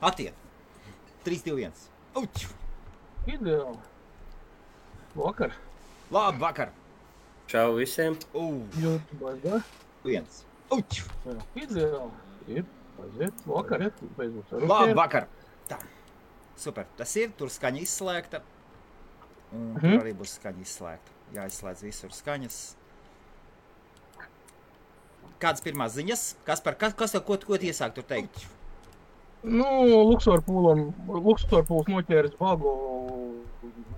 Attiet. 3, 2, 1. Uķu. Ideāli. Vakar. Labi, vakar. Čau visiem. YouTube, da? 1. Uķu. Ideāli. Ir. Aiziet. Vakar, ja? Beidzot ar Labi, vakar. Tā. Super. Tas ir. Tur skaņa izslēgta. Un tur arī būs skaņa izslēgta. Jāizslēdz visur skaņas. Kādas pirmās ziņas? Ko iesāk tur teikt? Nu, Luxorpūls noķēris bagu,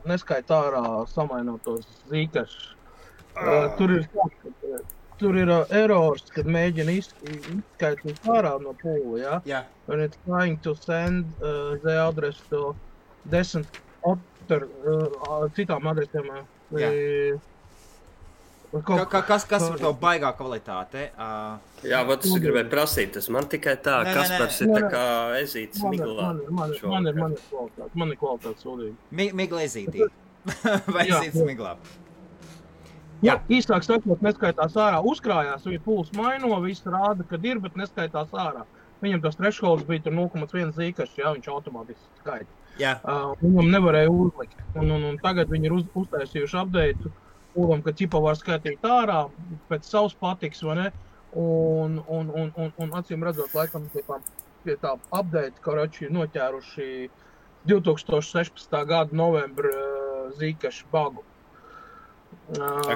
neskaita ārā samainotos zīkašus. Tur ir errors, kad mēģina izskaitīt ārā no pūla, ja? Jā. And it's trying to send the address to decent other citām adresēm. Kas var tev baigā kvalitāte? Jā, vat es gribēju prasīt, tas man tikai tā, Kaspars ir tā kā ezītis miglā. Man ir kvalitāte sūdīgi. Migla ezītī. Vai ezītis miglā? Jā, īsāk sakot, neskaitās ārā. Uzkrājās, viņa pūls maino, viss rāda, kad ir, bet neskaitās ārā. Viņam tas thresholds bija tur 0,1 zīkašs, jā, viņš automātiski skaita. Jā. Viņam nevarēja uzlikt. Un tagad viņi ir uztaisījuši update pūlam, ka ķipa var skaitīt ārā pēc savas patiks, vai ne? Un acīm redzot, laikam pie tā update, karači noķēruši 2016. gada novembra zīkašu bagu.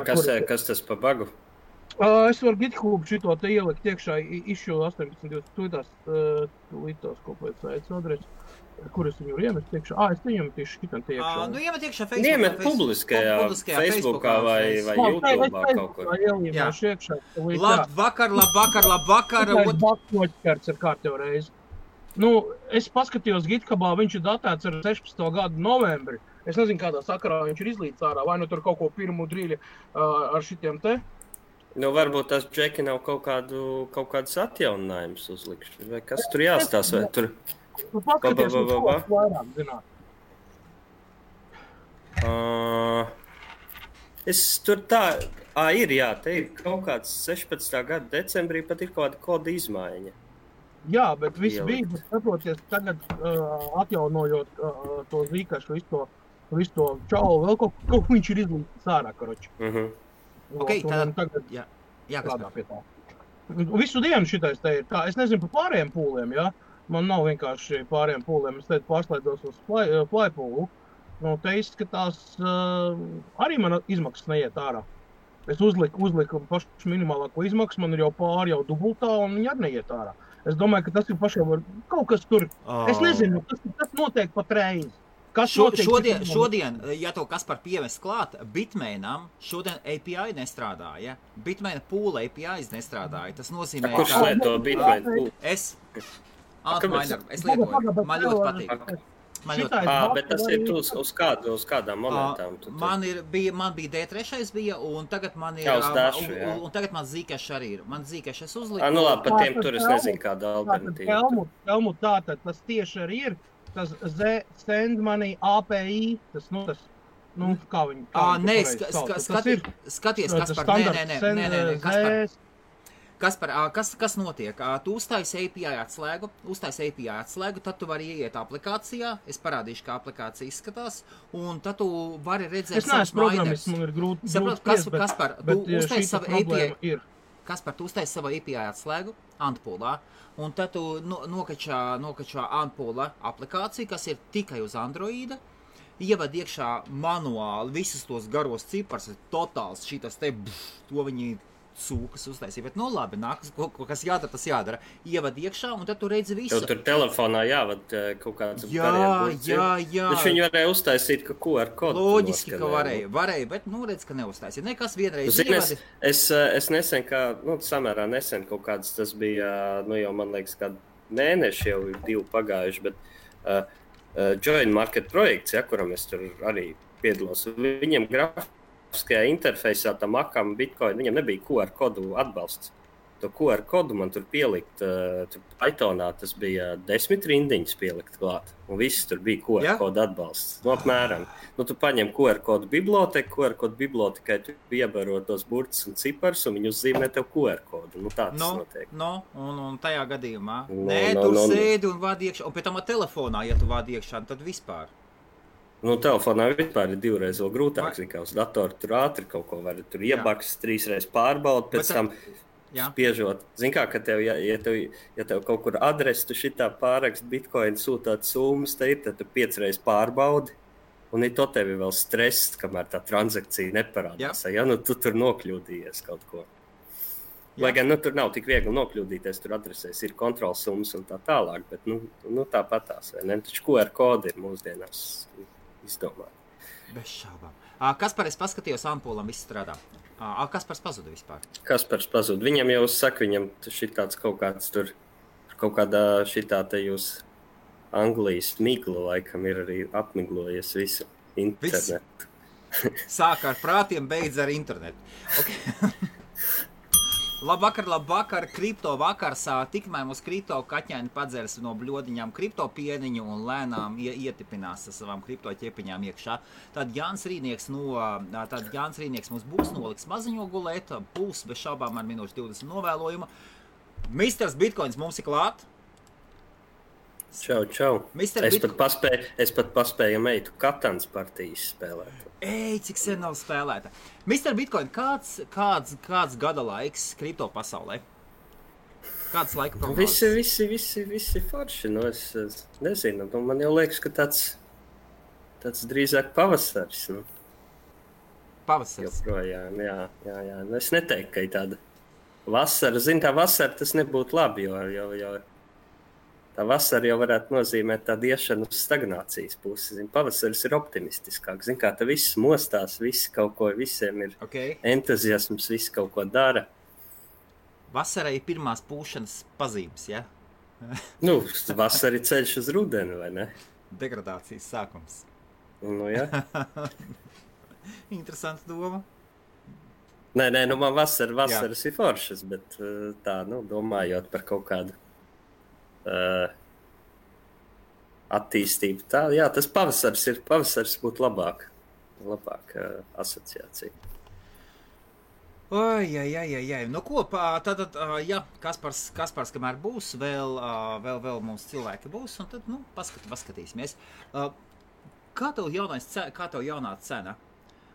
Kas tas pa bagu? Es varu GitHub šito te ielikt iekšā, issue 18.20 tūlītās kopēc aic adresi. Kur es viņu iemest iekšā? Es viņu iemetīšu šitam te iekšā. Nu, iemet iekšā Facebookā. Iemet publiskajā Facebookā vai YouTube'ā kaut kur. Jā, iekšā. Labvakar. Baks noķerts ar kārtējo reizi. Nu, es paskatījos GitHubā, viņš ir datēts ar 16. gadu novembri. Es nezinu, kādā sakarā viņš ir izlīdz ārā, vai nu tur kaut ko pirmu drīļi ar šitiem te. Nu, varbūt tas džeki nav kaut kādas atjauninājumus uzlikšķi, vai kas tur jāstās, vai tur... Nu, paskaties, vairāk zināt. Es tur tā... Ir, jā, te ir kaut kāds 16. gada decembrī pat ir kaut kāda koda izmaiņa. Jā, bet viss bija, bet saproties, tagad atjaunojot to zīkašu, visu to čaulu, vēl kaut viņš ir izlīdz ārā, karoči. Ok, tagad jā, kādā pie tā. Visu dienu šitais te ir tā, es nezinu par pārējiem pūliem, jā. Man nav vienkārši pārējiem pūliem, es teicu pārslēdos uz flypūlu. Nu, te izskatās, arī man izmaksas neiet ārā. Es uzliku pašu minimālāko izmaksu, man ir jau pāri jau dubultā, un viņi arī neiet ārā. Es domāju, ka tas ir pašiem kaut kas tur. Es nezinu, tas notiek pat reizi. Šodien, ja to Kaspar pievest klāt, Bitmainam šodien API nestrādāja. Bitmaina pūla APIs nestrādāja. Tas nozīmē, Kurš lieto Bitmaina pūlu? Es lietoju. Man ļoti patīk. Bet tas ir uz kādām momentām? Man bija D3 bija, un tagad man ir... Un tagad man zīkašs arī ir. Man zīkašs es uzliku. Nu labi, par tiem tur es nezinu kāda alternatīva. Helmut, tātad tas tieši arī ir. Tas send money API, tas, kā viņi... Skaties, Kaspar, Kaspar, kas notiek? Tu uztaisi API atslēgu, tad tu vari ieiet aplikācijā, es parādīšu, kā aplikācija izskatās, un tad tu vari redzēt savus programmas, man ir grūti Kaspar, tu uztaisi savu API. Kaspar, tu uztaisi savu API atslēgu Antpoolā, un tad tu nokačā Antpoola aplikāciju, kas ir tikai uz Androida, ievad iekšā manuāli visus tos garos cipars, totāls šitas te, to viņi sūkas uztaisīja, bet labi, nākas, kas jādara, tas jādara. Ievad iekšā, un tad tu redzi visu. Tev tur telefonā jāvad kaut kāds Jā. Bet viņi varēja uztaisīt ka QR kodu. Loģiski, ka varēja, bet redz, ka neuztaisīja. Nekas vienreiz ievadi. Es nesen, samērā nesen kaut kāds, tas bija, jau man liekas, kādu mēneši jau ir 2 pagājuši, bet Join Market projekts, kuram es tur arī piedalos, viņiem grafiskajā interfejsā tam akam Bitcoin, viņam nebija QR kodu atbalsts. to QR kodu man tur pielikt, Pythonā tas bija 10 rindiņas pielikt klāt, un viss tur bija QR kodu atbalsts. No apmēram. Nu, tu paņem QR kodu biblioteku, QR kodu bibliotekai tu iebaro tos burtus un ciparus, un viņi uzzīmē tev QR kodu. Nu, tā tas notiek. Un tajā gadījumā, tur sēdi un vādi iekšā, un pēc tam telefonā, ja tu vādi iekšā, tad vispār. Nu, telefonā vispār ir 2 reizes vēl grūtāk, kā uz datoru tur ātri kaut ko var tur iebaks, 3 reizes pārbaud, pēc tam spiežot. Zin kā, ka tev, ja tev kaut kur adresi, tu šitā pārakst bitcoin sūtāt summas, tad tu 5 reizes pārbaudi, un to tev vēl stress, kamēr tā transakcija neparādās. Ja, nu, tu tur nokļūdījies kaut ko. Lai gan, nu, tur nav tik viegli nokļūdīties, tur adresēs ir kontrols summas un tā tālāk, bet, nu tāpatās, vai ne? Taču QR kodi ir mūsdienās izdomāt. Bez šaubām. Kaspar, es paskatījos ampulam, viss strādā. Kaspars pazuda vispār. Kaspars pazuda. Viņam jau saka, viņam šitāds kaut kāds tur, kaut kādā šitā te jūs Anglijas migla laikam ir arī apmiglojies visu internetu. Sāk ar prātiem, beidz ar internetu. Okay. Labvakar, kripto vakars, tikmēr mūs kripto kaķēni padzers no bļodiņām kripto pieniņu un lēnām ietipinās ar savām kripto ķepiņām iekšā. Tad Jānis Rīnieks mums būs noliks maziņo gulēt, būs bez šaubām ar minūšu 20 novēlojuma. Misters Bitcoins mums ir klāt. Čau. Es pat paspēju meitu Katans partijas spēlēt. Cik sen nav spēlēta. Mr. Bitcoin, kāds gada laiks kripto pasaulē? Kāds laika prognozes? Visi forši. Nu, es nezinu. Nu, man jau liekas, ka tāds drīzāk pavasaris. Nu. Pavasaris? Joprojām, jā. Nu, es neteiktu, ka ir tāda vasara. Zin, tā vasara tas nebūtu labi, jo tā vasara jau varētu nozīmēt tādu iešanu uz stagnācijas pusi. Zin, pavasaris ir optimistiskāk. Zin, kā tā viss mostās, visi kaut ko, visiem ir entuziasms, visi kaut ko dara. Vasarai ir pirmās pūšanas pazīmes, ja? Nu, vasara ir ceļš uz rudeni, vai ne? Degradācijas sākums. Nu, jā. Interesanta doma. Nē, nu man vasaras ir foršas, bet tā, nu, domājot par kaut kādu attīstību. Tā, jā, tas pavasaris būtu labāk asociācija. Oi. Nu ko, tad, jā, Kaspars, kamēr būs, vēl mums cilvēki būs, un tad, nu, paskatīsimies. Kā tev jaunā cena?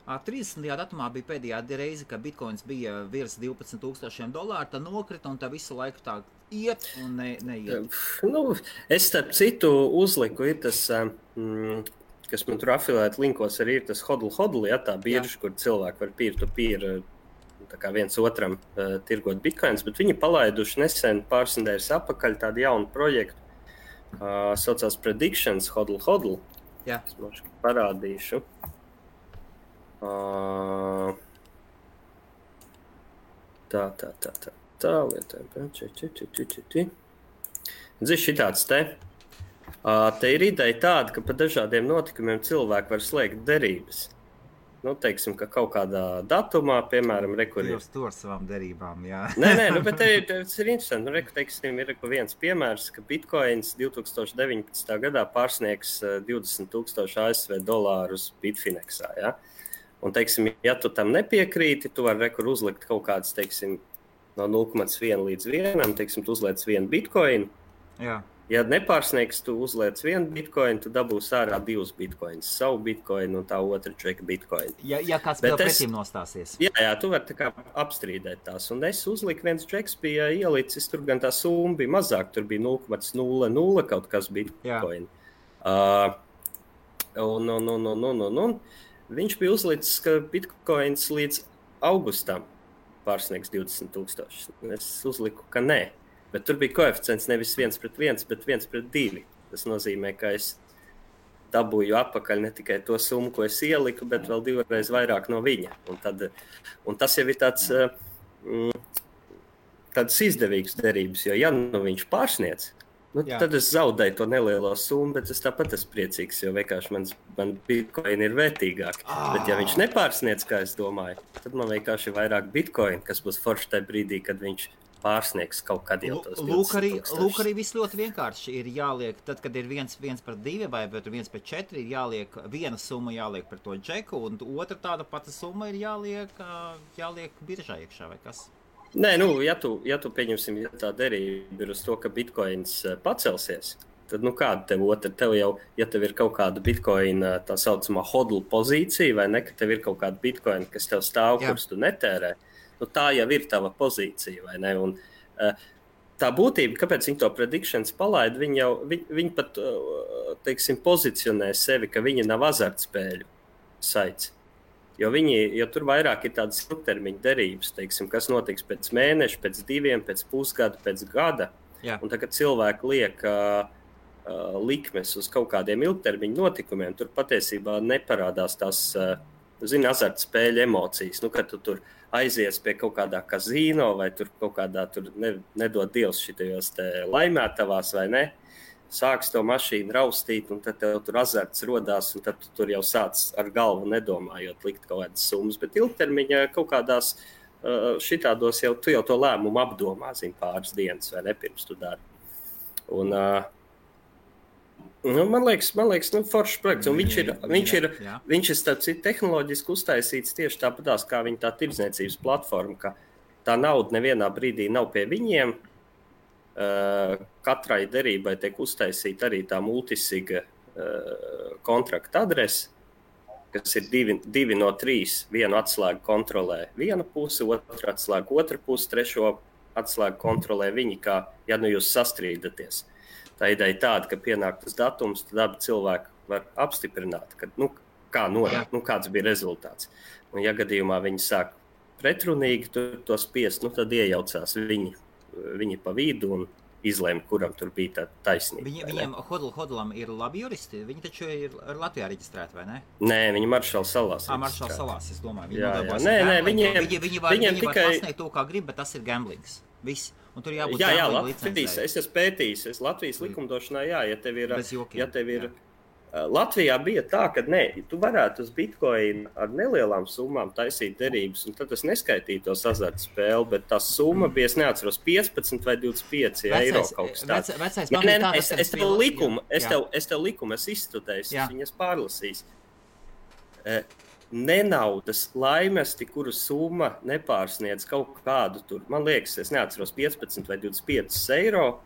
30. datumā bija pēdējā reize, kad bitcoins bija virs $12,000, tad nokrita un tā visu laiku tā iet un neiet. Nu, es starp citu uzliku, ir tas, kas man tur afilēt linkos arī ir tas hodl, ja, tā birža, kur cilvēki var peer-to-peer tā kā viens otram tirgot bitcoins, bet viņi palaiduši nesen pāris nedēļas apakaļ tādu jaunu projektu, saucās Predictions hodl. Jā. Es mums parādīšu. Tā lietojam. Zini, šitāds te. Te ir ideja tāda, ka pa dažādiem notikumiem cilvēki var slēgt derības. Nu, teiksim, ka kaut kādā datumā, piemēram, Jūs to ar savām derībām, jā. Nē, nu, bet tas ir interesanti. Nu, teiksim, ir viens piemērs, ka bitcoins 2019. gadā pārsniegs $20,000 ASV Bitfinexā, jā. Un, teiksim, ja tu tam nepiekrīti, tu vari uzlikt kaut kāds, teiksim, no 0,1 līdz 1, teiksim, tu uzliec 1 bitcoinu. Jā. Ja nepārsniegs, tu uzliec 1 bitcoinu, tu dabūsi ārā 2 bitcoinus, savu bitcoinu un tā otra čeka bitcoinu. Ja kāds vēl pretim nostāsies. Jā, tu vari tā kā apstrīdēt tās. Un es uzliku, viens čeks bija ielicis, tur gan tā summa bija mazāk, tur bija 0,00 kaut kas bitcoinu. Un viņš bija uzlicis, ka bitcoins līdz augustam pārsniegs 20,000. Es uzliku, ka nē. Bet tur bija koeficients nevis 1:1, bet 1:2. Tas nozīmē, ka es dabūju atpakaļ ne tikai to summu, ko es ieliku, bet vēl 2 reizes vairāk no viņa. Un tas jau ir tāds izdevīgs derības, jo ja nu viņš pārsniedz, nu, tad es zaudēju to nelielo summu, bet es tāpat esmu priecīgs, jo vienkārši man bitcoin ir vērtīgāk. Bet ja viņš nepārsniedz, kā es domāju, tad man vienkārši ir vairāk bitcoin, kas būs forši tajā brīdī, kad viņš pārsniegs kaut kad jau tos 20,000. Lūk arī viss ļoti vienkārši ir jāliek, tad, kad ir 1/2 vai 1/4, ir jāliek viena summa jāliek par to džeku, un otra tāda pati summa ir jāliek biržā iekšā vai kas? Nē, ja tu pieņemsim, ja tā derība ir uz to, ka bitcoins pacelsies, tad, kāda tev otra? Tev jau, ja tev ir kaut kāda bitcoina tā saucamā hodl pozīcija, vai ne, ka tev ir kaut kāda bitcoina, kas tev stāv, kurus tu netērē, tā jau ir tava pozīcija, vai ne? Un tā būtība, kāpēc viņi to predictions palaida, viņi pat, teiksim, pozicionē sevi, ka viņi nav azartspēļu saits. Jo tur vairāk ir tādas ilgtermiņa derības, teiksim, kas notiks pēc mēneša, pēc 2, pēc pusgada, pēc gada. Jā. Un tagad cilvēki liek likmes uz kaut kādiem ilgtermiņa notikumiem, tur patiesībā neparādās tās, azartspēļu emocijas. Kad tu tur aizies pie kaut kādā kazino vai tur kaut kādā, nedod Dievs šitajos laimētavās vai ne, sāks to mašīnu raustīt, un tad tev tur azarts rodās, un tad tu tur jau sāc ar galvu nedomājot likt kaut kādas summas. Bet ilgtermiņā kaut kādās šitādos tu jau to lēmumu apdomā, pāris dienas vai ne, pirms tu dari. Un, man liekas, foršs projekts, un viņš ir tehnoloģiski uztaisīts tieši tāpatās, kā viņa tā tirdzniecības platforma, ka tā nauda nevienā brīdī nav pie viņiem. Katrai derībai tiek uztaisīta arī tā multisiga kontrakta adrese, kas ir 2 no 3. Vienu atslēgu kontrolē viena puse, otru atslēgu otra puse, trešo atslēgu kontrolē viņi, kā ja jūs sastrīdaties. Tā ideja ir tāda, ka pienāk tas datums, tad abi cilvēki var apstiprināt, ka, kāds bija rezultāts. Un, ja gadījumā viņi sāk pretrunīgi to spiest, tad iejaucās viņi pa vidu un izlēma, kuram tur bija tā taisnība. Viņiem hodlam ir labi juristi, viņi taču ir Latvijā reģistrēti, vai ne? Nē, viņi Maršala salās. Maršala salās, es domāju. Viņi var pasniegt to, kā grib, bet tas ir gamblings. Viss. Un tur jābūt Latvijas, es esmu pētījis, Latvijas likumdošanā, ja tev ir Latvijā bija tā, ka tu varētu uz bitcoin ar nelielām summām taisīt derības, un tad tas neskaitītos azartspēli, bet tā summa bija, es neatceros, 15 vai 25 eiro kaut kas tāds. Es tev likumu izstudēju, viņas pārlasīs. Nenaudas laimesti, kuru summa nepārsniedz kaut kādu tur, man liekas, es neatceros 15 vai 25 eiro,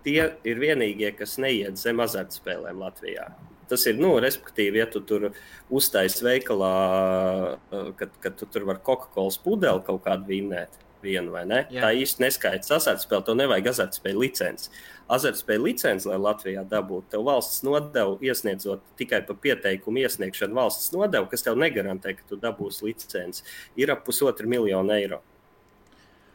tie ir vienīgie, kas neiet zem azartspēlēm Latvijā. Tas ir, respektīvi, ja tu tur uztaisi veikalā, kad tu tur var Coca-Cola pudeli kaut kādu vienu vai ne, tā īsti neskaits azartspēli, to nevajag azartspēļu licenci. Azartspēļu licenci, lai Latvijā dabūtu, tev valsts nodevu iesniedzot tikai pa pieteikumu iesniegšanu valsts nodevu, kas tev negarantē, ka tu dabūsi licenci, ir ap 1,5 miljonu eiro.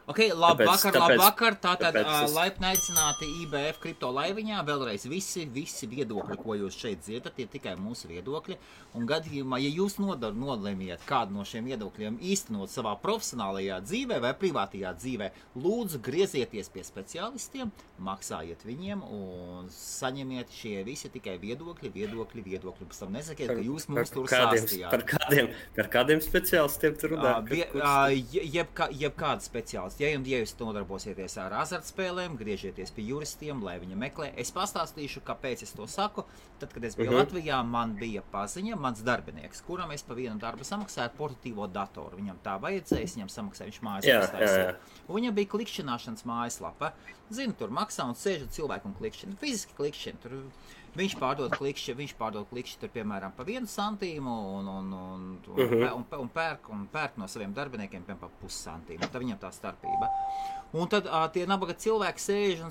Ok, labvakar. Tātad laipni aicināti IBF kripto laiviņā. Vēlreiz visi viedokļi, ko jūs šeit dzirdat, ir tikai mūsu viedokļi. Un gadījumā, ja jūs nolēmiet kādu no šiem viedokļiem īstenot savā profesionālajā dzīvē vai privātajā dzīvē, lūdzu griezieties pie speciālistiem, maksājiet viņiem un saņemiet šie visi tikai viedokļi. Pēc tam nesakiet, ka jūs mums tur sāstījāt. Par kādiem speciālistiem tur runā? Jebkāda speciālista. Ja jūs nodarbosieties ar azartspēlēm, griežieties pie juristiem, lai viņi meklē. Es pastāstīšu, kāpēc es to saku. Tad, kad es biju Latvijā, man bija paziņa, mans darbinieks, kuram es pa vienu darbu samaksāju portatīvo datoru. Viņam tā vajadzēja, viņam samaksāja, viņš mājaslapā. Viņam bija klikšķināšanas mājaslapa. Zinu, tur maksā un sēž cilvēku un klikšķina. Fiziski klikšķina. Tur viņš pārdod klikšķi tur, piemēram, pa 1 centīmu un pērk no saviem darbiniekiem piemēram pa 0,5 centīmu. Tad viņam tā starpība. Un tad tie nabaga cilvēki sēž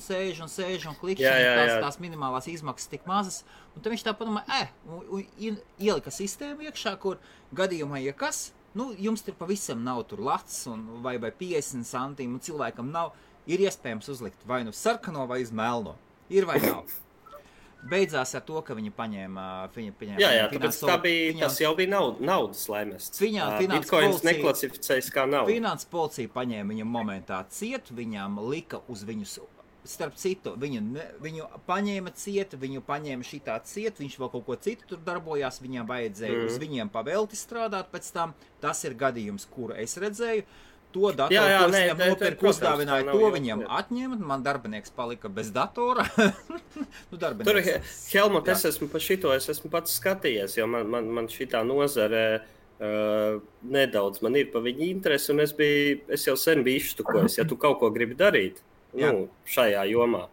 un klikšķina, tās minimālās izmaksas tik mazas. Un tad viņš tā padomā, ielika sistēmu iekšā, kur gadījumā, ja kas, jums tur pavisam nav tur lats vai 50 centīmu, un cilvēkam nav, ir iespējams uzlikt vai sarkano vai uz melno. Ir vai nav. Beidzās ar to, ka viņi paņēma tāpēc tas jau bija naudas laimests. Bitcoins neklasificējas kā nauda. Finanses policija paņēma viņam momentā ciet, viņam lika uz viņus, starp citu, viņu paņēma ciet, viņu paņēma šitā ciet, viņš vēl kaut ko citu tur darbojās, viņam vajadzēja uz viņiem pavelti strādāt pēc tam. Tas ir gadījums, kuru es redzēju. to datoru, ko es viņam nopirku, uzdāvināju, to viņam atņemt, man darbinieks palika bez datora. Tur, Helmut, es esmu pats skatījies, jo man šitā nozare nedaudz man ir pa viņu interesi, un es jau sen biju izštukojis, ja tu kaut ko gribi darīt šajā jomā.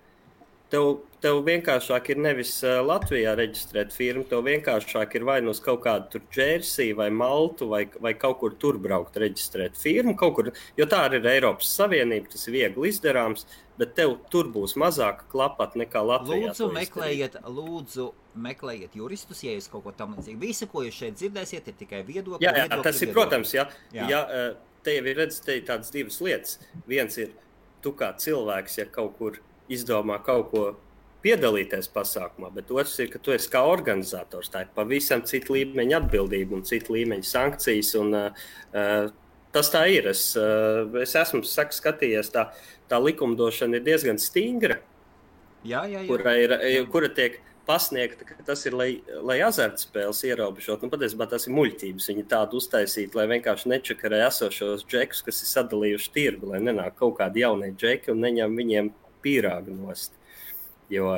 Tev vienkāršāk ir nevis Latvijā reģistrēt firmu, tev vienkāršāk ir vai nu uz kaut kādu tur Džersiju vai Maltu vai kaut kur tur braukt reģistrēt firmu, kaut kur, jo tā arī ir Eiropas Savienība, tas ir viegli izdarāms, bet tev tur būs mazāka klapat nekā Latvijā. Lūdzu, meklējiet juristus, ja jūs kaut ko tam līdzīgi. Visu, ko jūs šeit dzirdēsiet, ir tikai viedokļi. Jā, tas ir, protams, ja tev ir tādas divas lietas. Viens ir, tu kā cilvēks, ja kaut kur izdomā kaut ko piedalīties pasākumā, bet otrs ir, ka tu esi kā organizators. Tā ir pavisam cita līmeņa atbildība un cita līmeņa sankcijas. Un, tas tā ir. Es esmu skatījies, tā likumdošana ir diezgan stingra, kura tiek pasniegta, ka tas ir, lai azartspēles ierobežot. Patiesībā tas ir muļķības. Viņi tādu uztaisīt, lai vienkārši nečakarē esošos džekus, kas ir sadalījuši tirgu, lai nenāk kaut kādi jaunie džeki un neņem viņiem pīrāgu nost. Jo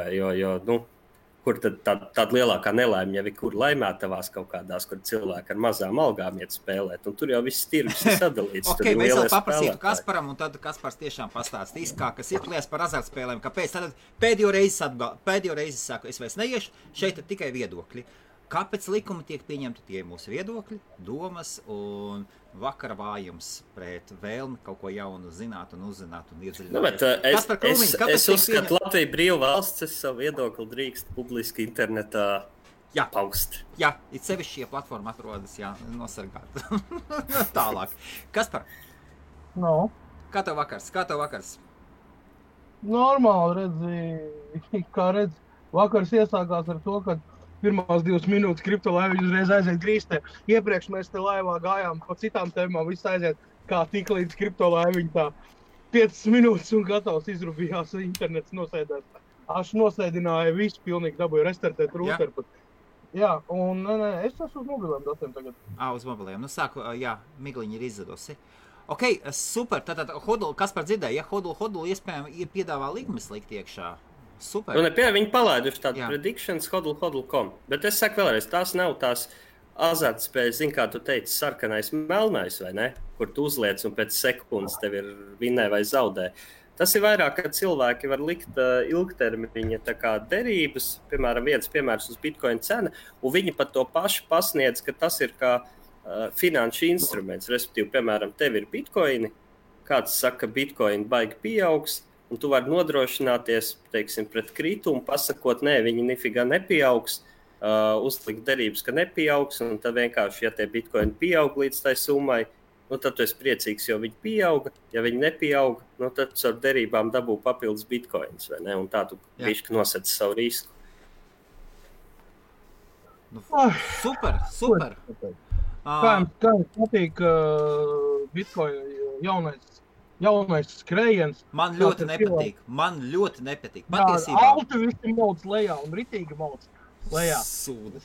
kur tad tāda lielākā nelaime jau ir, kur laimētavās kaut kādās, kur cilvēki ar mazām algām iet spēlēt, un tur jau viss tirgus ir sadalīts. Okay, mēs vēl paprasītu Kasparam, un tad Kaspars tiešām pastāstīs, kas ir klies par azartspēlēm, kāpēc. Tad pēdējo reizi saku, es vairs neiešu, šeit ir tikai viedokļi. Kāpēc likumi tiek pieņemti, tie mūsu viedokļi, domas un vakara vājums pret vēlmi kaut ko jaunu zināt un uzzināt un iedziļināties. Es uzskatu, Latvija brīva valsts, es savu viedokli drīkst publiski internetā paust. Jā, it sevišķi šie platforma atrodas, nosargāt. Tālāk. Kaspar? No. Kā tev vakars? Normāli, redzi, vakars iesākās ar to, ka pirmās 2 minūtes kriptolaiviņi uzreiz aiziet grīstē. Iepriekš mēs te laivā gājām pa citām tēmām, viss aiziet kā tik līdz kriptolaiviņi tā 5 minūtes un gatavs izrubījās, internets nosēdās. Aš nosēdināju visu, pilnīgi dabūju restartēt rūteru. Jā, un es esmu uz mobiliem datiem tagad. Uz mobiliem. Sāku, migliņi ir izzadusi. Ok, super. Tātad, Kaspar dzirdēja, Hodl iespējami piedāvā likmes likt iekšā. Super. Viņi palaiduši tādu predictions hodl.com, bet es saku vēlreiz, tās nav tās azartspējas, kā tu teici, sarkanais, melnais, vai ne? Kur tu uzliec un pēc sekundes tev ir vinnē vai zaudē. Tas ir vairāk, ka cilvēki var likt ilgtermiņa tā kā derības, piemēram, viens piemērs uz Bitcoin cena, un viņi pat to pašu pasniedz, ka tas ir kā finanšu instruments, respektīvi, piemēram, tev ir Bitcoini, kāds saka, Bitcoin baigi pieaugs, un tu vari nodrošināties, teiksim, pret kritumu, pasakot, viņi nifigā nepieaugs, uzlikt derības, ka nepieaugs, un tad vienkārši, ja tie bitkoini pieaug līdz tai summai, tad tu esi priecīgs, jo viņi pieauga. Ja viņi nepieauga, tad ar derībām dabū papildus bitkoins, vai ne? Un tā tu bišķi nosec savu risku. Super. Kā jums patīk bitkoin jaunais skrējiens. Man ļoti nepatīk. Patiesībā. Alti visi mauc lejā un ritīgi mauc lejā.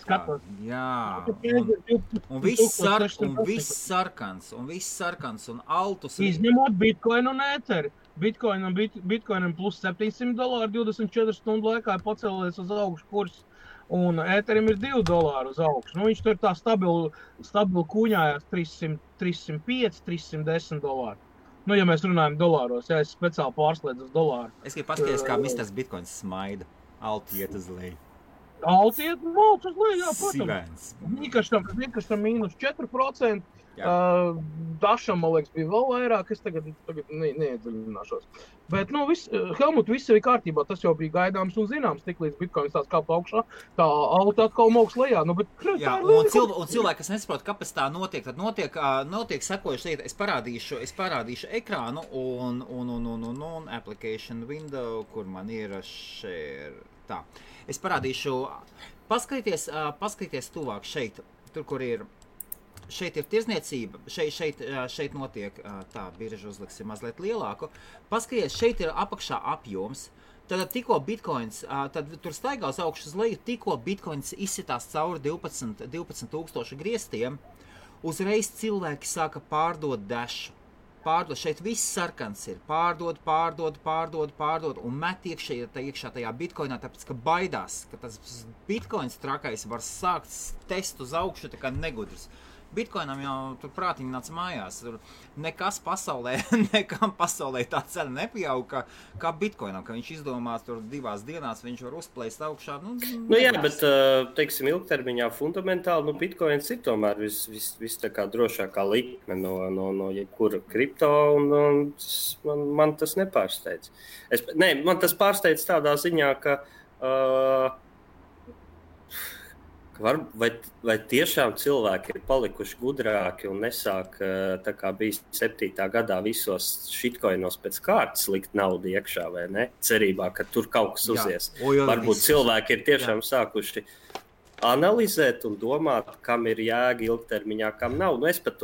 Skatos. Jā. Un viss sarkans, un altus. Izņemot Bitcoin un Etheri. Bitcoinam plus $700, 24 stundu laikā ir pacēlies uz augšu kurs. Un Etherim ir $2 uz augšu. Viņš tur tā stabili kūņājās 305, $310. Ja mēs runājam dolāros, es speciāli pārslēdzu uz dolāru. Es gribu paskatīties, kā Mr. Bitcoins smaida. Alti iet uz leju. Alti iet uz leju, jā, protams. Nikaštam mīnus 4%. Dašam, man liekas, bija vēl vairāk. Es tagad neiedziļināšos. Bet, Helmut, viss ir kārtībā. Tas jau bija gaidāms un zināms. Tik līdz Bitcoins tās kāp augšā, tā alta atkal mauks lejā. Un cilvēki, kas nesaprot, kāpēc tā notiek, tad notiek sekojuši lieta. Es parādīšu ekrānu un application window, kur man ir share. Tā. Es parādīšu, paskaties tuvāk šeit, tur, kur ir. Šeit ir tirzniecība, šeit notiek tā, birža uzliksim mazliet lielāku. Paskaties, šeit ir apakšā apjoms. Tad tikko bitcoins, tad tur staigā uz augšu uz leju, tikko bitcoins izsitās cauri 12,000 griestiem, uzreiz cilvēki sāka pārdot dashu. pārdod, šeit viss sarkans ir, pārdod, un met iekšā tajā bitcoinā, tāpēc, ka baidās, ka tas bitcoins trakais var sākt test uz augšu, tā kā negudrs. Bitcoinam jau tur prātiņi nāca mājās, tur nekam pasaulē tā cena nepieauga, kā bitcoinam, ka viņš izdomās tur 2 dienās, viņš var uzplēst augšā. Jā, bet, teiksim, ilgtermiņā fundamentāli, bitcoins ir tomēr viss tā kā drošākā likme no jebkura kripto, un man tas nepārsteidz. Man tas pārsteidz tādā ziņā, ka vai tiešām cilvēki ir palikuši gudrāki un nesāk, tā kā bija 7. gadā visos shitcoinos pēc kārtas likt naudu iekšā, vai ne? Cerībā, ka tur kaut kas uzies. Varbūt cilvēki ir tiešām sākuši analizēt un domāt, kam ir jēga ilgtermiņā, kam nav. Es pat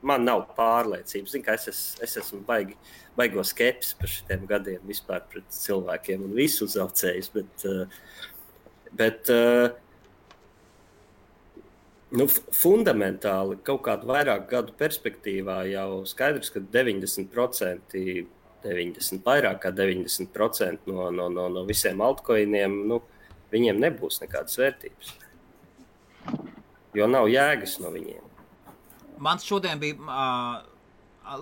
man nav pārliecības. Zinu, ka es esmu baigo skepsis par šitiem gadiem vispār pret cilvēkiem un visu uzaucējus, bet fundamentāli kaut kādu vairāk gadu perspektīvā jau skaidrs, ka 90%, vairāk kā 90% no visiem altcoiniem, viņiem nebūs nekādas vērtības. Jo nav jēgas no viņiem. Man šodien bija,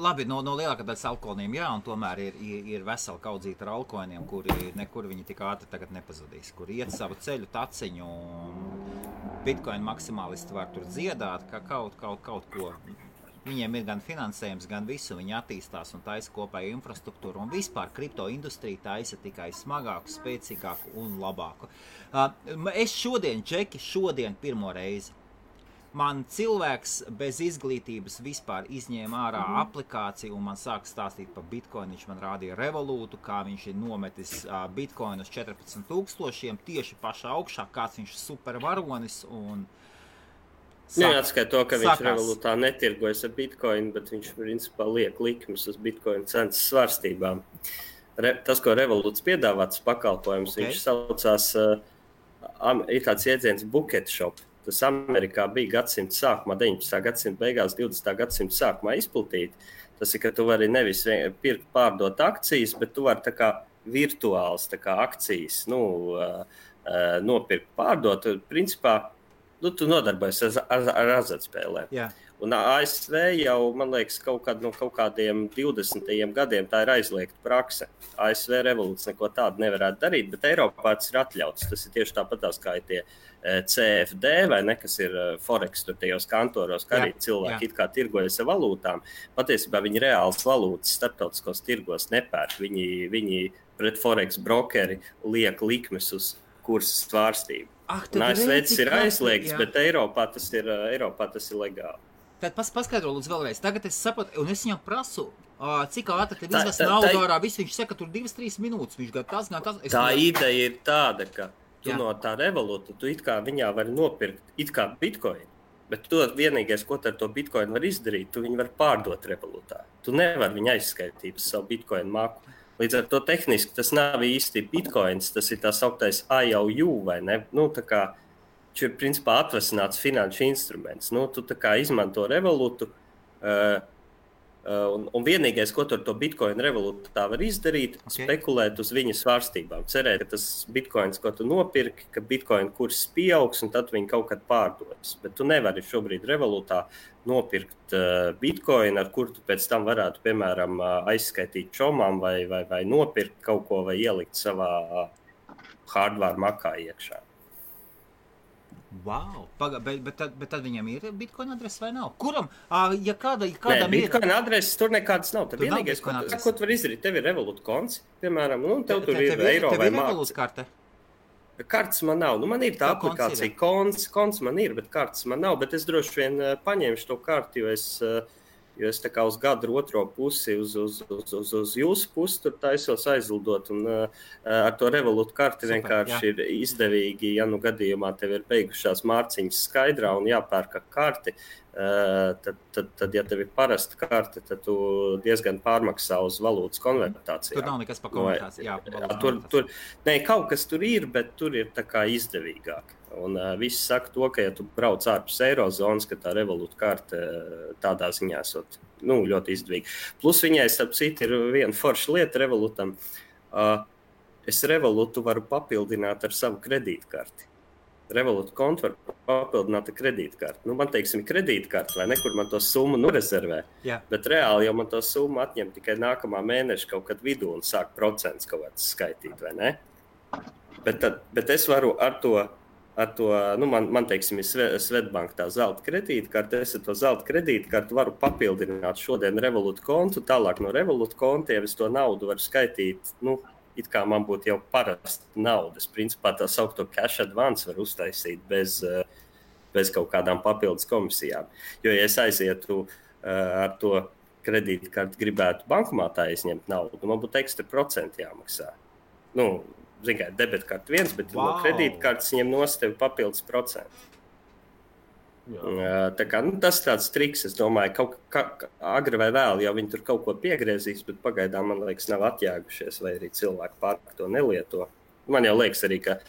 labi, no lielākā daļas altcoiniem, jā, un tomēr ir vesela kaudzīta ar altcoiniem, kuri nekur viņi tik ātri tagad nepazudīs, kur iet savu ceļu taciņu, un Bitcoin maksimālisti var tur dziedāt, ka kaut ko. Viņiem ir gan finansējums, gan visu, viņi attīstās un taisa kopēju infrastruktūru, un vispār kripto industrija taisa tikai smagāku, spēcīgāku un labāku. Es šodien pirmo reizi. Man cilvēks bez izglītības vispār izņēma ārā aplikāciju un man sāka stāstīt par Bitcoin. Viņš man rādīja revolūtu, kā viņš ir nometis Bitcoin uz 14,000 tieši pašā augšā, kāds viņš ir supervaronis. Neatskait to, ka viņš revolūtā netirgojas ar Bitcoin, bet viņš principā liek likmes uz Bitcoin cenas svārstībām. Tas, ko revolūts piedāvāts pakalpojums, viņš saucās, ir tāds jēdziens bucket shop. Tas Amerikā bija gadsimta sākumā, 19. gadsimta beigās, 20. gadsimta sākumā izplatīti. Tas ir, ka tu vari nevis pirkt, pārdot akcijas, bet tu vari tā kā virtuāls tā kā akcijas nopirkt, pārdot. Principā, tu nodarbojies ar azartspēlēm. Jā. Un ASV jau, man liekas, kaut kādiem 20. gadiem tā ir aizliegta prakse. ASV revolūts neko tādu nevarētu darīt, bet Eiropā tas ir atļauts. Tas ir tieši tāpatās kā ir tie CFD vai ne, kas ir Forex tur tajos kantoros, kā arī cilvēki it kā tirgojas ar valūtām. Patiesībā viņi reāls valūtas starptautiskos tirgos nepērk. Viņi pret Forex brokeri liek likmes uz kursas svārstību. ASV tas ir aizliegts, bet Eiropā tas ir legāli. Tad paskaidro lūdzu vēlreiz. Tagad es saprotu, un es viņam prasu, cik ātri tev izvest naudu ārā. Viss viņš saka, tur 2-3 minūtes. Viņš gan tas. Tā ideja ir tāda, ka tu no tā revolūta, tu it kā viņā vari nopirkt it kā Bitcoin, bet tu vienīgais, ko ar to Bitcoin var izdarīt, tu viņu var pārdot revolūtā. Tu nevar viņu aizskaitīt uz savu Bitcoin maku. Līdz ar to tehniski tas nav īsti Bitcoins, tas ir tā sauktais IOU, vai ne? Tā kā viņš ir principā atvesināts finanšu instruments. Tu tā kā izmanto revolūtu, un vienīgais, ko ar to Bitcoin revolūtu tā var izdarīt, spekulēt uz viņa svārstībām. Cerēt, ka tas Bitcoins, ko tu nopirki, ka Bitcoin kurs pieaugs, un tad viņi kaut kad pārdodas. Bet tu nevari šobrīd revolūtā nopirkt Bitcoin, ar kur tu pēc tam varētu, piemēram, aizskaitīt čomām vai nopirkt kaut ko vai ielikt savā hardware makā iekšā. Wow, bet tad viņam ir Bitcoin adrese vai nav? Kuram? Ja kādam ir Bitcoin adreses, tur nekādas nav. Tad vienīgais, ko tu vari izdarīt, tev ir Revolut konts, piemēram, tev tur ir eiro vai māks. Tev ir Revolut karte? Kartes man nav. Man ir tā aplikācija, konts man ir, bet kartes man nav. Bet es droši vien paņemšu to karti, jo es tā kā uz gadu otro pusi, uz jūsu pusi tur taisos aizlidot. Un ar to Revolut karti vienkārši ir izdevīgi, ja gadījumā tev ir beigušās mārciņas skaidrā un jāpērka karti. Tad, ja tev ir parasta karte, tad tu diezgan pārmaksā uz valūtas konvertāciju. Tur nav nekas par konvertāciju. Kaut kas tur ir, bet tur ir tā kā izdevīgāk. Un visi saka to, ka, ja tu brauc ārpus eirozonas, ka tā Revolut karte tādā ziņā esot ļoti izdevīga. Plus viņai, starp citu, ir viena forša lieta Revolutam. Es Revolutu varu papildināt ar savu kredītkarti. Revolut kontu var papildināt ar kredītkarti. Man, teiksim, ir kredītkarti, vai nekur man to summu rezervē. Jā. Bet reāli jau man to summu atņem tikai nākamā mēneša kaut kad vidū un sāk procents kaut kāds skaitīt, vai ne? Bet es varu ar to man teiksim, ir Svetbank tā zelta kredītkarte, es ar to zelta kredītkarti varu papildināt šodien Revolut kontu, tālāk no Revolut kontiem es to naudu varu skaitīt, it kā man būtu jau parasta nauda. Es principā tā saukto cash advance var uztaisīt bez kaut kādām papildus komisijām. Jo, ja es aizietu ar to kredītkarti gribētu bankomātā izņemt naudu, man būtu ekstra procenti jāmaksā. Zin kā, debetkarti viens, bet no kredītkartes ņem nost tevi papildus procentu. Tā kā, tas tāds triks, es domāju, agri vai vēl, jau viņi tur kaut ko piegriezīs, bet pagaidām, man liekas, nav atjēgušies, vai arī cilvēki pārāk to nelieto. Man jau liekas arī, ka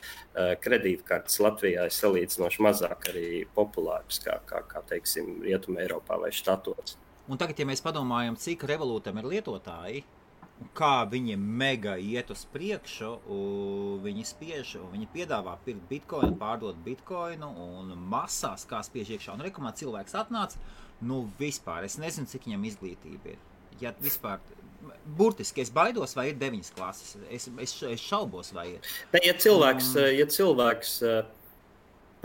kredītkartes Latvijā ir salīdzinoši mazāk arī populāras, kā teiksim, Rietumē Eiropā vai štatos. Un tagad, ja mēs padomājam, cik Revolutam ir lietotāji, kā viņi mega iet uz priekšu, viņi spiež, viņi piedāvā pirkt bitcoinu, pārdot bitcoinu un masās, kā spiež iekšā. Un rekomā cilvēks atnāca, vispār, es nezinu, cik viņam izglītība ir. Ja vispār, burtiski, es baidos, vai ir 9 klases, es šaubos, vai ir. Ja cilvēks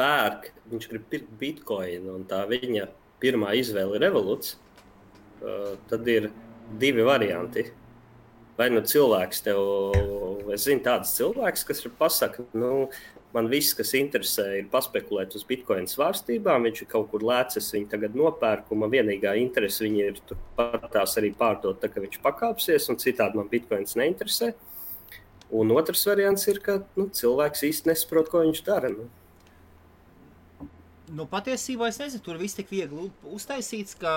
pērk, viņš grib pirkt bitcoinu un tā viņa pirmā izvēle ir Revoluts, tad ir 2 varianti. Vai cilvēks tev, es zinu tāds cilvēks, kas pasaka, man viss, kas interesē, ir paspekulēt uz bitcoinu svārstībām, viņš ir kaut kur lēcis, viņi tagad nopērk, un man vienīgā interese viņi ir turpat tās arī pārdot, tā ka viņš pakāpsies, un citādi man bitcoins neinteresē. Un otrs variants ir, ka cilvēks īsti nesaprot, ko viņš dara. Patiesībā es nezinu, tur viss tik viegli uztaisīts, ka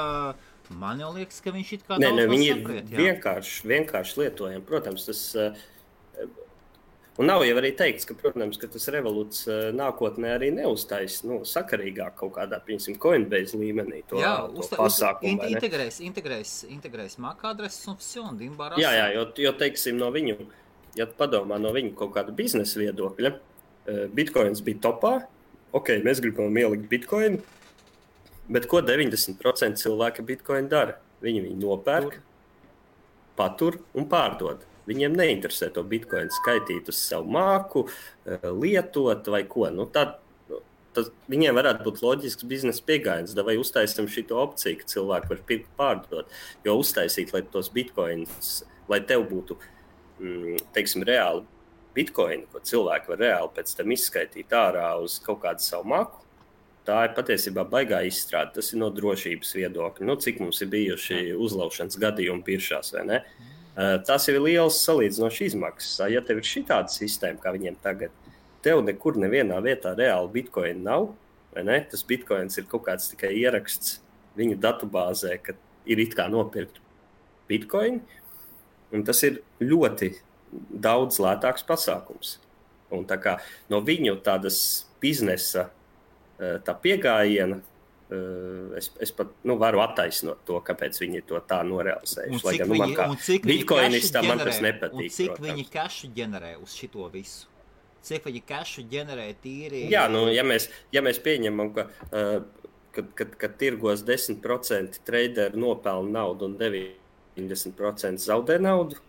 man jau liekas, ka viņš it kā daudz viņi saprēt. Ir vienkārši lietojami. Protams, tas... Un nav jau arī teikts, ka, protams, ka tas Revoluts nākotnē arī neuztais sakarīgāk kaut kādā, piemēram, Coinbase līmenī to pasākumu. Integrēs MAC adreses un dimbarās. Jā, jo teiksim, no viņu, ja padomā no viņu kaut kāda biznesa viedokļa, Bitcoins bija topā, mēs gribam ielikt Bitcoinu, bet ko 90% cilvēki Bitcoin dara? Viņi nopērk, patur un pārdod. Viņiem neinteresē to Bitcoin skaitīt uz savu māku, lietot vai ko. Viņiem varētu būt loģisks biznesa pieejams, vai uztaisam šito opciju, ka cilvēki var pirkt pārdot. Jo uztaisīt, lai tos Bitcoins, lai tev būtu, teiksim, reāli Bitcoin, ko cilvēki var reāli pēc tam izskaitīt ārā uz kaut kādu savu māku, tā ir patiesībā baigā izstrāde. Tas ir no drošības viedokļa. Cik mums ir bijuši uzlaušanas gadījumi biržās, vai ne? Tas ir liels salīdzinoši izmaksas. Ja tev ir šitāda sistēma, kā viņiem tagad, tev nekur nevienā vietā reāli Bitcoin nav, vai ne? Tas Bitcoins ir kaut kāds tikai ieraksts viņu datubāzē, ka ir it kā nopirkt Bitcoin, un tas ir ļoti daudz lētāks pasākums. Un tā kā no viņu tādas biznesa tā piegājiena, es pat varu attaisnot to, kāpēc viņi to tā norealizējuši. Lai gan man kā bitcoinistam man tas nepatīk. Un cik viņi cašu ģenerē uz šito visu? Cik viņi cašu ģenerē tīri? Jā, ja mēs pieņemam, ka tirgos 10% traderi nopelna naudu un 90% zaudē naudu,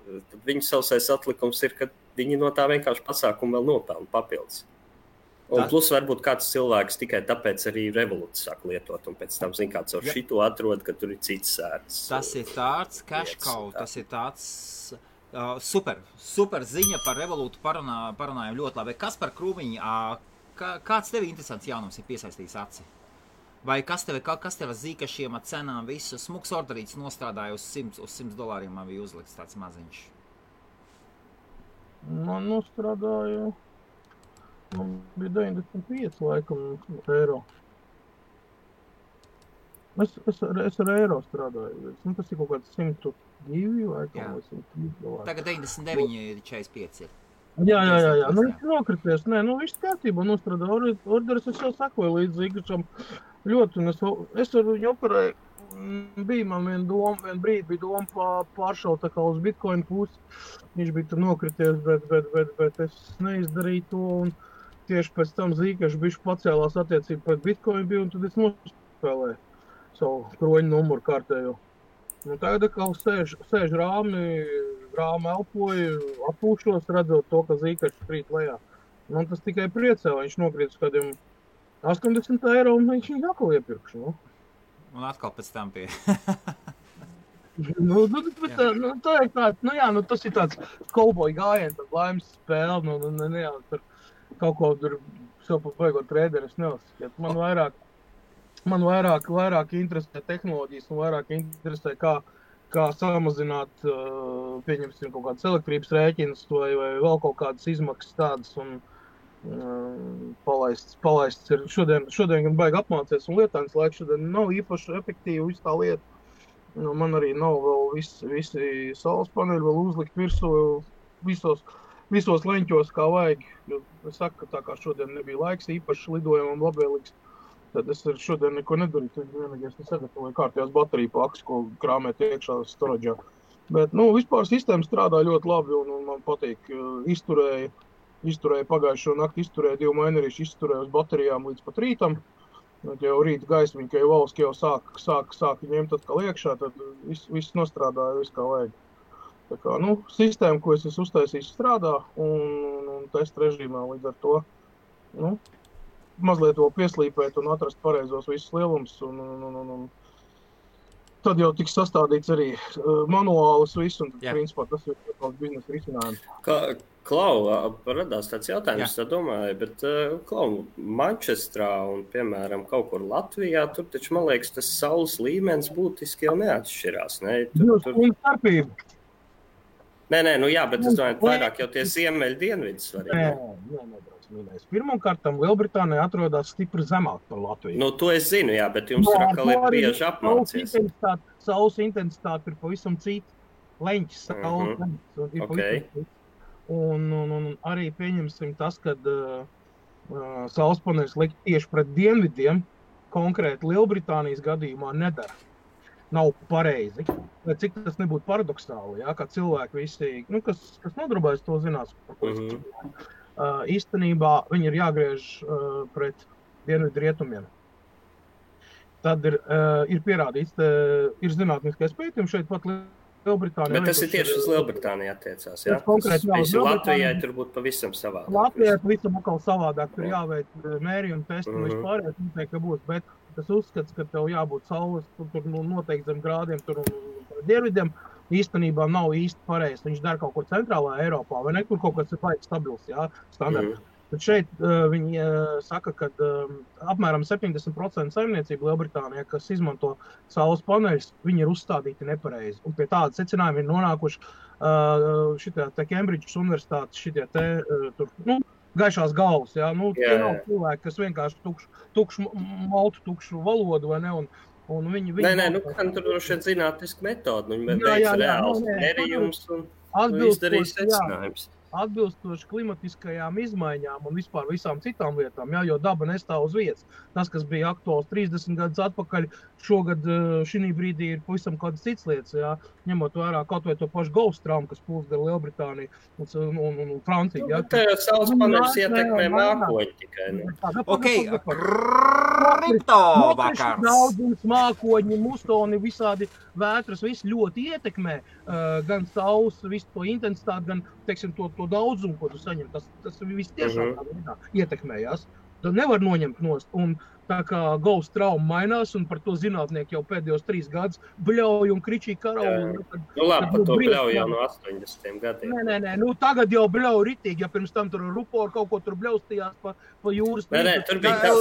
tad viņu sausais atlikums ir, ka viņi no tā vienkārši pasākumu vēl nopelna papildus. Un plus varbūt kāds cilvēks tikai tāpēc arī Revoluts sāk lietot, un pēc tam zin kāds ar šito atrod, ka tur ir cits sērts. Tas ir tāds cash cow, tas ir tāds super ziņa par Revolutu parunājam ļoti labi. Kas par Krūmiņu, kāds tev interesants jaunums ir piesaistījis aci? Vai kas tev zīkašiem ar cenām visu smuks orderīts nostādāja uz $100 man bija uzlikts tāds maziņš? Man nostādāja... Man bija 95 laikam eiro. Es ar eiro strādāju. Tas ir kaut kāds 102 laikam vai $103. Tagad 99 ir 45 ir. Jā. Nu, viņš nokrities. Nē, nu, viss kārtībā nostrādā orderis. Es jau sakoju līdz Zīgačam ļoti, un es ar viņu operēju. Bija man viena brīdi bija doma pāršaut tā kā uz Bitcoin pusi. Viņš bija tur nokrities, bet es neizdarīju to, un tieši pēc tam Zīgačs bišķi pacēlās attiecību pret Bitcoin bija, un tad es nospēlēju savu kroņu numuru kārtējo. Un tagad atkal sēž rāmi elpoju, atpūšos, redzot to, ka Zīgačs krīt lejā. Man tas tikai priecē, viņš nokrīt uz kādiem 80 eiro, un viņš viņu atkal iepirkšu, nu. Un atkal pēc tam pie. Tā ir tāds, tas ir tāds kauboja gājiens, tāds laimes spēle, tur kaut ko tur sev pa baigot trēderi, es neuzskatu. Man vairāk interesē tehnoloģijas un vairāk interesē, kā samazināt, pieņemsim, kaut kādas elektrības rēķinas vai vēl kaut kādas izmaksas tādas un palaists ir. Šodien gan baigi apmācies un lietājums laiks šodien nav īpaši efektīvi visu tā lieta. Man arī nav vēl visi saules paneļi vēl uzlikt virsū visos leņķos kā vajag. Es saku, ka tā kā šodien nebija laiks īpaši lidojumam labvēlīgs, tad es šodien neko nedarīju. Tad vienīgais nesagatavoju kārtējās bateriju pakas, ko krāmēt iekšā storaģā. Bet, vispār sistēma strādā ļoti labi un man patīk. Izturēja pagājušo nakti, izturēja 2 mainerīši, izturēja uz baterijām līdz pat rītam. Tad jau rīta gaismiņa, ka jau valsts jau sāk ņemt atkal iekšā, tad viss nostrādāja, viss kā vajag. Tā kā, sistēma, ko es esmu uztaisījis, strādā un testa režīmā līdz ar to, mazliet to pieslīpēt un atrast pareizos visus lielumus un tad jau tiks sastādīts arī manuālis viss un principā tas ir tāds biznesa risinājums. Klau, radās tāds jautājums, tā domāju, bet Mančestrā un, piemēram, kaut kur Latvijā, tur taču, man liekas, tas saules līmenis būtiski jau neatšķirās, ne? Nē, bet es domāju, vairāk jau tie ziemeļu dienvidi svarīgi. Nē. Pirmkārtam, Lielbritānija atrodas stipri zemāk par Latviju. To es zinu, jā, bet jums tur atkal ir bieži apmācies. Saules intensitāte ir pavisam cita. Leņķis saules leņķis ir pavisam cita. Un arī pieņemsim tas, kad saules paneļus likt tieši pret dienvidiem, konkrēti Lielbritānijas gadījumā nedara. Nav pareizi. Vai cik tas nebūtu paradoksāli, kā cilvēki visi, kas nodarbojas, to zinās. Īstenībā viņi ir jāgriež pret dienvidu rietumiem. Tad ir pierādīts, ir zinātniskais pētījums šeit pat Lielbritānijā. Bet tas ir tieši uz Lielbritāniju attiecās, jā? Latvijai tur būtu pavisam savādāk. Latvijai pavisam atkal savādāk, tur jāveic mērījumi, testi un vispārējais noteikti, ka būs, bet tas uzskats, ka tev jābūt saules, tur noteikti zem grādiem, tur dienvidiem, īstenībā nav īsti pareizi. Viņš dara kaut ko centrālā Eiropā, vai nekur kaut kas ir baigi stabils, standarts. Tad šeit viņi saka, ka apmēram 70% saimniecība Lielbritānijā, kas izmanto saules paneļus, viņi ir uzstādīti nepareizi. Un pie tāda secinājuma ir nonākuši Kembridžas universitātes gaišās galvas. Tie nav cilvēki, kas vienkārši tukšu valodu, vai ne? Un viņi tur droši vien zinātniska metode, viņi veic reāls mērījums un izdarīs secinājums. Atbilstoši klimatiskajām izmaiņām un vispār visām citām lietām, jo daba nestāv uz vietas. Tas, kas bija aktuāls 30 gadus atpakaļ, šogad šī brīdī ir pavisam kādas citas lietas, ņemot vērā kaut vai to pašu Gulfstrāmu, kas plūst gar Lielbritāniju un Franciju. Tā jau saules paneļus ietekmē mākoņi tikai. Kripto vakars. Daudzums, mākoņi, mustoni, visādi vētras, viss ļoti ietekmē gan saules, visu to intensitāti, gan, teiksim, to daudzumu, ko tu saņem. Tas viss tiešām ietekmējās. Tad nevar noņemt nost. Un tā kā Gauss trauma mainās, un par to zinātnieki jau pēdējos 3 gadus bļauj un kričī karauli. Labi, par to bļauj jau no 80 gadiem. Nē, tagad jau bļauj ritīgi, ja pirms tam tur rupori kaut ko tur bļaustījās pa jūras. Nē, tur bija tas.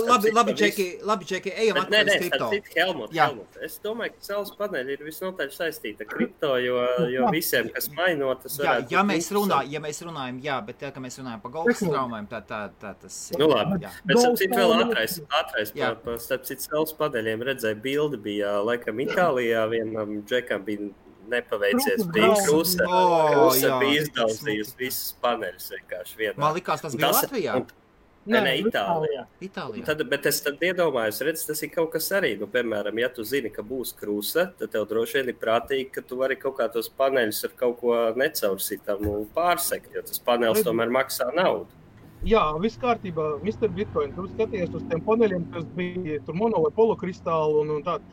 Labi, Čeki, ejam atpakaļ uz kripto. Helmut. Es domāju, ka saules paneļi ir visnotaļ saistīta ar kripto, jo visiem, kas maino, tas varētu ja mēs runājam, bet tā, ka mēs runājam par Gauss traumām, tā tas ir. Labi, bet sapcīt vēl ātrais starp citu saules paneļiem redzēja bildi, bija laikam Itālijā, vienam džekam bija nepaveicies. Bija kruse, bija izdauzījusi visas paneļus vienkārši vienā. Man likās, tas bija Latvijā. Nē, Itālijā. Bet es tad iedomājos, tas ir kaut kas arī. Nu, piemēram, ja tu zini, ka būs kruse, tad tev droši vien ir prātīgi, ka tu vari kaut kā tos paneļus ar kaut ko necaursītam pārsekt, jo tas panelis tomēr maksā naudu. Jā, viss kārtībā, Mr. Bitcoin, tu skaties uz tiem paneļiem, kas bija tur mono vai polokristāli un tādu.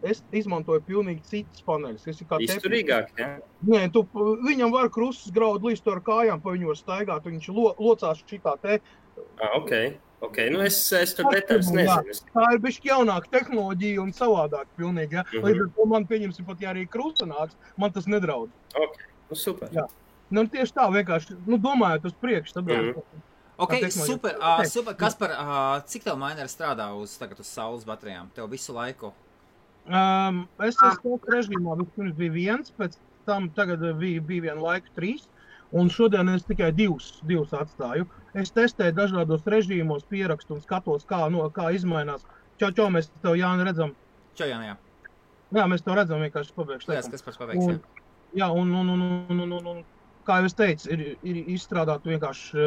Es izmantoju pilnīgi citas paneļus. Izturīgāk, jā? Nē, viņam var krustas graud līdz ar kājām, pa viņu var staigāt, viņš locās šitā te. Ok, nu es tur detaļas nezinu. Tā ir bišķi jaunāka tehnoloģija un savādāk pilnīgi, ja? Līdz ar to man pieņemsim pat, ja arī krusta nāks, man tas nedraud. Ok, nu super. Jā. Nu, tieši tā vienkārši, domājot uz priekšu. Ok, super. Kaspar, cik tev mineri strādā tagad uz saules baterijām? Tev visu laiku? Es esmu režīmā, vispirms bija 1, pēc tam tagad bija vienu laiku 3, un šodien es tikai 2 atstāju. Es testēju dažādos režīmos, pierakstu un skatos, kā izmainās. Čau, mēs tev, Jāni, redzam. Čau, Jāni, jā. Jā, mēs tev redzam vienkārši pabeigšu. Jā, Kaspars pabeigs, jā. Jā, un kā jau es teicu, ir izstrādāt vienkārši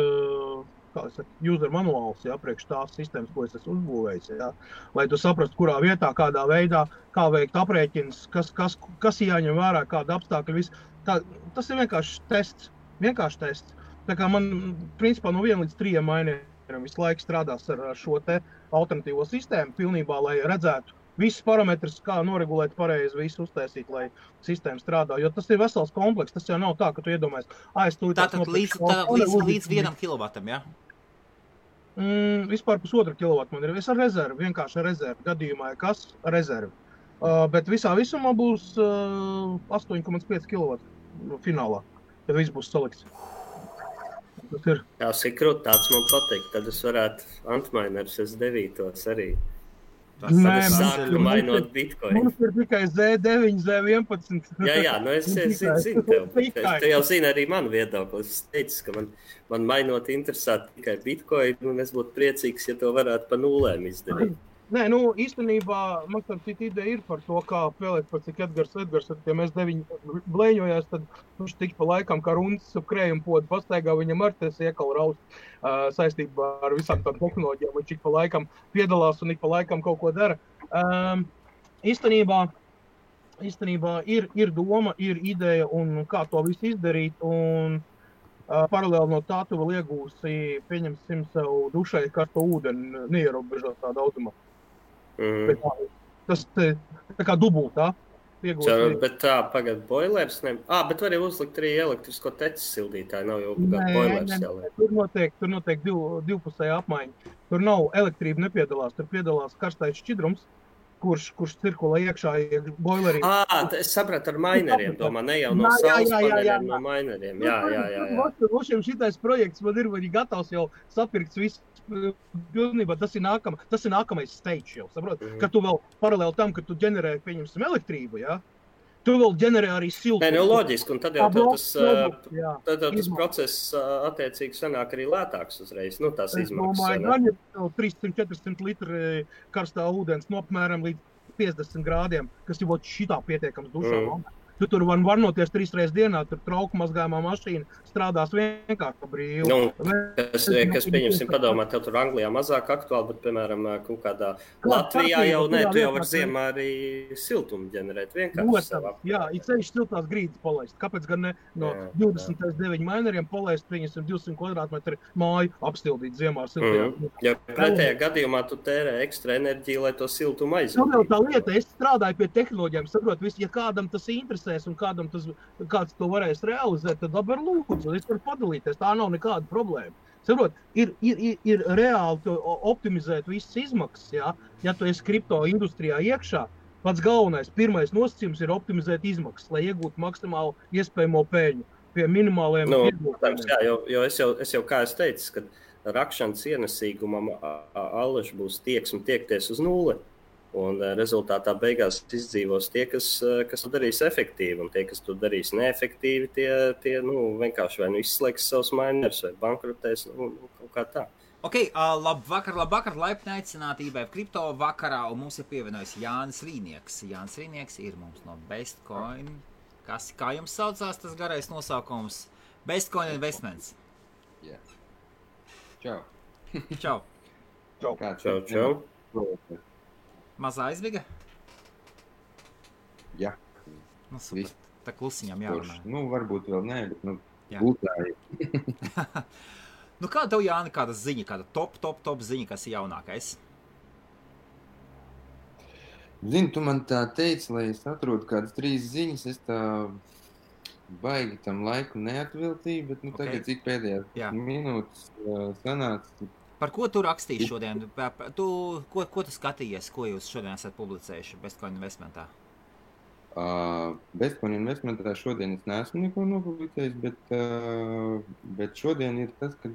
user manuāls, jā, priekš tās sistēmas, ko es esmu uzbūvējis, jā, lai tu saprastu, kurā vietā, kādā veidā, kā veikt aprēķins, kas jāņem vērā, kāda apstākļa, viss. Tas ir vienkārši tests. Tā kā man, principā, no 1 līdz 3 mainieriem visu laiku strādās ar šo te alternatīvo sistēmu pilnībā, lai redzētu visus parametrus, kā noregulēt pareizi, visu uztaisīt, lai sistēma strādā, jo tas ir vesels kompleks, tas jau nav tā, ka tu iedomājies, Tātad līdz 1 kilovatam, jā? Vispār 1,5 kilovatu man ir. Es ar rezervi, vienkārši ar rezervi. Gadījumā, kas ar rezervi. Bet visā visumā būs 8,5 kilovatu finālā, kad viss būs salikts. Tas ir. Jā, Sikrut, tāds man patīk. Tad es varētu Antminerus S9 arī. Tad sāku mainot Bitcoin. Mums ir tikai Z9, Z11. Jā, nu es zinu tev. Tu jau zini arī manu viedokli. Es teicu, ka man mainot interesētu tikai Bitcoin, un es būtu priecīgs, ja to varētu pa nulēm izdarīt. Nē, īstenībā man tā ideja ir par to, kā spēlēt, par cik Edgars, ja mēs 9 blēņojās, tad viņš tik pa laikam, kā rundas ap krējumu podu pastaigā, viņam ar tas iekal raust saistībā ar visām tām tehnoloģijām, viņš ik pa laikam piedalās un ik pa laikam kaut ko dara. Īstenībā ir doma, ir ideja un kā to visu izdarīt, un paralēli no tā tu vēl iegūsi, pieņemsim sev dušai karsto ūdeni, neierobežotā daudzumā. Tas tā kā dubultā. Bet tā, pagad boilers, ne? Bet var uzlikt arī elektrisko tecas sildītāju, nav jau boilers jāliek. Tur notiek divpusēja apmaiņa. Tur nav elektrība nepiedalās, tur piedalās karstais šķidrums, kurš cirkulē iekšā boilerī. Es sapratu ar maineriem, domā, ne jau no saules paneļiem, no maineriem. Jā. Šitais projekts man ir gatavs jau sapirkts viss. Pilnībā tas ir nākamais stage jau, saprot? Ka tu vēl paralēli tam, ka tu ģenerē, pieņemsim, elektrību, jā? Tu vēl ģenerē arī siltumu. Nē, loģiski, un tad jau tas process attiecīgi sanāk arī lētāks uzreiz, tās izmaksas. Es domāju, gan 300-400 litri karstā ūdens apmēram līdz 50 grādiem, kas jau šitā pietiekams dušā. Tu tur var varnoties 3 reizes dienā, tur trauku mazgājumā mašīna strādās vienkārši pa brīvu. Kas pieņemsim padomāt, tev tur Anglijā mazāk aktuāli, bet, piemēram, kaut kādā Latvijā jau ne, tu jau var ziemā arī siltumu ģenerēt vienkārši savā. Jā, ir ceļš siltās grīdas palaist. Kāpēc gan ne no 29 maineriem palaist, pieņemsim 200 kvadrātmetru māju apstildīt ziemā ar siltajām? Ja pretējā gadījumā tu tērē ekstra enerģiju, lai to siltumu aizvadītu. Tā lieta, es strādāju pie tehnoloģijām, saprot, ja kādam tas interesē, un kāds to varēs realizēt, tad labi ar lūdzu, es varu padalīties, tā nav nekāda problēma. Saprot, ir reāli optimizēt visas izmaksas, jā? Ja tu esi kripto industrijā iekšā, pats galvenais, pirmais nosacījums ir optimizēt izmaksas, lai iegūtu maksimālu iespējamo peļņu pie minimāliem iegūtājiem. Jā, jo es jau kā es teicu, ka rakšanas ienesīgumam allaž būs tiekties uz nulli. Un rezultātā beigās izdzīvos tie, kas to darīs efektīvi, un tie, kas to darīs neefektīvi, tie vienkārši vai izslēgs savus mainers vai bankrotēs, kaut kā tā. Ok, labvakar, laipni aicināti IBF Kripto vakarā, un mums ir pievienojis Jānis Rīnieks. Jānis Rīnieks ir mums no Bestcoin Kā jums saucās tas garais nosaukums? Bestcoin Investments. Jā. Čau. Čau. Čau. Mazā aizviga? Jā. Nu, super. Tā klusiņām jārunā. Nu, varbūt vēl nē, bet, būtāji. Nu, kāda tev, Jāni, kāda ziņa, kāda top ziņa, kas ir jaunākais? Zini, tu man tā teici, lai es atrodu kādas 3 ziņas, es tā baigi tam laiku neatviltīju, bet tagad cik pēdējās minūtes sanāca. Par ko tu rakstīji šodien? Ko tu skatījies, ko jūs šodien esat publicējuši Bestcoin Investmentā? Bestcoin Investmentā šodien es neesmu neko nopublicējis, bet šodien ir tas, kad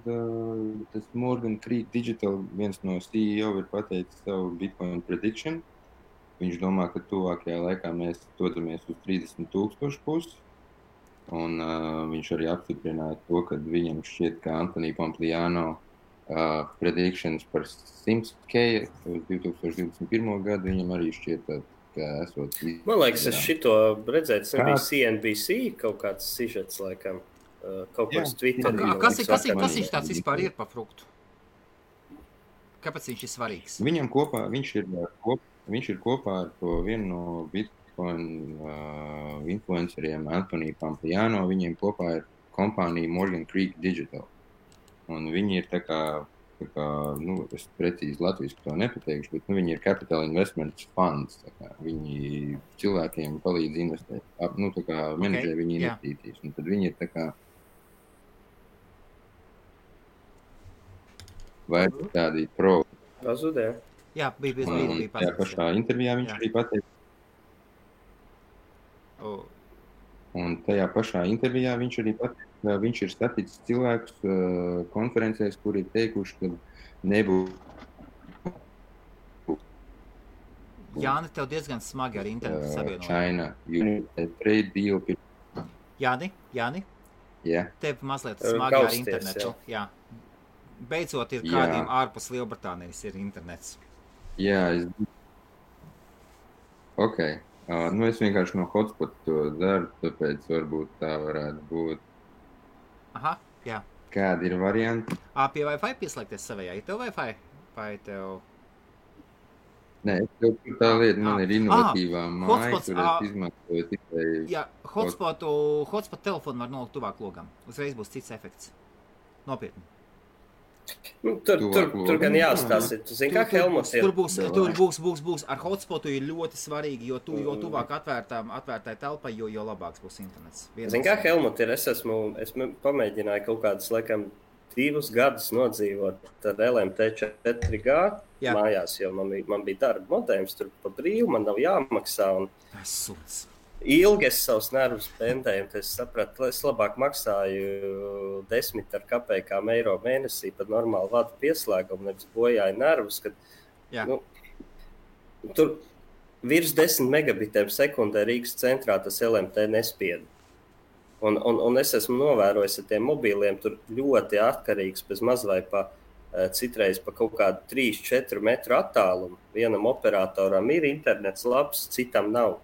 tas Morgan Creek Digital, viens no CEO, ir pateicis savu Bitcoin prediction. Viņš domā, ka tuvākajā laikā mēs dodamies uz 30,000 pusi. Un viņš arī apstiprināja to, ka viņam šķiet, ka Anthony Pompliano predictions par 100K uz 2021. Gadu viņam arī šķiet, ka esot... Man liekas, es šito redzēju, tas bija CNBC kaut kāds sižets, laikam, kaut kāds Twitter. Kas viņš tāds vispār ir par fruktu? Kāpēc viņš ir svarīgs? Viņam kopā, viņš ir kopā ar to vienu no Bitcoin influenceriem, Anthony Pompliano, viņiem kopā ir kompānija Morgan Creek Digital. Un viņi ir tā kā es precīzi latviski to nepateikšu, bet viņi ir capital investment funds. Viņi cilvēkiem palīdz investēt, menedžē viņu investīcijas. Un tad viņi ir tā kā vai tādi pro. Pazudē. Jā, bija pazudē. Jā, pašā intervijā viņš arī pateica. Un tajā pašā intervijā viņš arī pateica, ka viņš ir saticis cilvēkus konferencēs, kuri ir teikuši, ka nebūs. Jāni, tev diezgan smagi ar internetu savienojumu. China, trade deal. Jāni? Jā. Tev mazliet smagi ar internetu. Jā. Beidzot ir kādiem ārpus Lielbritānijas ir internets. Jā, Ok. Es vienkārši no hotspot to daru, tāpēc varbūt tā varētu būt. Aha, jā. Kādi ir varianti? Pie Wi-Fi pieslēgties savējā. Ir tev Wi-Fi? Vai tev... Nē, tā lieta man ir inovatīvā māja, kur es izmantoju tikai... Jā, hotspot telefonu var nolikt tuvāk logam. Uzreiz būs cits efekts. Nopietni. Tur gan jāstāsta. Tu zini, kā Helmuts ir? Tur būs. Ar hotspotu ir ļoti svarīgi, jo tuvāk atvērtai telpai, jo labāks būs internets. Zini, kā Helmuts ir? Es pamēģināju kaut kādus, laikam, 2 gadus nodzīvot ar LMT 4G mājās, jo man bija darba modējums tur pa brīvu, man nav jāmaksā. Ilgi es savus nervus pendēju, tad es sapratu, ka es labāk maksāju 10 kopējām eiro mēnesī par normālu vadu pieslēgumu, nevis bojāju nervus, kad tur virs 10 megabitiem sekundē Rīgas centrā tas LMT nespieda. Un es esmu novērojis ar tiem mobīliem, tur ļoti atkarīgs bez maz vai citreiz pa kaut kādu 3-4 metru attālumu. Vienam operatoram ir internets labs, citam nav.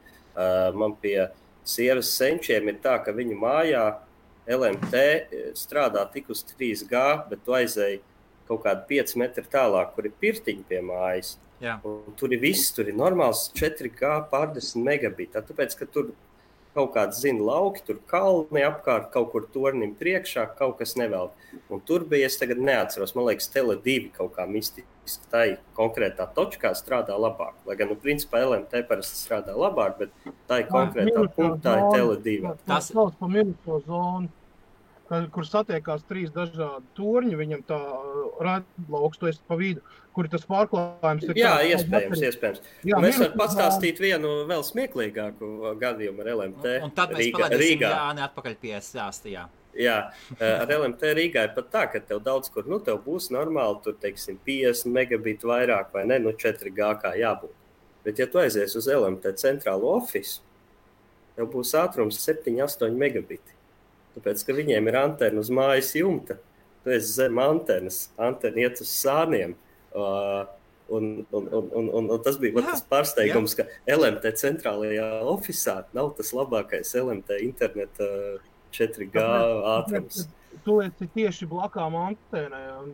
Man pie sievas senčiem ir tā, ka viņu mājā LMT strādā tik uz 3G, bet tu aizēji kaut kādu 5 metru tālāk, kur ir pirtiņi pie mājas. Tur ir viss, tur ir normāls 4G pār 10 megabitā, tāpēc, ka tur kaut kāds lauki, tur kalni apkārt, kaut kur tornim priekšā, kaut kas nevēl. Un tur bija, es tagad neatceros, man liekas, Tele2 kaut kā mistiski tai konkrētā točkā strādā labāk. Lai gan, principā, LMT parasti strādā labāk, bet tai konkrētā punktā ir Tele2. Tas sauc pa minuso zonu, kur satiekās 3 dažādi torņi, viņam tā redlauks, tu esi pa vidu, kur tas pārklājums ir... Jā, iespējams. Mēs varam pastāstīt vienu vēl smieklīgāku gadījumu ar LMT Rīgā. Un tad mēs palaidīsim Jāni atpakaļ pie stāsta, jā. Jā, ar LMT Rīgā ir pat tā, ka tev daudz kur, tev būs normāli, tur, teiksim, 50 megabitu vairāk vai ne, 4G kā jābūt. Bet, ja tu aizies uz LMT centrālo ofisu, tev būs ātrums 7-8 megabiti. Tāpēc, ka viņiem ir antena uz mājas jumta, tu esi zem antenas, antena iet uz sāniem. Un tas bija tas pārsteigums, ka LMT centrālajā ofisā nav tas labākais LMT interneta 4G ātrums. Tu esi tieši blakām antēnai, un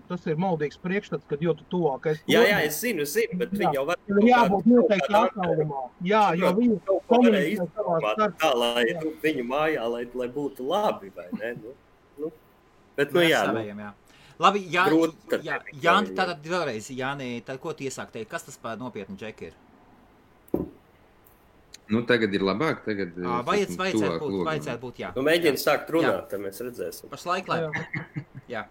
tas ir maldīgs priekšstats, kad jo tu tuvākais... Jā, es zinu, bet viņi jau var... Ir jābūt noteikti attālumā. Jā, jo viņi komunicē savā starpā. Tā, lai viņu mājā, lai būtu labi, vai ne? Bet, jā. Labi, Jāni, tātad vēlreiz, Jāni, tad ko tu iesāk teikt? Kas tas par nopietnu džeki ir? Tagad ir labāk, tagad... Vajadzētu būt, jā. Mēģini sākt runāt, tad mēs redzēsim. Pašlaik, lai... Jā.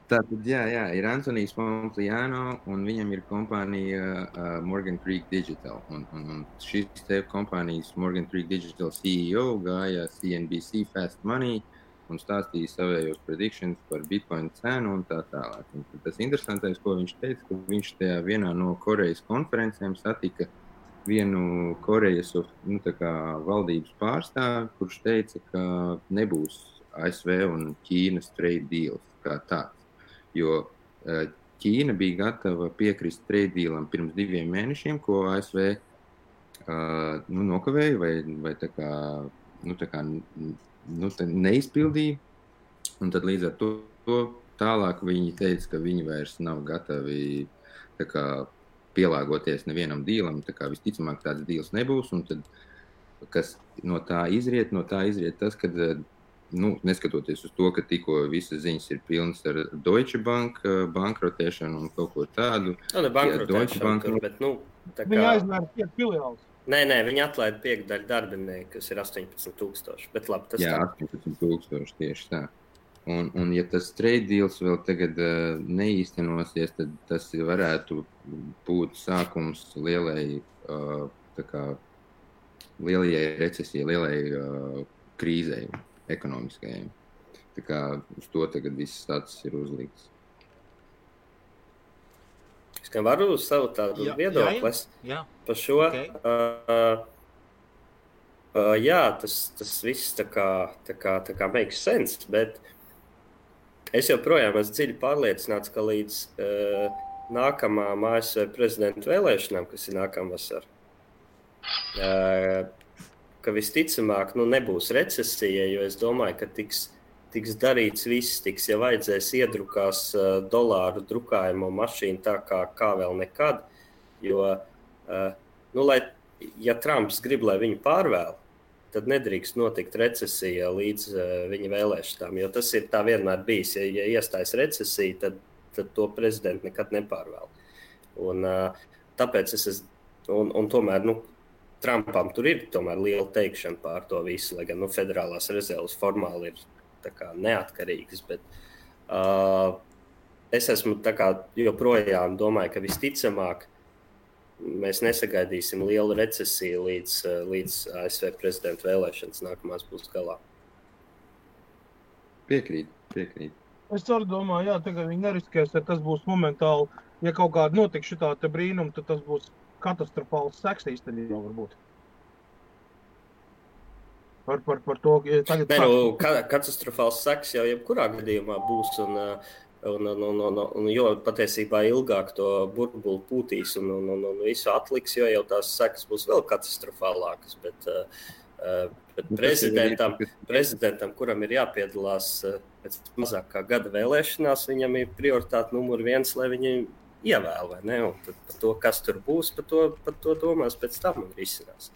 Tātad, jā, ir Antonijs Pompliano, un viņam ir kompānija Morgan Creek Digital. Un šis te kompānijas Morgan Creek Digital CEO gāja CNBC Fast Money un stāstīja savējos predictions par Bitcoin cenu un tā tālāk. Un tas interesantais, ko viņš teica, ka viņš tajā vienā no Korejas konferencēm satika vienu Korejas valdības pārstāvi, kurš teica, ka nebūs ASV un Ķīnas trade deals kā tāds. Jo Ķīna bija gatava piekrist trade dealam pirms 2 mēnešiem, ko ASV nokavēja vai tā kā neizpildīja. Un tad līdz ar to tālāk viņi teica, ka viņi vairs nav gatavi tā kā pielāgoties nevienam dīlam, tā kā visticamāk tāds dīls nebūs, un tad, kas no tā izriet tas, ka, neskatoties uz to, ka tikko visas ziņas ir pilnas ar Deutsche Bank bankrotēšanu un kaut ko tādu. Bankrotēšanu, bet, tā kā... Viņi aizmēra 5 filiālus. Nē, viņi atlaida 5 daļu darbinieku, kas ir 18,000, bet labi, tas jā, 18,000 tieši tā. Un ja tas trade deals vēl tagad neīstenosies, tad tas varētu būt sākums lielai recesijai, lielai krīzei ekonomiskajai. Tā kā uz to tagad viss tāds ir uzlikts. Es kā varu savu tādu viedoklis par šo. Okay. Tas viss tā kā makes sense, bet es joprojām esmu dziļi pārliecināts, ka līdz nākamām ASV prezidenta vēlēšanām, kas ir nākamā vasarā, ka visticamāk nebūs recesija, jo es domāju, ka tiks darīts viss, ja vajadzēs iedrukās dolāru drukājumu mašīnu tā kā vēl nekad, jo, ja Trumps grib, lai viņu pārvēl, tad nedrīkst notikt recesija līdz viņa vēlēšanām, jo tas ir tā vienmēr bijis. Ja iestājas recesija, tad to prezidentu nekad nepārvēl. Un tāpēc un tomēr, Trumpam tur ir tomēr liela teikšana pār to visu, lai gan federālās rezerves formāli ir tā kā neatkarīgas, bet es esmu tā kā joprojām domāju, ka visticamāk mēs nesagaidīsim lielu recesiju līdz ASV prezidenta vēlēšanas nākamās būs galā. Piekrīt. Es arī domāju, tagad viņi neriskēs, ja tas būs momentāli, ja kaut kāda notiks šitā te brīnuma, tad tas būs katastrofāls seks īstenībā varbūt. Par to, tagad... Katastrofāls seks jau jebkurā gadījumā būs, un jo patiesībā ilgāk to burbuli pūtīs un visu atliks, jo jau tās sekas būs vēl katastrofālākas, bet prezidentam, kuram ir jāpiedalās pēc mazāk kā gada vēlēšanās, viņam ir prioritāte numur 1, lai viņi ievēl, vai ne? Un tad par to, kas tur būs, par to domās pēc tam un risinās.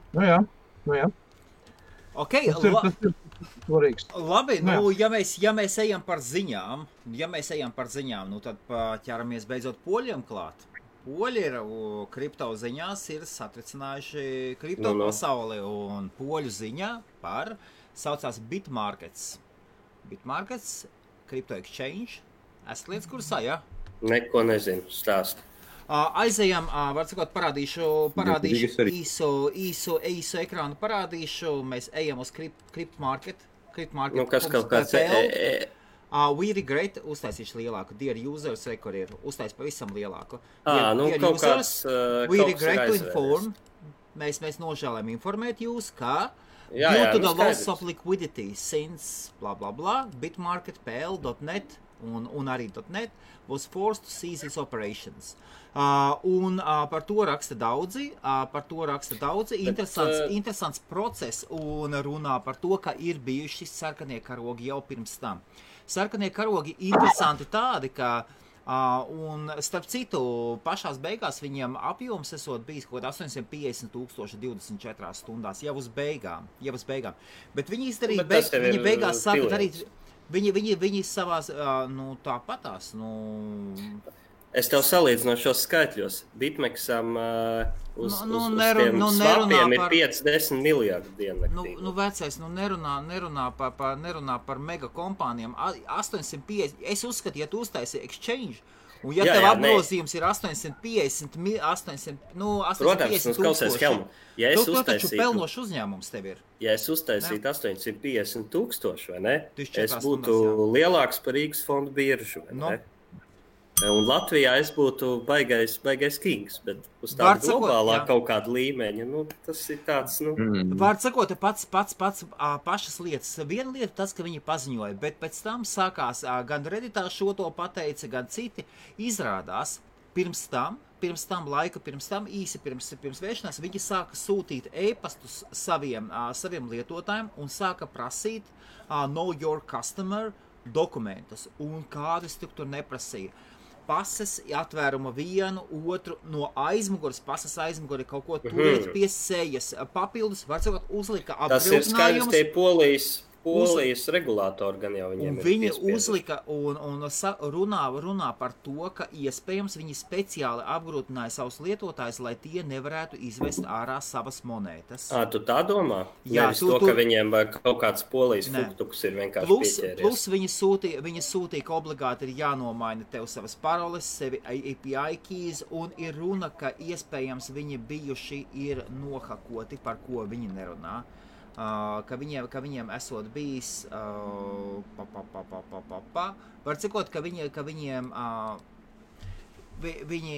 Nu jā. Okay, labi, ja mēs ejam par ziņām, tad ķeramies beidzot poļiem klāt. Poļi ir kripto ziņās ir satricinājuši kripto pasauli, un poļu ziņā saucās Bitmarkets. Bitmarkets, Crypto Exchange. Esat lietas kursā, jā? Neko nezinu, stāst. Aizejam, var sakot, parādīšu īsu ekrānu parādīšu. Mēs ejam uz Cryptmarket. Kas kaut kāds... We regret, uztaisīšu lielāku. Dear users, kur ir uztais pavisam lielāku. Dear users, kāds, we regret to inform. Mēs nožēlējam informēt jūs, ka Due to the loss of liquidity since blah blah blah, Bitmarket.pl.net un arī .net was forced to cease its operations. Par to raksta daudzi, interesants process un runā par to, ka ir bijuši sarkanie karogi jau pirms tam. Sarkanie karogi interesanti tādi, ka un starp citu, pašās beigās viņiem apjoms esot bijis kaut 850,000 24 stundās, jau uz beigām. Bet viņi izdarīja, viņi beigās sāka darīt, viņi savās, tāpatās, Es tev salīdzinu šos skaitļos. Bitmexam uz tiem svapiem ir 5-10 miljardi diennaktī. Vecais, nerunā par mega kompānijām. 850, es uzskatu, ja tu uztaisi exchange, un ja tev apgrozījums ir 850 tūkstoši, tu taču pelnošs uzņēmums tev ir. Ja es uztaisītu 850,000, vai ne? Es būtu lielāks par Rīgas fondu biržu, vai ne? Un Latvijā es būtu baigais kings, bet uz tādu globālā kaut kādu līmeņa, tas ir tāds, Vārds sakot, pašas lietas. Viena lieta tas, ka viņi paziņoja, bet pēc tam sākās, gan Redditā šo to pateica, gan citi izrādās, pirms tam, īsi pirms vēršanās, viņi sāka sūtīt e-pastus saviem lietotājiem un sāka prasīt know your customer dokumentus, un kādus tur neprasīja. Pases atvēruma vienu, otru no aizmuguras, pases aizmuguri kaut ko turiet pie sejas. Papildus, var sakot, uzlika apgrūtinājumus. Tas ir skaidrs, tie Polijas regulātori gan jau viņiem ir viņi uzlika un runā par to, ka iespējams viņi speciāli apgrūtināja savus lietotājus, lai tie nevarētu izvest ārā savas monētas. Tu tā domā? Jā, ka viņiem kaut kāds Polijas fuktuks ir vienkārši pieķēries. Plus viņi sūtīja, ka obligāti ir jānomaina tev savas paroles, sevi API keys, un ir runa, ka iespējams viņi bijuši ir nohakoti, par ko viņi nerunā. Ka viņiem esot bijis var cikot, ka viņiem viņi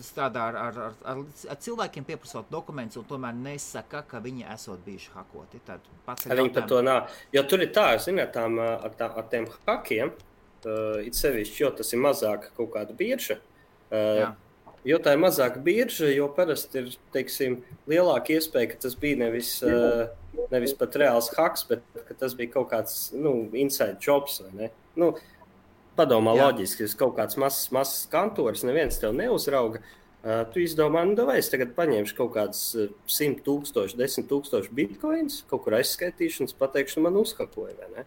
strādā ar cilvēkiem pieprasot dokumentus un tomēr nesaka, ka viņi esot bijuši hakoti. Viņi par to nav. Jo tur ir tā, ziniet, ar tiem hakiem, it sevišķi, jo tas ir mazāk kaut kāda birža. Jo tā ir mazāka birža, jo parasti ir, teiksim, lielāka iespēja, ka tas bija nevis pat reāls haks, bet ka tas bija kaut kāds, inside jobs, vai ne? Padomā loģiski, ja kaut kāds mazs kantors, neviens tev neuzrauga, tu izdomā, es tagad paņemšu kaut kāds 100,000, 10,000 bitcoins, kaut kur aizskaitīšu un pateikšu, man uzhakoja, vai ne?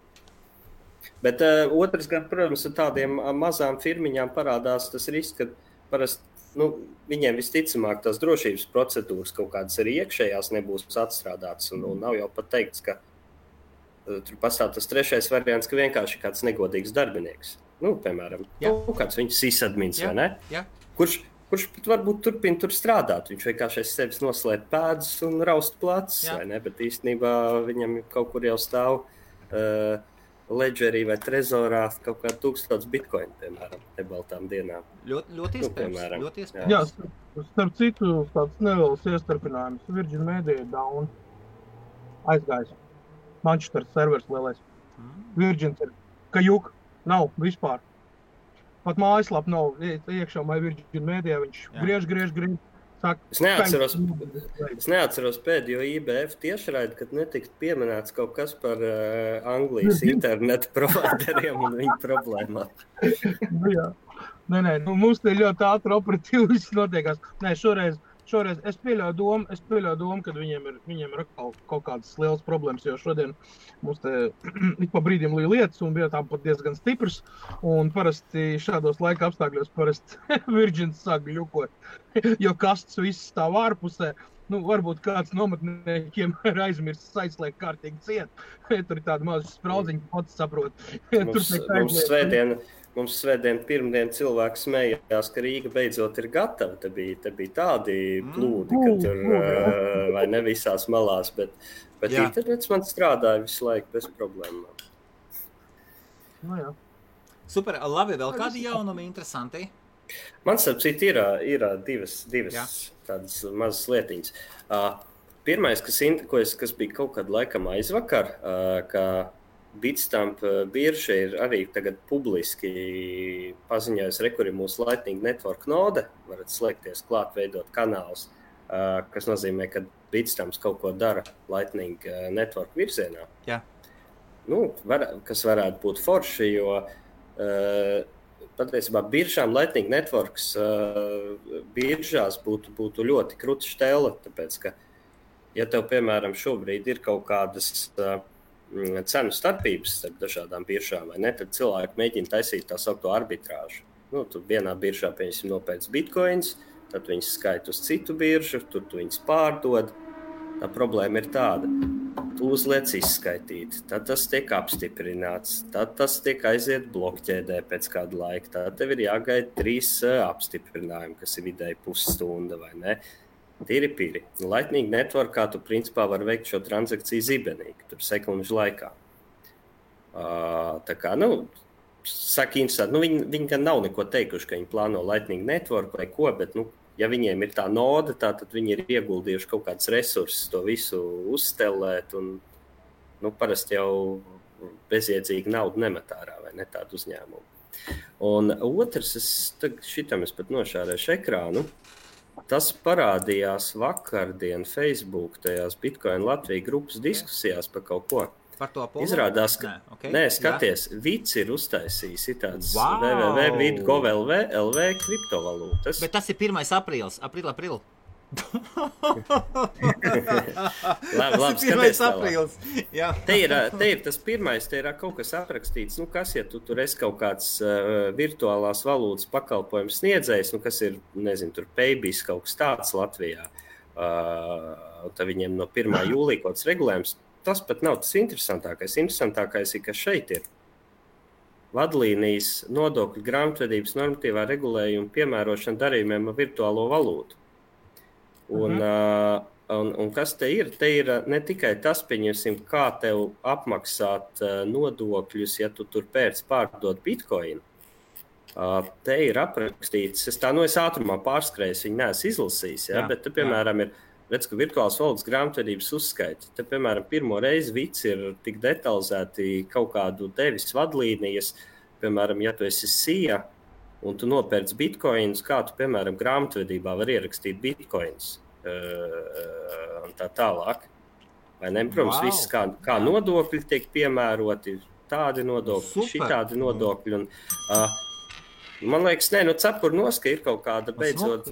Bet otrs gan, protams, ar tādiem mazām firmiņām parādās tas risks, ka parasti viņiem visticamāk tās drošības procedūras kaut kādas arī iekšējās nebūs atstrādātas un nav jau pat teikts, ka tur pastāv tas trešais variants, ka vienkārši kāds negodīgs darbinieks. Piemēram, kāds viņš sysadmins, vai ne? Kurš pat varbūt turpina tur strādāt. Viņš vienkārši aiz sevis noslēp pēdas un raust placis, vai ne? Bet īstenībā viņam kaut kur jau stāv ledgerī vai trezorā kaut kā 1000 bitcoin, piemēram, nebaltām dienām. Ļoti iespējams. Jā, starp citu, tāds neliels iestarpinājums. Virgin Media down aizgājis. Manchester servers lielais. Virgin ir kajuk, nav vispār. Pat mājaslap nav iekšā vai Virgin Media, viņš griež. Es neatceros pēdējo IBF tiešraidi, kad netika pieminēts kaut kas par Anglijas internetu provideriem un viņu problēmām. Jā. Nē, mums te ļoti ātri operatīvi viss notiekās. Nē, šoreiz es pieļauju domu, ka viņiem ir kaut kādas lielas problēmas, jo šodien mums te ik pa brīdim līja lietas un bija tā pat diezgan stiprs, un parasti šādos laika apstākļos Virgin sāk ļukot, jo kasts viss stāv ārpusē. Varbūt kāds nometniekiem ir aizmirsts aizslēgt kārtīgi ciet. Tur ir tāda maza spraudziņa, pats saprot. Mums svētdien pirmdien cilvēks smējās, ka Rīga beidzot ir gatava. Te bija tādi plūdi, ka tur vai ne visās malās, bet internets man strādāja visu laiku bez problēmām. Jā. Super, labi, vēl kādi jaunumi interesanti? Man starp citu ir divas tādas mazas lietiņas. Pirmais, kas bija kaut kad laikam aizvakar, ka Bitstamp birža ir arī tagad publiski paziņojusi, kur ir mūsu Lightning Network node, varat slēgties klāt, veidot kanālus, kas nozīmē, ka Bitstamps kaut ko dara Lightning Network virzienā. Jā. Kas varētu būt forši, jo patiesībā biržām Lightning Networks biržās būtu ļoti kruta štela, tāpēc, ka, ja tev, piemēram, šobrīd ir kaut kādas cenu starpības starp dažādām biržām, vai ne, tad cilvēki mēģina taisīt tā saukto arbitrāžu. Tu vienā biržā, piemēram, nopērc bitcoins, tad viņas skaita uz citu biržu, tur tu viņas pārdod. Tā problēma ir tāda. Tu uzliec izskaitīt, tad tas tiek apstiprināts, tad tas tiek aiziet blokķēdē pēc kāda laika, tad tev ir jāgaida 3 apstiprinājumi, kas ir vidēji pusstunda, vai ne? Tīri. Lightning Networkā tu principā var veikt šo transakciju zibenīgi, tur sekundžu laikā. Tā kā, saka interesanti, viņi gan nav neko teikuši, ka viņi plāno Lightning Network vai ko, bet, ja viņiem ir tā node, tad viņi ir ieguldījuši kaut kāds resursus to visu uzstelēt, un, parasti jau bezjēdzīgi naudu nemet ārā, vai ne, tādu uzņēmumu. Un otrs, šitam es pat nošārēšu ekrānu, tas parādījās vakardien Facebook tajās Bitcoin Latvija grupas diskusijās par kaut ko. Par to Apollo? Izrādās, ka... skaties, Vits ir uztaisījis tāds www.gov.lv kriptovalūtas. Bet tas ir 1. aprīlis. Aprīl. Labi, skaties tālāk. Te ir tas pirmais, te ir kaut kas aprakstīts, kas, ja tu tur esi kaut kāds virtuālās valūtas pakalpojums sniedzējs, kas ir, nezinu, tur Paybis kaut kas tāds Latvijā, tad viņiem no 1. jūlija kaut kāds regulējums, tas pat nav tas interesantākais. Interesantākais ir, ka šeit ir vadlīnijas nodokļu grāmatvedības normatīvā regulējuma piemērošana darījumiem ar virtuālo valūtu. Un kas te ir? Te ir ne tikai tas, pieņemsim, kā tev apmaksāt nodokļus, ja tu tur pārdod bitcoinu. Te ir aprakstīts, es ātrumā pārskrējis, viņi neesmu izlasījis, bet te, piemēram, ir, redz, ka virtuālas valodas grāmatvedības uzskaita. Te, piemēram, pirmo reizi Vits ir tik detalizēti kaut kādu devis vadlīnijas, piemēram, ja tu esi SIA, un tu nopērc bitcoinus, kā tu, piemēram, grāmatvedībā var ierakstīt bitcoinus un tā tālāk. Vai ne? Protams, viss kā nodokļi tiek piemēroti, tādi nodokļi, šitādi nodokļi. Un, man liekas, cepurnoska ir kaut kāda beidzot...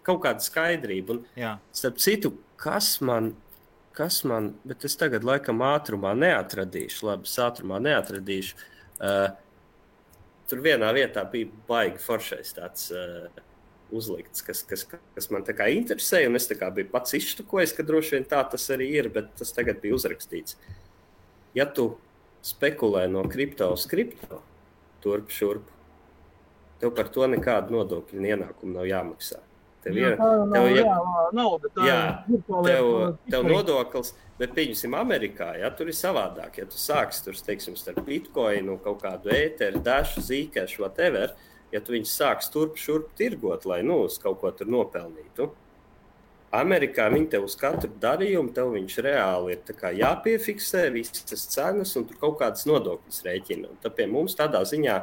Kaut kāda skaidrība. Un, starp citu, kas man, bet es tagad laikam ātrumā neatradīšu, tur vienā vietā bija baigi foršais tāds uzlikts, kas man tā kā interesēja, un es tā kā biju pats izštukojis, ka droši vien tā tas arī ir, bet tas tagad bija uzrakstīts. Ja tu spekulē no kripto uz kripto, turp šurp, tev par to nekādu nodokļu ienākumu nav jāmaksā. Tev nodoklis, bet pieņemsim Amerikā, tur ir savādāk. Ja tu sāksi tur, teiksim, starp bitcoinu, kaut kādu ēteru, dašu, zīkešu, whatever, ja tu viņus sāks turp šurp tirgot, lai uz kaut ko tur nopelnītu. Amerikā viņi tev uz katru darījumu, tev viņš reāli ir tā kā jāpiefiksē visas cenas un tur kaut kādas nodokļas rēķina. Un tad pie mums tādā ziņā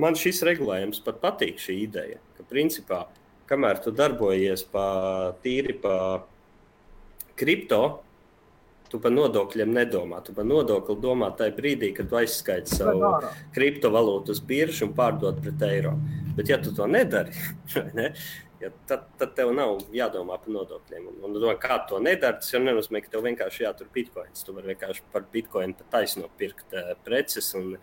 man šis regulējums pat patīk šī ideja, ka principā, kamēr tu darbojies tīri pa kripto, tu par nodokļiem nedomā. Tu par nodokli domā tajā brīdī, kad tu aizskaiti savu kriptovalūtu uz biržu un pārdod pret eiro. Bet ja tu to nedari, tad tev nav jādomā par nodokļiem. Un kā to nedara, tas jau nenozīmē, ka tev vienkārši jātur bitcoins. Tu vari vienkārši par bitcoinu pa taisno pirkt preces. Un,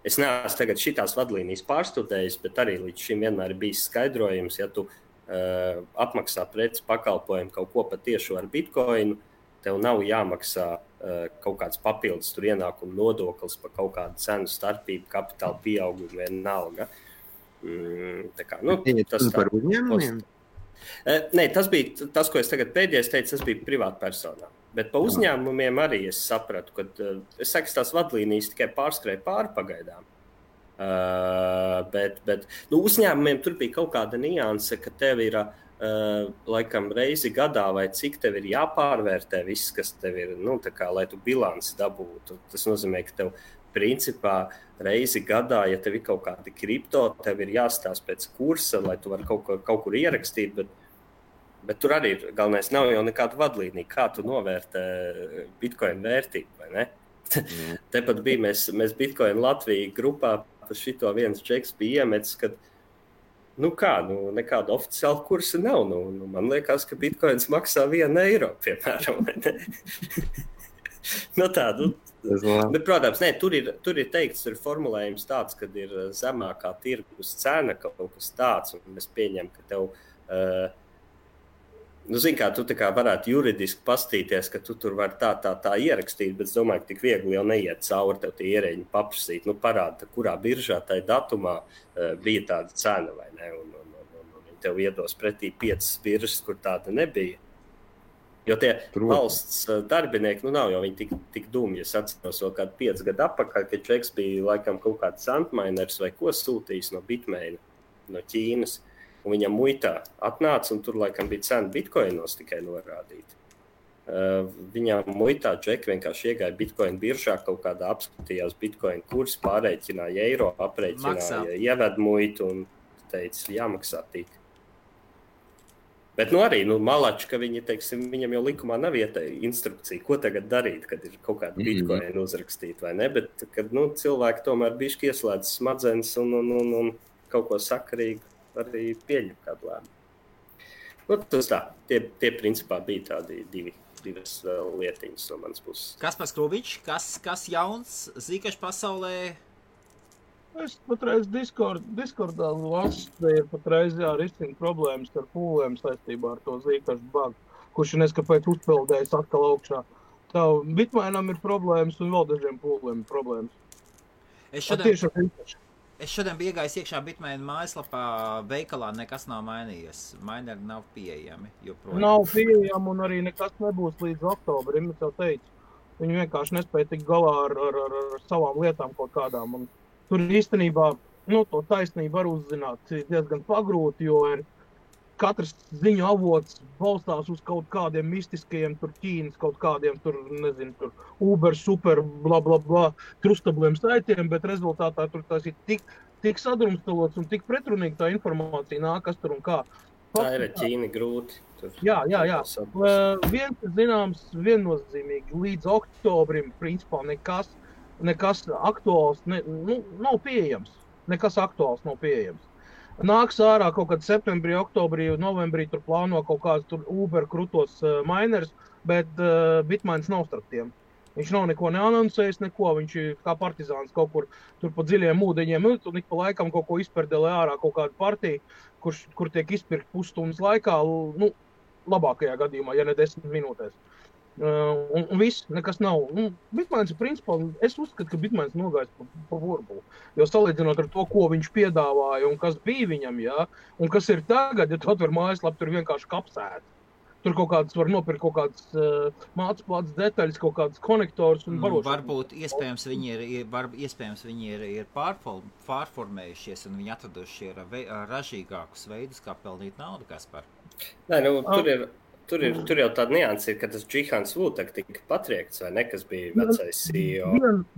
es neesmu tagad šitās vadlīnijas pārstudējis, bet arī līdz šim vienmēr ir bijis skaidrojums, ja tu apmaksā preces pakalpojumu kaut ko patiešu ar bitcoinu, tev nav jāmaksā kaut kāds papildus tur ienākumu nodoklis par kaut kādu cenu starpību, kapitāla pieaugumu vienalga. Tā kā, tas par uzņēmumiem? Nē, tas bija tas, ko es tagad pēdējais teicu, tas bija privātpersonām. Bet pa uzņēmumiem arī es sapratu, ka es saku, tās vadlīnijas tikai pārskrēja pāri pagaidām. Bet uzņēmumiem tur bija kaut kāda nianse, ka tev ir laikam reizi gadā, vai cik tev ir jāpārvērtē viss, kas tev ir, lai tu bilanci dabūtu. Tas nozīmē, ka tev principā reizi gadā, ja tev ir kaut kādi kripto, tev ir jāstāsta pēc kursa, lai tu vari kaut kur ierakstīt, bet tur arī galvenais nav jau nekāda vadlīnija, kā tu novērtē Bitcoin vērtību, vai ne? Tepat bija mēs Bitcoin Latvija grupā par šito viens džeks bija iemetis, kad nekāda oficiāla kursa nav. Man liekas, ka Bitcoins maksā 1 eiro, piemēram. Protams, tur ir teikts, tur ir formulējums tāds, kad ir zemākā tirgus cena kaut kas tāds, un es pieņemu, ka tev... Zini, kā tu varētu juridiski pastīties, ka tu tur vari tā ierakstīt, bet es domāju, ka tik viegli jau neiet cauri tev tie ierēģi paprasīt. Parāda, kurā biržā tajā datumā bija tāda cena, vai ne? Un viņi tev iedos pretī 5 biržas, kur tāda nebija. Jo tie valsts darbinieki, nav jau viņi tik dumi. Es atceros vēl kādu 5 gadu atpakaļ, kad Čeks bija laikam kaut kāds Antminers vai ko sūtījis no Bitmaina, no Ķīnas. Un viņam muitā atnāca, un tur laikam bija cena bitkoinos tikai norādīta. Viņam muitā džeki vienkārši iegāja bitcoin biržā, kaut kādā apskatījās bitcoin kursu, pārreķināja eiro, aprēķināja ieved muitu un teica, jāmaksā tik. Bet arī malači, ka viņi, teiksim, viņam jau likumā nav instrukcija, ko tagad darīt, kad ir kaut kāda bitcoin uzrakstīta, vai ne? Bet, kad cilvēki tomēr bišķi ieslēdz smadzenes un kaut ko sakarīgu, arī pieņem kādu lēmumu. Tas tā, tie principā bija tādi divas lietiņas no manas puses. Kaspars Krūvičs, kas jauns Zcash pasaulē? Es patreiz Discordā lasu, ir patreiz risina problēmas ar pūlēm saistībā ar to Zcash bug, kurš neskapēc uzpeldējis atkal augšā. Tā Bitmainam ir problēmas un vēl dažiem pūlēm ir problēmas. Es šodien biju iegājis iekšā Bitmaina mājaslapā, veikalā nekas nav mainījies. Mineri nav pieejami joprojām. Nav pieejami un arī nekas nebūs līdz oktobrim, es jau teicu. Viņi vienkārši nespēja tikt galā ar savām lietām kaut kādām. Un tur īstenībā, to taisnību var uzzināt diezgan pagrūti, jo ir katrs ziņu avots balstās uz kaut kādiem mistiskajiem, tur Ķīnas kaut kādiem, tur Uber, super, bla, bla, bla, trustabliem saitiem, bet rezultātā tur tas ir tik sadrumstalots un tik pretrunīgi tā informācija nāk, kas tur un kā. Tā ir Ķīna grūti. Jā. Viens ir zināms viennozīmīgi, līdz oktobrim, principā, nekas aktuāls nav pieejams. Nekas aktuāls nav pieejams. Nāks ārā kaut kad septembrī, oktobrī, novembrī tur plāno kaut kāds tur Uber krutos miners, bet Bitmains nav starp tiem. Viņš nav neko neanoncējis, viņš ir kā partizāns kaut kur tur pa dziļiem ūdeņiem, un ik pa laikam kaut ko izperdelē ārā kaut kādu partiju, kur tiek izpirkt pusstundas laikā, labākajā gadījumā, ja ne 10 minūtēs. Un viss, nekas nav. Bitmains ir principā, es uzskatu, ka Bitmains nogājis pa burbuli. Jo salīdzinot ar to, ko viņš piedāvāja un kas bija viņam, un kas ir tagad, ja tu atver mājaslapu, tur vienkārši kapsēt. Tur kaut kādas var nopirkt kaut kādas mācplātas detaļas, kaut kādas konektors un barošanas. Varbūt iespējams viņi ir pārformējušies un viņi atraduši ražīgākus veidus, kā pelnīt naudu, Kaspar. Nē, Tur jau tāda nianse ir, ka tas Džihans Vutak tika patriekts, vai ne, kas bija vecais CEO.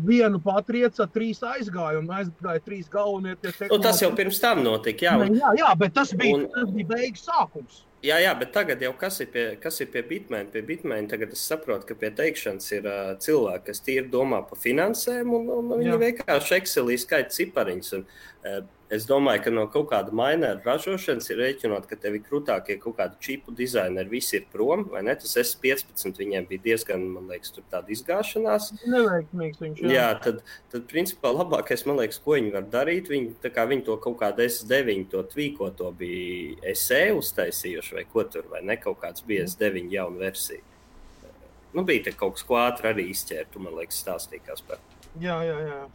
Vienu patrieca, 3 aizgāja, un aizgāja 3 galvenie tie tehnoloģi. Tas jau pirms tam notika, Jā, bet tas bija beigas sākums. Jā, bet tagad jau kas ir pie Bitmaina? Pie Bitmaina tagad es saprotu, ka pie teikšanas ir cilvēki, kas tīri domā par finansēm, un viņi vienkārši Excelī skaita cipariņus. Es domāju, ka no kaut kāda mineru ražošanas ir rēķinot, ka tev ir krūtākie kaut kādi čipu dizaineri, visi ir prom, vai ne? Tas S15 viņiem bija diezgan, man liekas, tur tāda izgāšanās. Neveiksmīgs viņš, Jā, tad principā labākais, man liekas, ko viņi var darīt, viņi to kaut kādu S9, to tvīkoto bija SE uztaisījuši, vai ko tur, vai ne? Kaut kāds bija S9 jauna versija. Bija te kaut kas, ko ātri arī izķērtu, man liekas, stāstīkās par. Jā.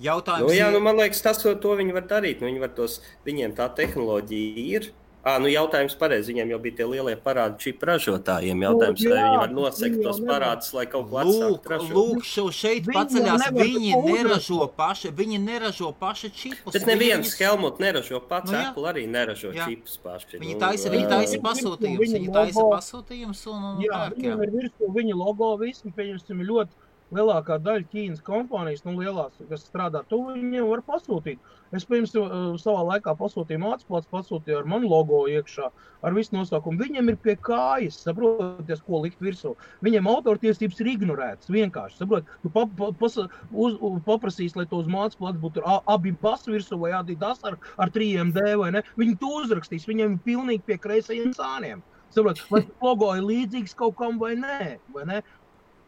Jautājums man liekas, to viņi var darīt. Viņiem tā tehnoloģija ir, Jautājums pareizi. Viņiem jau bija tie lielie parādi čipu ražotājiem. Jautājums, vai viņi var nosekt tos parādus, lai kaut ko atsākt ražot. Lūk, šeit paceļās, viņi neražo paši čipus. Bet neviens Helmut neražo pats, Apple arī neražo čipus paši. Viņi taisa pasūtījumus un pērk. Viņam ir virsū viņa logo, visi, pieņemsim, ļoti lielākā daļa Ķīnas kompānijas, lielās, kas strādā tuvu, viņiem var pasūtīt. Es, piemēram, savā laikā pasūtīju mācīplāts, pasūtīju ar manu logo iekšā, ar visu nosaukumu. Viņiem ir pie kājas, saproties, ko likt virsū. Viņiem autortiesības ir ignorētas, vienkārši, saprot. Tu paprasīs, lai to uz mācīplāts būtu abi basi virsū vai Adidas ar 3MD vai ne. Viņi to uzrakstīs, viņiem ir pilnīgi pie kreisajiem sāniem. Saprot, vai logo ir līdzīgs kaut kam vai ne?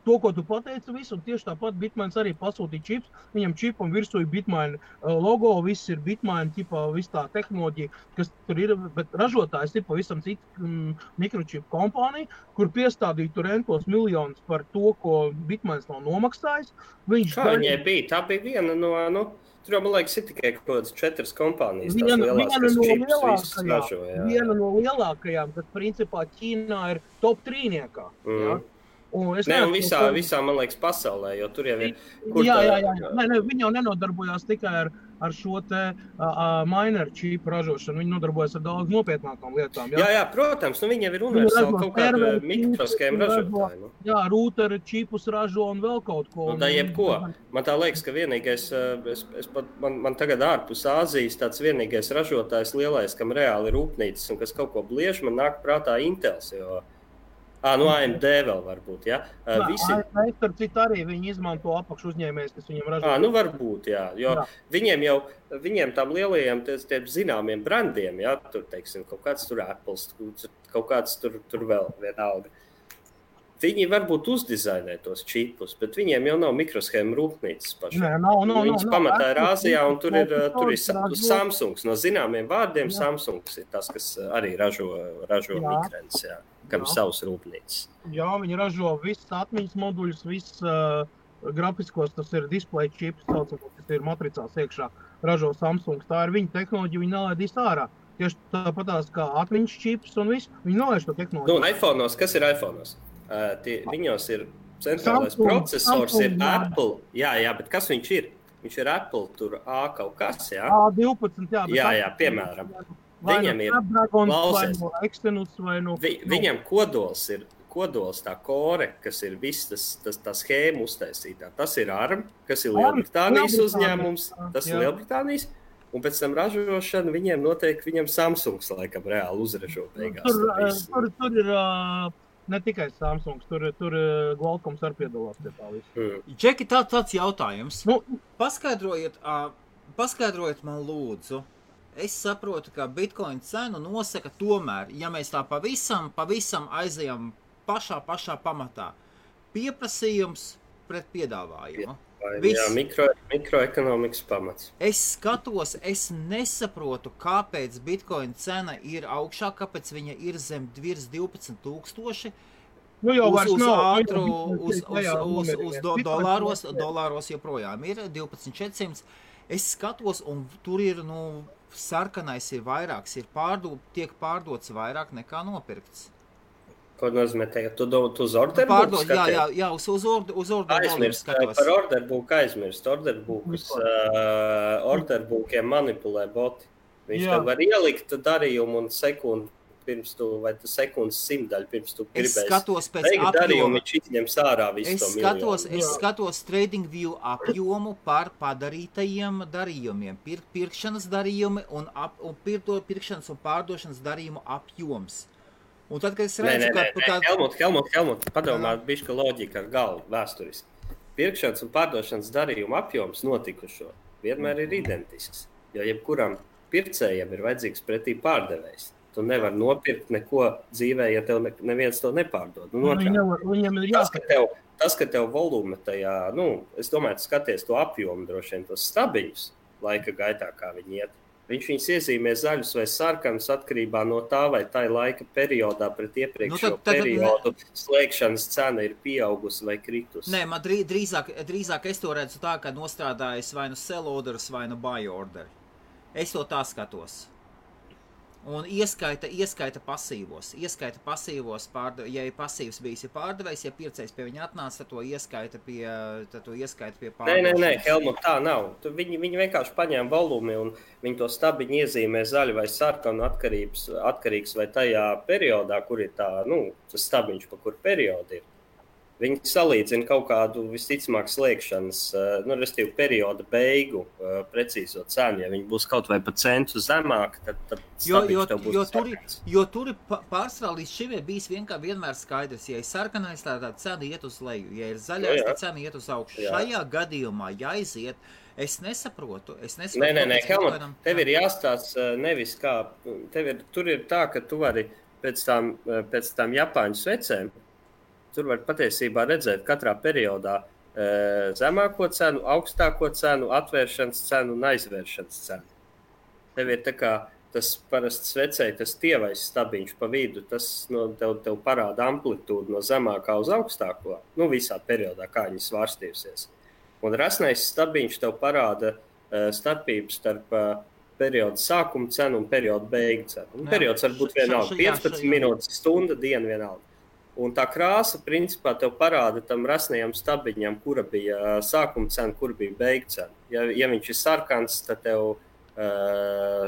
To, ko tu pateici visu, un tieši tāpat Bitmains arī pasūtīja čips. Viņam čipam virsū ir Bitmain logo, viss ir Bitmain, viss tā tehnoloģija, kas tur ir, bet ražotājs ir pavisam cita mikročipu kompānija, kur piestādīja tur entos miljonus par to, ko Bitmains nav nomaksājis. Viņai bija? Tā bija viena no... Tur jau, man liekas, ir tikai kaut kādas 4 kompānijas, tās lielās, kas čipus visus ražo. Viena no lielākajām, kas principā Ķīnā ir top 3-niekā. Un visā, man liekas, pasaulē, jo tur jau ir... Viņi jau nenodarbojās tikai ar šo te miner čipu ražošanu, viņi nodarbojas ar daudz nopietnākām lietām. Jā, protams, viņi jau ir universāli kaut kāda mikroskēma ražotāji. Jā, rūteri čipus ražo un vēl kaut ko. Tā jebko. Man tā liekas, ka vienīgais, man tagad ārpus Āzijas tāds vienīgais ražotājs lielais, kam reāli ir rūpnīcas un kas kaut ko bliež, man nāk prātā Intels, jo... AMD vēl varbūt, ja? AMD, starp citu arī viņi izmanto apakšu uzņēmējs, kas viņam ražo. Varbūt, jā, jo viņiem tām lielajiem tiem zināmiem brandiem, ja, tur, teiksim, kaut kāds tur Apples, kaut kāds tur vēl vienalga. Viņi varbūt uzdizainē tos čipus, bet viņiem jau nav mikroshēma rūpnīcas paši. Viņas pamatā ir Āzijā, un tur ir Samsungs. No zināmiem vārdiem Samsungs ir tas, kas arī ražo mikrens, jā. Kam savs rūpnīcas. Jā, viņi ražo visas atmiņas moduļus, visas grafiskos, tas ir display chips, kas ir matricās iekšā, ražo Samsungs. Tā ir viņa tehnoloģija, viņi nelaidīs ārā. Tieši tāpatās kā atmiņas chips un viss, viņi nolaiž to tehnoloģiju. iPhone'os, kas ir iPhone'os? Viņos ir centrālais procesors, ir Apple. Jā, bet kas viņš ir? Viņš ir Apple, tur A kaut kas, jā? A12, jā. Jā, piemēram. Viņam ir viņam kodols tā kore, kas ir viss tā schēma uztaisītā. Tas ir ARM, kas ir Lielbritānijas uzņēmums, tas ir Lielbritānijas, un pēc tam ražošana viņam Samsungs laikam reāli uzražo beigās. Tur ir ne tikai Samsungs, tur Qualcomms arī piedalās pie tā visu. Džeki, tāds jautājums. Paskaidrojiet man lūdzu. Es saprotu, ka Bitcoin cenu nosaka tomēr, ja mēs tā pavisam aizejam pašā pamatā. Pieprasījums pret piedāvājumu. Jā, mikroekonomikas pamats. Es skatos, es nesaprotu, kāpēc Bitcoin cena ir augšā, kāpēc viņa ir zem virs 12,000. Uz dolāros joprojām ir 12,400. Es skatos, un tur ir, sarkanais ir vairāks, tiek pārdots vairāk nekā nopirkts. Ko nozīmē tagad? Tu uz orderbuku skaties? Jā, uz orderbuku skatos. Par orderbuku aizmirst. Orderbukiem manipulē boti. Viņš tev var ielikt darījumu un sekundu pirms tu, vai tu sekundes 100 pirms tu gribēsi. Es skatos pēc apjoma. Viņš izņems ārā visu to miljonu. Es skatos TradingView apjomu par padarītajiem darījumiem. Pirkšanas darījumi un pirkšanas un pārdošanas darījumu apjoms. Un tad, kad es redzu, Helmut, padomā bišķi loģika ar galvu vēsturiski. Pirkšanas un pārdošanas darījumu apjoms notikušo vienmēr ir identisks, jo jebkuram pircējiem ir vajadzīgs pretī pārdevējs. Tu nevar nopirkt neko dzīvē, ja tev neviens to nepārdod. Tas, ka tev volume tajā, es domāju, tu skaties to apjomu droši vien, tos stabiņus laika gaitā, kā viņi iet. Viņš viņus iezīmē zaļus vai sarkanus atkarībā no tā, vai tā laika periodā pret iepriekšējo periodu slēgšanas cena ir pieaugusi vai kritusi. Nē, man drīzāk es to redzu tā, ka nostrādājas vai nu sell orders, vai nu buy order. Es to tā skatos. Un ieskaita pasīvos. Ja ir pasīvs bijis pārdevējs, ja pircējs pie viņa atnāca, tad to ieskaita pie pārdošanas. Nē, Helmut, tā nav. Viņi vienkārši paņēma volumi un viņi to stabiņu iezīmē zaļu vai sarkanu atkarīgs vai tajā periodā, kur ir tas stabiņš, pa kur periodu ir. Viņi salīdzina kaut kādu visticamāk slēgšanas, restīvi perioda beigu precīzo cenu. Ja viņi būs kaut vai pa centu zemāk, tad stabiņš tev būs sarkans. Jo tur ir pārsvarā līdz šim ir bijis vienmēr skaidrs. Ja ir sarkanais, tad cena iet uz leju. Ja ir zaļais, tad cena iet uz augšu. Šajā gadījumā jāiziet. Es nesaprotu. Nē, Helmut, tev ir jāstāsta nevis kā. Tur ir tā, ka tu vari pēc tām Japāņu svecēm. Tur var patiesībā redzēt katrā periodā zemāko cenu, augstāko cenu, atvēršanas cenu un aizvēršanas cenu. Tev ir tā kā tas parasti svecēji, tas tievais stabiņš pa vidu, tas tev parāda amplitūdu no zemākā uz augstāko, visā periodā, kā viņi svārstījusies. Un rasnais stabiņš tev parāda starpību starp periodu sākuma cenu un periodu beigu cenu. Periods var būt vienalga, 15 minūtes, stunda, diena vienalga. Un tā krāsa, principā, tev parāda tam rasnajam stabiņam, kura bija sākuma cena, kura bija beigu cena. Ja viņš ir sarkans, tad tev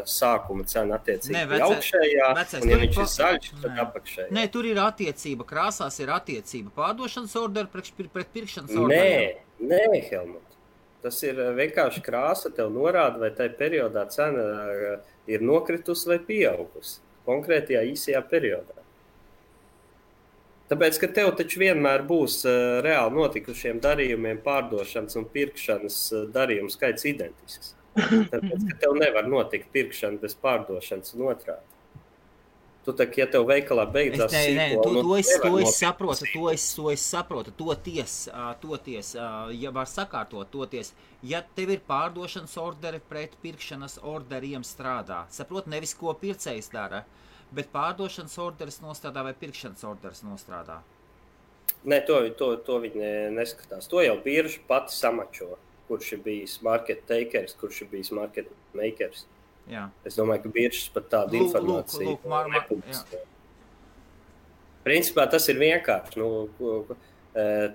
sākuma cena attiecīgi augšējā, un ja viņš ir zaļš, tad apakšējā. Nē, tur ir attiecība, krāsās ir attiecība pārdošanas orderu pret pirkšanas orderu. Nē, Helmut. Tas ir vienkārši krāsa, tev norāda, vai tajā periodā cena ir nokritusi vai pieaugusi. Konkrētajā īsajā periodā. Tāpēc, ka tev taču vienmēr būs reāli notikušiem darījumiem pārdošanas un pirkšanas darījumu skaits identisks. Tāpēc, ka tev nevar notikt pirkšana bez pārdošanas un otrādi. Tu tā, ja tev veikalā beidzās to es saprotu. Toties, ja var sakārtot, toties, ja tev ir pārdošanas orderi pret pirkšanas orderiem strādā. Saprot, nevis ko pircējs dara. Bet pārdošanas orderis nostrādā vai pirkšanas orderis nostrādā? Nē, to viņi neskatās. To jau birža pati samačo, kurš ir bijis market takers, kurš ir bijis market makers. Jā. Es domāju, ka biržas pat tādu informāciju nepubliskē. Principā tas ir vienkārši.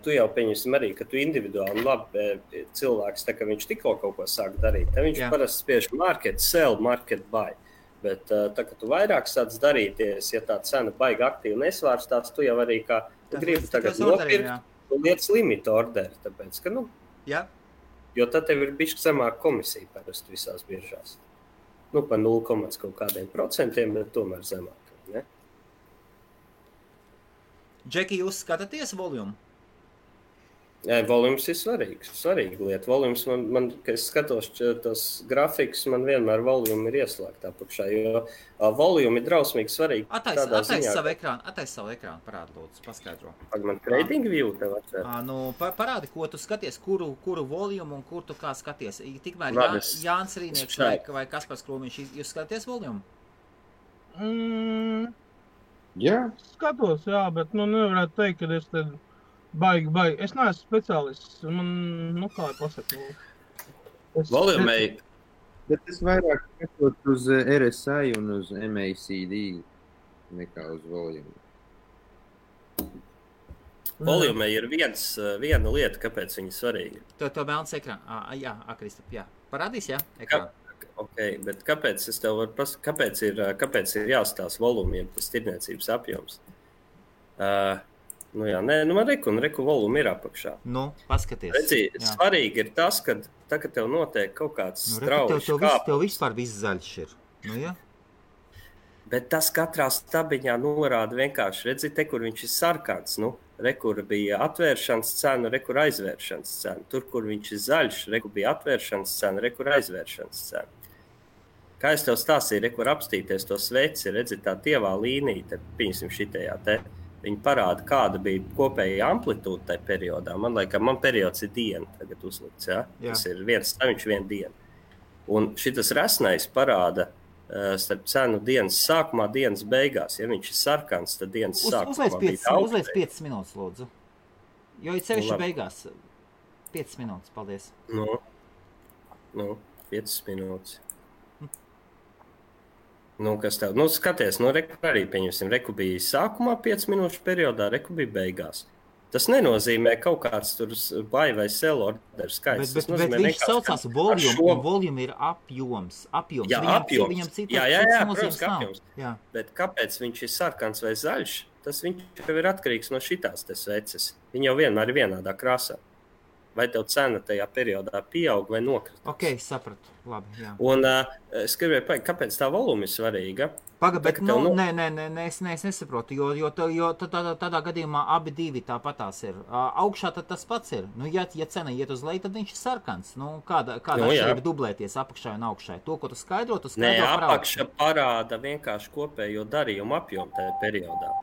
Tu jau pieņemsim arī, ka tu individuāli labi cilvēks, tā kā viņš tikko kaut ko sāk darīt. Tad viņš parasti spiež market sell, market buy. Bet tā, ka tu vairāk sāc darīties, ja tā cena baigi aktīvi nesvārstās, tu jau arī kā gribi tagad nopirkt un lietas limita orderi, tāpēc, ka, jo tad tev ir bišķi zemāka komisija parasti visās biržās. Pa 0, kaut kādiem procentiem, bet tomēr zemāk, ne? Džeki, jūs skatāties volumu? Volums ir svarīga lieta. Volums kad es skatos tos grafikus, man vienmēr volumi ir ieslēgta apakšā, jo volumi ir drausmīgi svarīgi. Atais savu ekrānu, parādi lūdzu, paskaidro. Man trading view tev atver. Parādi, ko tu skaties, kuru volumu un kur tu kā skaties. Tikmēr Jānis Rīnieks vai Kaspars Krūmiņš, jūs skaties volumu? Jā. Skatos, bet nevarētu teikt, ka es te baigi. Es neesmu speciālists. Man, kā pasaka. Volumei. Bet es vairāk skatos uz RSI un uz MACD nekā uz volumu. Volumei ir viena lieta, kāpēc viņa svarīga. To melns ekrānu. Jā, Kristap, jā. Parādīs, jā, ekrānu. Okay, bet kāpēc es tev varu pasakāt, kāpēc ir jāstāsta volumiem tas tirdzniecības apjoms? Man reku volumi ir apakšā. Paskaties. Redzi, svarīgi ir tas, ka tagad tev notiek kaut kāds strauji kāpums. Tev vispār viss zaļš ir. Bet tas katrā stabiņā norāda vienkārši, redzi, te, kur viņš ir sarkans, rekur bija atvēršanas cena, rekur aizvēršanas cena. Tur, kur viņš ir zaļš, rekur bija atvēršanas cena, rekur aizvēršanas cena. Kā es tev stāstīju, rekur apstīties to sveci, redzi, tā tievā līnija, te, piņasim šitajā te. Viņi parāda, kāda bija kopējā amplitūda tajā periodā. Man periods ir diena tagad uzlikts, ja? Tas ir viens staviņš, viena diena. Un šitas rasnais parāda starp cenu dienas sākumā, dienas beigās. Ja viņš ir sarkans, tad dienas sākumā bija daudz. Uzliec 5 minūtes, lūdzu. Jo ir sevišķi beigās. 5 minūtes, paldies. 5 minūtes. Nu, kas tev? Nu, skaties, arī pieņemsim, reku bija sākumā 5 minūšu periodā, reku bija beigās. Tas nenozīmē kaut kāds tur buy vai sell order skaits. Bet viņš saucās volume, un volume ir apjoms. Jā, apjoms. Viņam Jā, protams, ka apjoms. Jā. Bet kāpēc viņš ir sarkans vai zaļš? Tas viņš jau ir atkarīgs no šitās te sveces. Viņi jau vienmēr ir vienādā krāsā. Vai tev cena tajā periodā pieaug vai nokritās? Ok, sapratu. Labi, jā. Un es gribēju pateikt, kāpēc tā voluma ir svarīga? Bet nē, es nesaprotu, jo tādā gadījumā abi divi tāpatās ir. Augšā tad tas pats ir. Nu, ja cena iet uz leju, tad viņš ir sarkans. Nu, kāda atšķirība dublēties apakšai un augšai? To, ko tu skaidro Nē, apakša parāda vienkārši kopējo darījumu apjomu tajā periodā.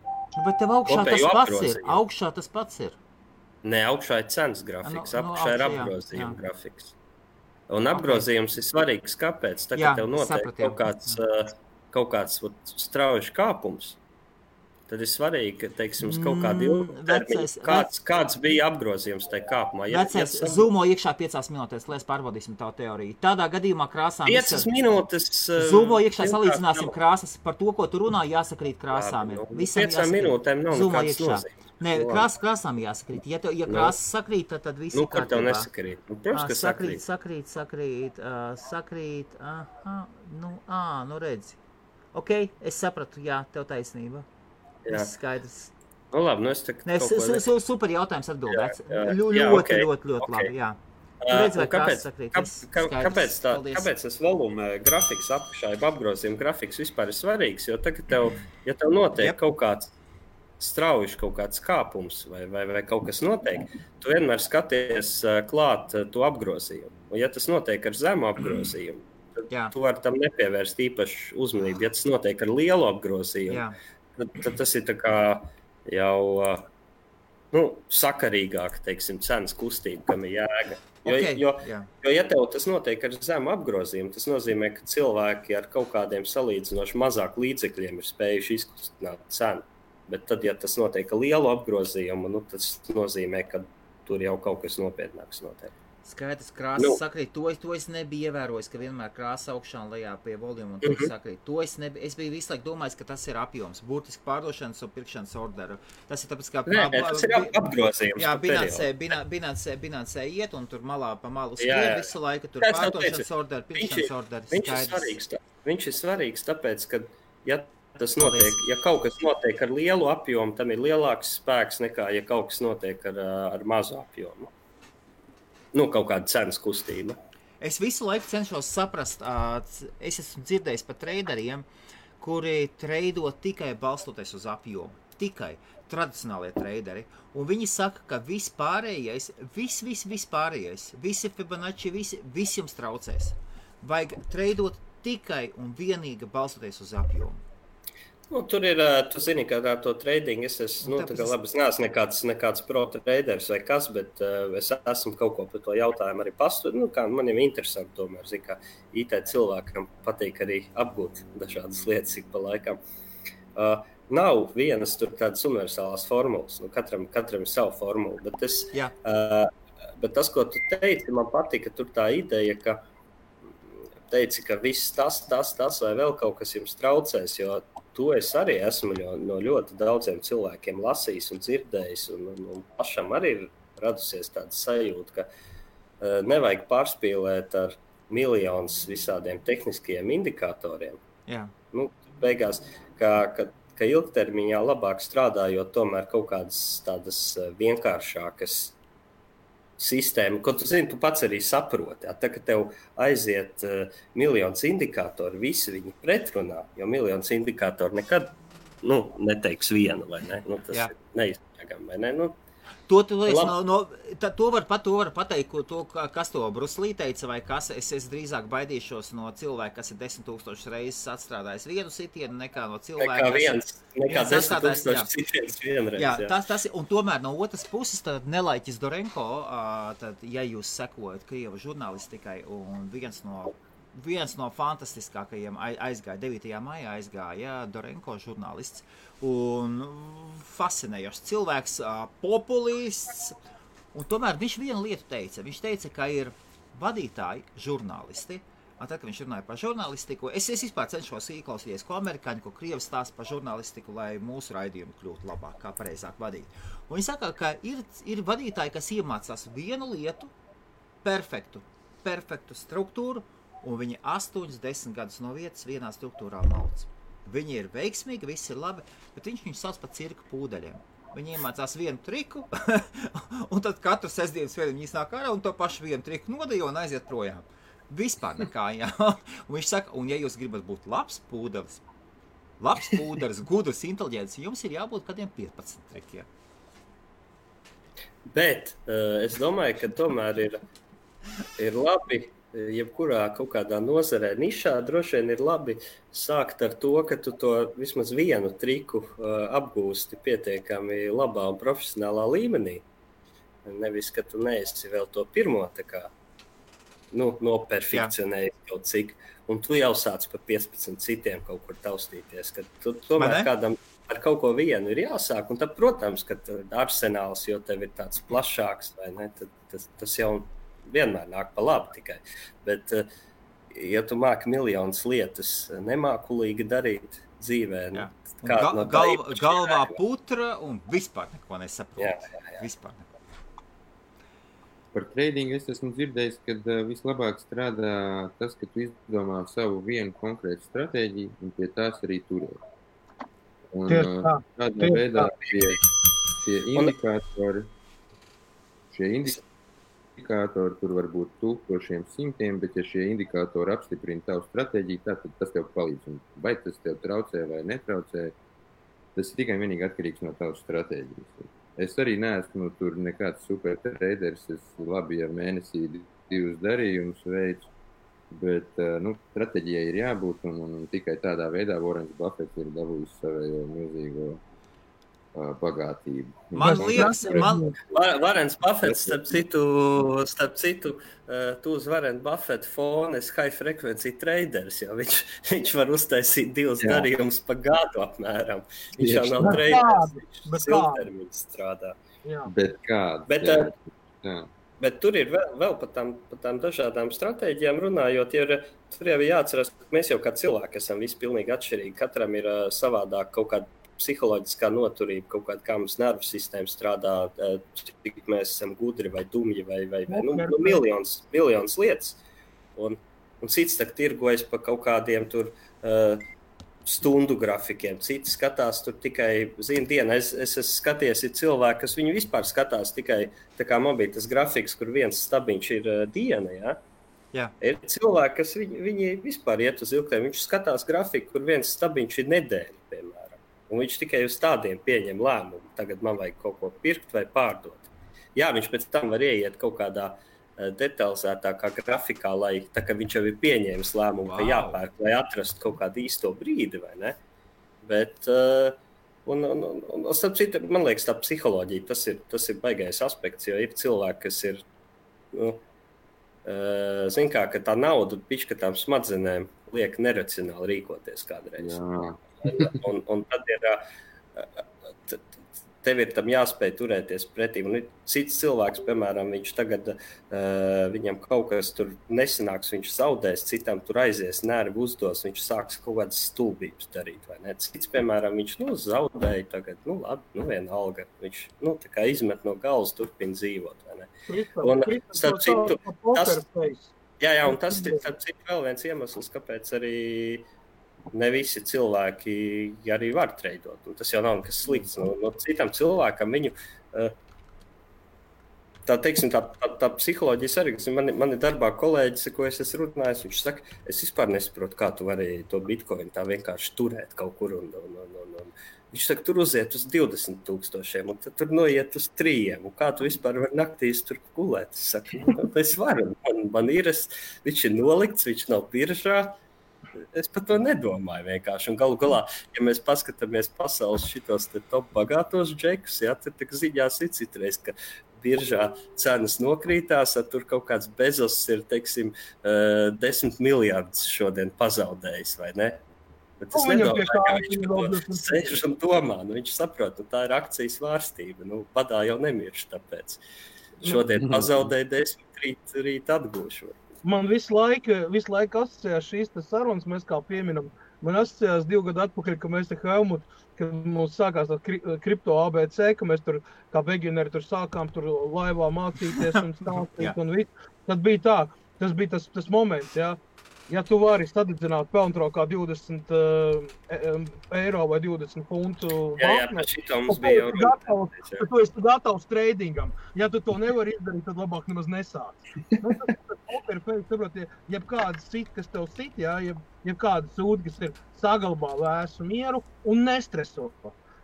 Bet tev augšā tas pats ir. Nē, augšā ir cenas grafiks, apakšā ir apgrozījuma grafiks. Un apgrozījums ir svarīgs, kāpēc? Tagad tev notiek kaut kāds strauji kāpums. Tad ir svarīgi, ka, teiksim, kaut kādi ilgtermiņi, kāds bija apgrozījums tajā kāpumā. Vecais, zoomo iekšā 5 minūtēs, lai pārbaudīsim tavu teoriju. Tādā gadījumā krāsām... 5 minūtes... Zoomo iekšā salīdzināsim krāsas. Par to, ko tu runā, jāsakrīt krāsām. 5 minūtēm nav nekāds nozīmes. Nē, krāsām jāsakrīt. Ja krāsas sakrīt, tad viss ir kārtībā. Kur tev nesakrīt? Protams, ka sakrīt. Nu redzi. Ok, es sapratu, jā, tev taisnība. Viss skaidrs. Nu labi, es tev super jautājums atbildēts. Ļoti labi, jā. Kāpēc tas voluma grafiks apakšā, apgrozījuma grafiks vispār ir svarīgs? Jo tagad ja tev notiek kaut kāds strauji kaut kāds kāpums vai kaut kas notiek, tu vienmēr skaties klāt to apgrozījumu. Un ja tas notiek ar zemu apgrozījumu, tad tu vari tam nepievērst īpašu uzmanību. Ja tas notiek ar lielu apgrozījumu, tad tas ir tā kā jau sakarīgāk, teiksim, cenas kustība, kam ir jēga. Jo ja tev tas notiek ar zemu apgrozījumu, tas nozīmē, ka cilvēki ar kaut kādiem salīdzinoši mazāk līdzekļiem ir spējuši izkustināt cenu. Bet tad, ja tas notiek ar lielu apgrozījumu, tas nozīmē, ka tur jau kaut kas nopietnāks notiek. Skaidrs, krāsas sakrīt. To es nebiju ievērojis, ka vienmēr krāsa augšā un lejā pie voluma un tur sakrīt. Es biju visu laiku domājis, ka tas ir apjoms. Burtiski pārdošanas un pirkšanas orderu. Tas ir tāpēc, kā... tas ir apgrozījums. Jā, Binancē iet un tur malā pa malu skrien visu laiku. Tur pārdošanas orderu, pirkšanas orderu. Viņš ir svarīgs, tāpēc, ka tas notiek, ja kaut kas notiek ar lielu apjomu, tam ir lielāks spēks nekā, ja kaut kas notiek ar mazu apjomu. Kaut kāda cenas kustība. Es visu laiku cenšos saprast, es esmu dzirdējis par traderiem, kuri treido tikai balstoties uz apjomu. Tikai tradicionālie traderi. Un viņi saka, ka vispārējais, visi Fibonacci, visi jums traucēs. Vajag treidot tikai un vienīgi balstoties uz apjomu. Tur ir, tu zini, ka ar to tradingu es esmu, labi, es neesmu nekāds pro traders vai kas, bet es esmu kaut ko par to jautājumu arī pastudējis. Kā man ir interesanti tomēr, kā IT cilvēkam patīk arī apgūt dažādas lietas ik pa laikam. Nav vienas tur tādas universālās formulas, katram ir sava formula, bet tas, ko tu teici, man patika tur tā ideja, ka teici, ka viss tas vai vēl kaut kas jums traucēs, jo to es arī esmu no ļoti daudziem cilvēkiem lasījis un dzirdējis, un pašam arī ir radusies tāda sajūta, ka nevajag pārspīlēt ar miljonus visādiem tehniskiem indikatoriem. Jā. Beigās, ka ilgtermiņā labāk strādājot tomēr kaut kādas tādas vienkāršākas sistēma, ko tu zini, tu pats arī saproti. Tā, ka tev aiziet miljonus indikātori, visi viņi pretrunā, jo miljonus indikātori nekad neteiks vienu, vai ne? Tas ir neizbēgami, vai ne? To var pateikt, kas to Bruslī teica, vai kas. Es drīzāk baidīšos no cilvēka, kas ir 10 000 reizes atstrādājis vienu sitienu, nekā no cilvēka, nekā 10 000 sitienas vienreiz. Jā, tas ir, un tomēr no otras puses, tad Nelaiķis Dorenko, tad, ja jūs sekojat Krievu žurnālistikai, un viens no fantastiskākajiem aizgāja, 9. maijā aizgāja Dorenko žurnālists, un fascinējošs cilvēks, populists, un tomēr viņš vienu lietu teica. Viņš teica, ka ir vadītāji, žurnālisti, Tad, kad viņš runāja par žurnālistiku, es vispār cenšos ieklausīties, ko amerikāņi, ko krievi stāsta par žurnālistiku, lai mūsu raidījumu kļūtu labāk, kā pareizāk vadīt. Un viņi saka, ka ir vadītāji, kas iemācās vienu lietu, perfektu struktūru, un viņi 8-10 gadus no vietas vienā struktūrā mauc. Viņi ir veiksmīgi, viss ir labi, bet viņš sauc par cirka pūdeļiem. Viņi iemācās vienu triku, un tad katru sestdienas vēl viņi iznāk ārā un to pašu vienu triku nodejo un aiziet projām. Vispār nekā, jā. Un viņš saka, un ja jūs gribat būt labs pūdelis, gudrs, inteliģents, jums ir jābūt kādiem 15 trikiem. Bet es domāju, ka tomēr ir labi, jebkurā kaut kādā nozarē nišā droši vien ir labi sākt ar to, ka tu to vismaz vienu triku apgūsti pietiekami labā un profesionālā līmenī. Nevis, ka tu neesi vēl to pirmo tā kā noperfekcionējis kaut cik, un tu jau sāc pa 15 citiem kaut kur taustīties, ka tu tomēr kādam ar kaut ko vienu ir jāsāk, un tad, protams, ka arsenāls, jo tev ir tāds plašāks, vai ne, tad tas jau vienmēr nāk pa labi tikai. Bet, ja tu māki miljonas lietas nemākulīgi darīt dzīvē, galvā putra un vispār neko nesaprot. Vispār neko. Par tradingu es esmu dzirdējis, ka vislabāk strādā tas, ka tu izdomā savu vienu konkrētu stratēģiju un pie tās arī turēt. Un tādā veidā šie indikātori, tur var būt tūkstošiem simtiem, bet ja šie indikātori apstiprina tavu stratēģiju, tad tas tev palīdz. Un vai tas tev traucē vai netraucē, tas ir tikai vienīgi atkarīgs no tavas stratēģijas. Es arī neesmu tur nekāds super traders, es labi ar mēnesī 2 darījumus veicu, bet stratēģijai ir jābūt un tikai tādā veidā Warrens Buffets ir dabūjis savējo milzīgo bagātību. Man liekas, Warrens Buffets, starp citu, tu uz Warren Buffett fona esi high frequency traders, jo viņš var uztaisīt 2 darījumus pa gadu apmēram. Viņš jau nav traders, viņš ilgtermiņš strādā. Bet kāds? Bet tur ir vēl par tām dažādām stratēģijām runājot, tur jau jāatcerās, ka mēs jau kā cilvēki esam visi pilnīgi atšķirīgi. Katram ir savādāk kaut kāda psiholoģiskā noturība, kaut kāda, kā mums nervu sistēma strādā, cik mēs esam gudri vai dumji vai miljonas lietas. Un cits tak tirgojas pa kaut kādiem tur stundu grafikiem, citi skatās tur tikai dienu. Es esmu skaties, ir cilvēki, kas viņu vispār skatās tikai, tā kā man bija tas grafiks, kur viens stabiņš ir diena, ja? Jā. Ir cilvēki, kas viņi vispār iet uz ilgtermiņu, viņš skatās grafiku, kur viens stabiņš ir nedēļa, piemēram. Un viņš tikai uz tādiem pieņem lēmumu. Tagad man vajag kaut ko pirkt vai pārdot. Jā, viņš pēc tam var ieiet kaut kādā detalizētākā grafikā, lai tā kā viņš jau ir pieņēmis lēmumu, ka jāpērk, lai atrastu kaut kādu īsto brīdi, vai ne? Bet, un starp citu, man liekas, tā psiholoģija, tas ir baigais aspekts, jo ir cilvēki, kas ir, zin kā, ka tā nauda pišķi, ka tām smadzenēm liek neracionāli rīkoties kādreiz. Jā. Un tad tev ir tam jāspēj turēties pretī. Un cits cilvēks, piemēram, viņš tagad, viņam kaut kas tur nesanāks, viņš zaudēs, citam tur aizies, nervi uzdos, viņš sāks kaut kādas stulbības darīt, vai ne? Cits, piemēram, viņš zaudēja tagad, labi, vienalga, viņš tā kā izmet no galvas, turpina dzīvot, vai ne? Un starp citu, un tas ir starp citu vēl viens iemesls, kāpēc arī ne visi cilvēki arī var treidot. Un tas jau nav nekas slikts. No citam cilvēkam viņu, tā psiholoģijas arī, man ir darbā kolēģis, ko es esmu runājis, viņš saka, es vispār nesaprotu, kā tu varēji to bitcoin tā vienkārši turēt kaut kur. Un viņš saka, tur uziet uz 20,000, un tad tur noiet uz 3, un kā tu vispār vari naktīs tur gulēt? Es saku, es varu, man ir, viņš ir nolikts, viņš nav biržā. Es par to nedomāju vienkārši. Un galu galā, ja mēs paskatāmies pasaules šitos top bagātos džekus, tad tā ziņās ir citreiz, ka biržā cenas nokrītās, tur kaut kāds Bezos ir, 10 miljardus šodien pazaudējis, vai ne? Bet es nedomāju, ka viņš to sēž un domā. Viņš saprot, tā ir akcijas vārstība. Badā jau nemirš, tāpēc šodien pazaudēja 10, rīt atgūšu. man visu laiku asociējās šīs sarunas, mēs kā pieminam. Man asociējās 2 gadu atpakaļ, ka mēs te Helmut, kad mums sākās tā kripto ABC, ka mēs tur kā begineri tur sākām tur laivā mācīties un stāstīt un visu. Tad bija tā, tas bija tas moments, jā. Ja tu vari sadedzināt pelntrokā 20 eiro vai 20 funtu Jā, šitā mums bija jau gatavs, tad tu esi gatavs tradingam. Ja tu to nevari izdarīt, tad labāk nemaz nesāc. Jebkāda sit, kas tev sit, jā, jebkāda sūda, kas ir saglabā vēsu mieru un nestreso.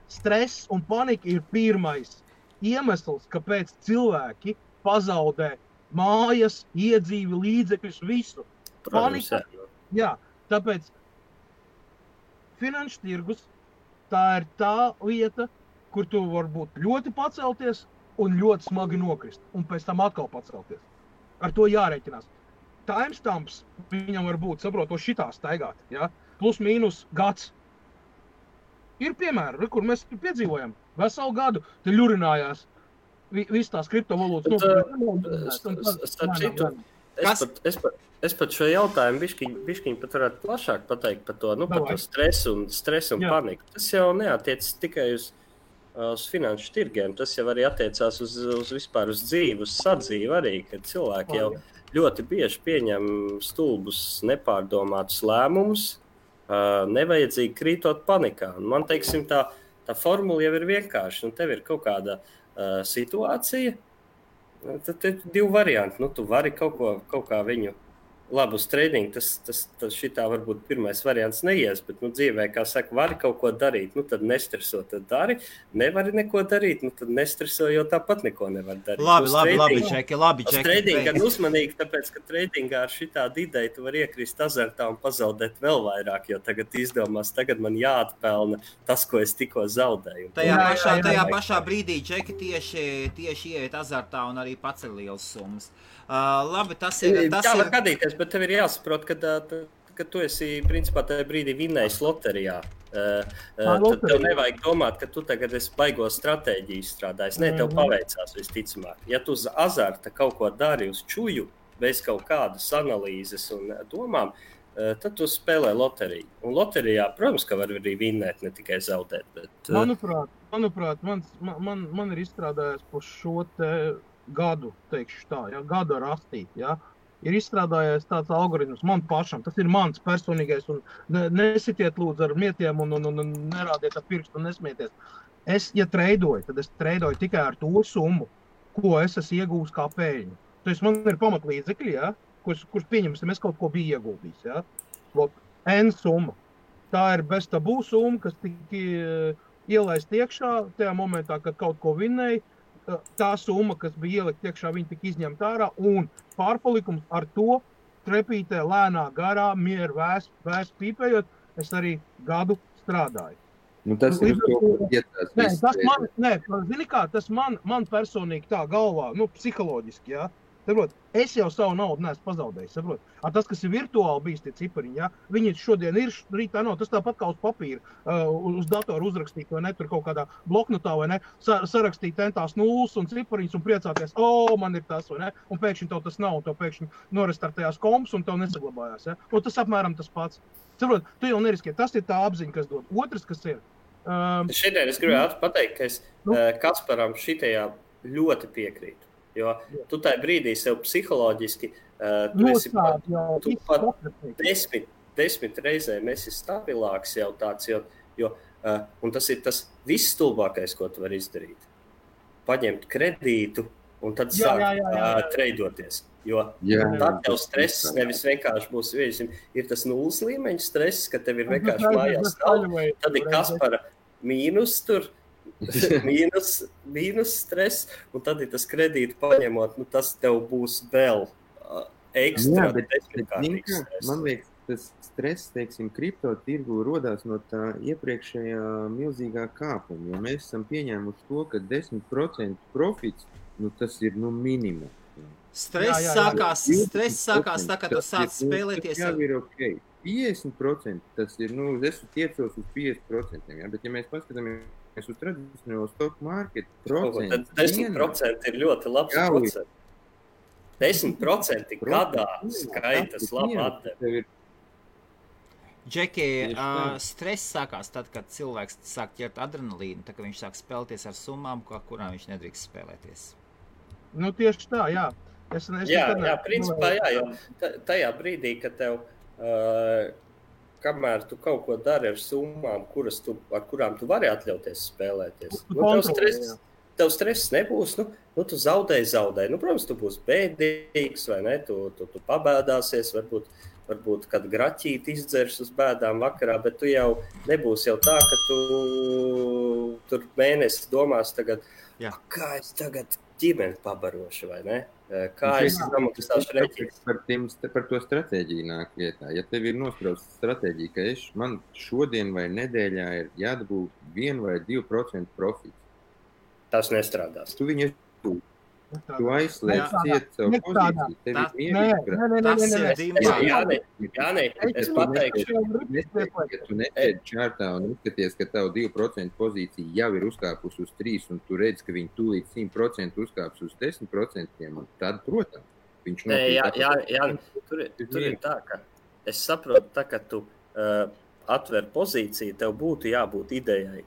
Stress un panika ir pirmais iemesls, kāpēc cilvēki pazaudē mājas, iedzīvi, līdzekļus, visu. Panika, jā, tāpēc finanšu tirgus tā ir tā lieta, kur tu var būt ļoti pacelties un ļoti smagi nokrist, un pēc tam atkal pacelties. Ar to jārēķinās. Timestamps viņam var būt, saproto, šitā staigāt, ja? Plus mīnus gads. Ir piemēri, kur mēs piedzīvojam veselu gadu, te ļurinājās viss tās kriptovalūtas. Es pat šo jautājumu bišķiņ pat varētu plašāk pateikt par to, par to stresu un paniku. Tas jau neatiecas tikai uz finanšu tirgiem, tas jau arī attiecās uz vispār uz dzīvi, uz sadzīvi arī, kad cilvēki jau ļoti bieži pieņem stulbus, nepārdomātus lēmumus, nevajadzīgi krītot panikā. Un man, teiksim, tā formula jau ir vienkārši, tev ir kaut kāda situācija, tad ir 2 varianti, tu vari kaut kā viņu labi uz trading, tas šitā varbūt pirmais variants neies, bet dzīvē, kā saka, vari kaut ko darīt, tad nestreso, tad dari, nevari neko darīt, tad nestreso, jo tāpat neko nevar darīt. Labi, Čeki. Trading gan uzmanīgi, tāpēc, ka tradingā ar šitādu ideju tu var iekrist azartā un pazaudēt vēl vairāk, jo tagad izdomās, tagad man jāatpelna tas, ko es tikko zaudēju. Tajā pašā brīdī Čeki tieši ieiet azartā un arī paceļ lielas summas. Labi, tas ir... Tā var gadīties, bet tev ir jāsaprot, ka tu esi, principā, tajā brīdī vinnējis loterijā. Tad tev nevajag domāt, ka tu tagad esi baigo stratēģiju strādājis. Nē, tev paveicās visticamāk. Ja tu uz azarta kaut ko dari uz čuju, bez kaut kādas analīzes un domām, tad tu spēlē loteriju. Un loterijā, protams, ka var arī vinnēt, ne tikai zaudēt. Bet... Manuprāt, man ir izstrādājies par šo te gadu, teikšu tā, ja, gada rastīt, ja, ir izstrādājies tāds algoritms man pašam, tas ir mans personīgais, un nesitiet lūdzu ar mietiem un nerādiet ar pirkstu un nesmieties. Ja treidoju, tad es treidoju tikai ar to summu, ko es esmu iegūs kā pēļņu. Tas man ir pamatlīdzekļi, ja, kurš pieņemsim, es kaut ko biju ieguldījis, ja. N summa. Tā ir bez tabū summa, kas tika ielaist iekšā tajā momentā, kad kaut ko vinnēja. Tā summa, kas bija ielikt iekšā, viņa tika izņemta ārā, un pārpalikums ar to trepītē lēnā garā, mieru vēs pīpējot, es arī gadu strādāju. Tas ir tas man personīgi tā galvā, psiholoģiski, jā. Saprot, es jau savu naudu neesmu pazaudējis, saprot. Tas, kas ir virtuāli bijis tie cipariņi, ja, viņi šodien ir, rītā nav, tas tāpat kā uz papīra, uz datoru uzrakstīt, vai ne, tur kaut kādā bloknotā, vai ne, sarakstīt tentās nulles un cipariņus un priecāties, man ir tas, vai ne, un pēkšņi tev tas nav, un tev pēkšņi norestartējās komps un tev nesaglabājās, ja. Tas apmēram tas pats. Saprot, tu jau neriskiet, tas ir tā apziņa, kas dod. Otrs, kas ir. Šodien es gribētu pateikt, ka es Kasparam šitajā ļoti piekrītu. Jo tu tajā brīdī sev psiholoģiski tu pat 10 reizēm esi stabilāks jau tāds, un tas ir tas viss stulbākais, ko tu vari izdarīt. Paņemt kredītu un tad sākt treidoties. Jo tad tev stress nevis vienkārši būs, ir tas nulles līmeņa stress, ka tev ir vienkārši mājās stāv, tad ir Kaspara mīnus tur, mīnus stress, un tad ir tas kredītu paņemot, tas tev būs vēl ekstra desmitkārtīgs stress. Man liekas, tas stress, teiksim, kripto tirgu rodās no tā iepriekšējā milzīgā kāpuma, jo mēs esam pieņēmuši to, ka 10% profits, tas ir minimums. Stress sākās tā, ka tu sāc spēlēties. Jā, ir ok. 50% tas ir, es tiecos uz 50%, ja? Bet ja mēs paskatāmies uz tradicionālo stock market procentu. Tad 10% ir ļoti labs procents. 10% gadā skaitas labi atdevi. Džeki, stress sākās tad, kad cilvēks sāk ķert adrenalīnu, tad, kad viņš sāk spēlēties ar summām, kurām viņš nedrīkst spēlēties. Nu, tieši tā, jā. Jā, principā, jā, jo tajā brīdī, kad tev, kamēr tu kaut ko dari ar summām, ar kurām tu vari atļauties spēlēties, tev stress nebūs, tu zaudēji. Protams, tu būsi bēdīgs, vai ne, tu pabēdāsies, varbūt kad graķīti izdzers uz bēdām vakarā, bet tu jau nebūsi jau tā, ka tu tur mēnesi domās tagad, kā es tagad ģimeni pabarošu, vai ne? Kā es samaksāšu reķis? Par to stratēģiju nāk lietā. Ja tev ir nosprausta stratēģija, ka man šodien vai nedēļā ir jādabū 1 vai 2% profits. Tas nestrādās. Tu viņu tu aizslēdz ciet savu pozīciju. Tev ir mierīgi. Jānē, es pateikšu. Ja tu netēdi čārtā un uzskaties, ka tavu 2% pozīcija jau ir uzkāpus uz 3 un tu redz, ka viņi tūlīt 100% uzkāps uz 10%, tad, protams, viņš tur ir tā, ka es saprotu, tā, ka tu atver pozīciju, tev būtu jābūt idejai,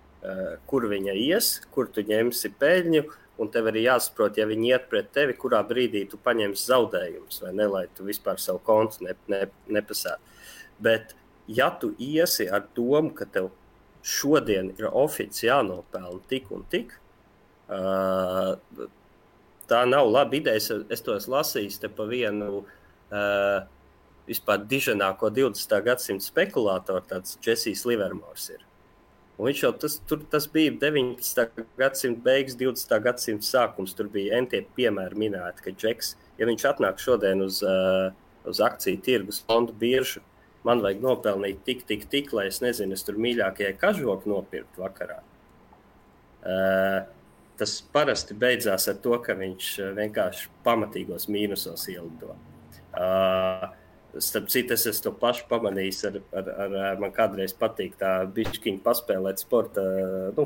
kur viņa ies, kur tu ņemsi peļņu, un tev arī jāsaprot, ja viņi iet pret tevi, kurā brīdī tu paņemsi zaudējumus, vai ne, lai tu vispār savu kontu nepasētu. Bet, ja tu iesi ar domu, ka tev šodien ir ofici jānopelna tik un tik, tā nav laba ideja. Es to esmu lasījis te pa vienu vispār diženāko 20. gadsimta spekulātoru, tāds Jessijs Livermors ir. Un viņš jau tas bija 19. gadsimta beigas, 20. gadsimta sākums. Tur bija entie piemēri minēti, ka Džeks, ja viņš atnāk šodien uz akciju tirgus fondu biržu, man vajag nopelnīt tik, lai es nezinu, es tur mīļākajai kažoku nopirkt vakarā. Tas parasti beidzās ar to, ka viņš vienkārši pamatīgos mīnusos ielido. Starp citu, es to pašu pamanījis, man kādreiz patīk tā bišķiņi paspēlēt sporta,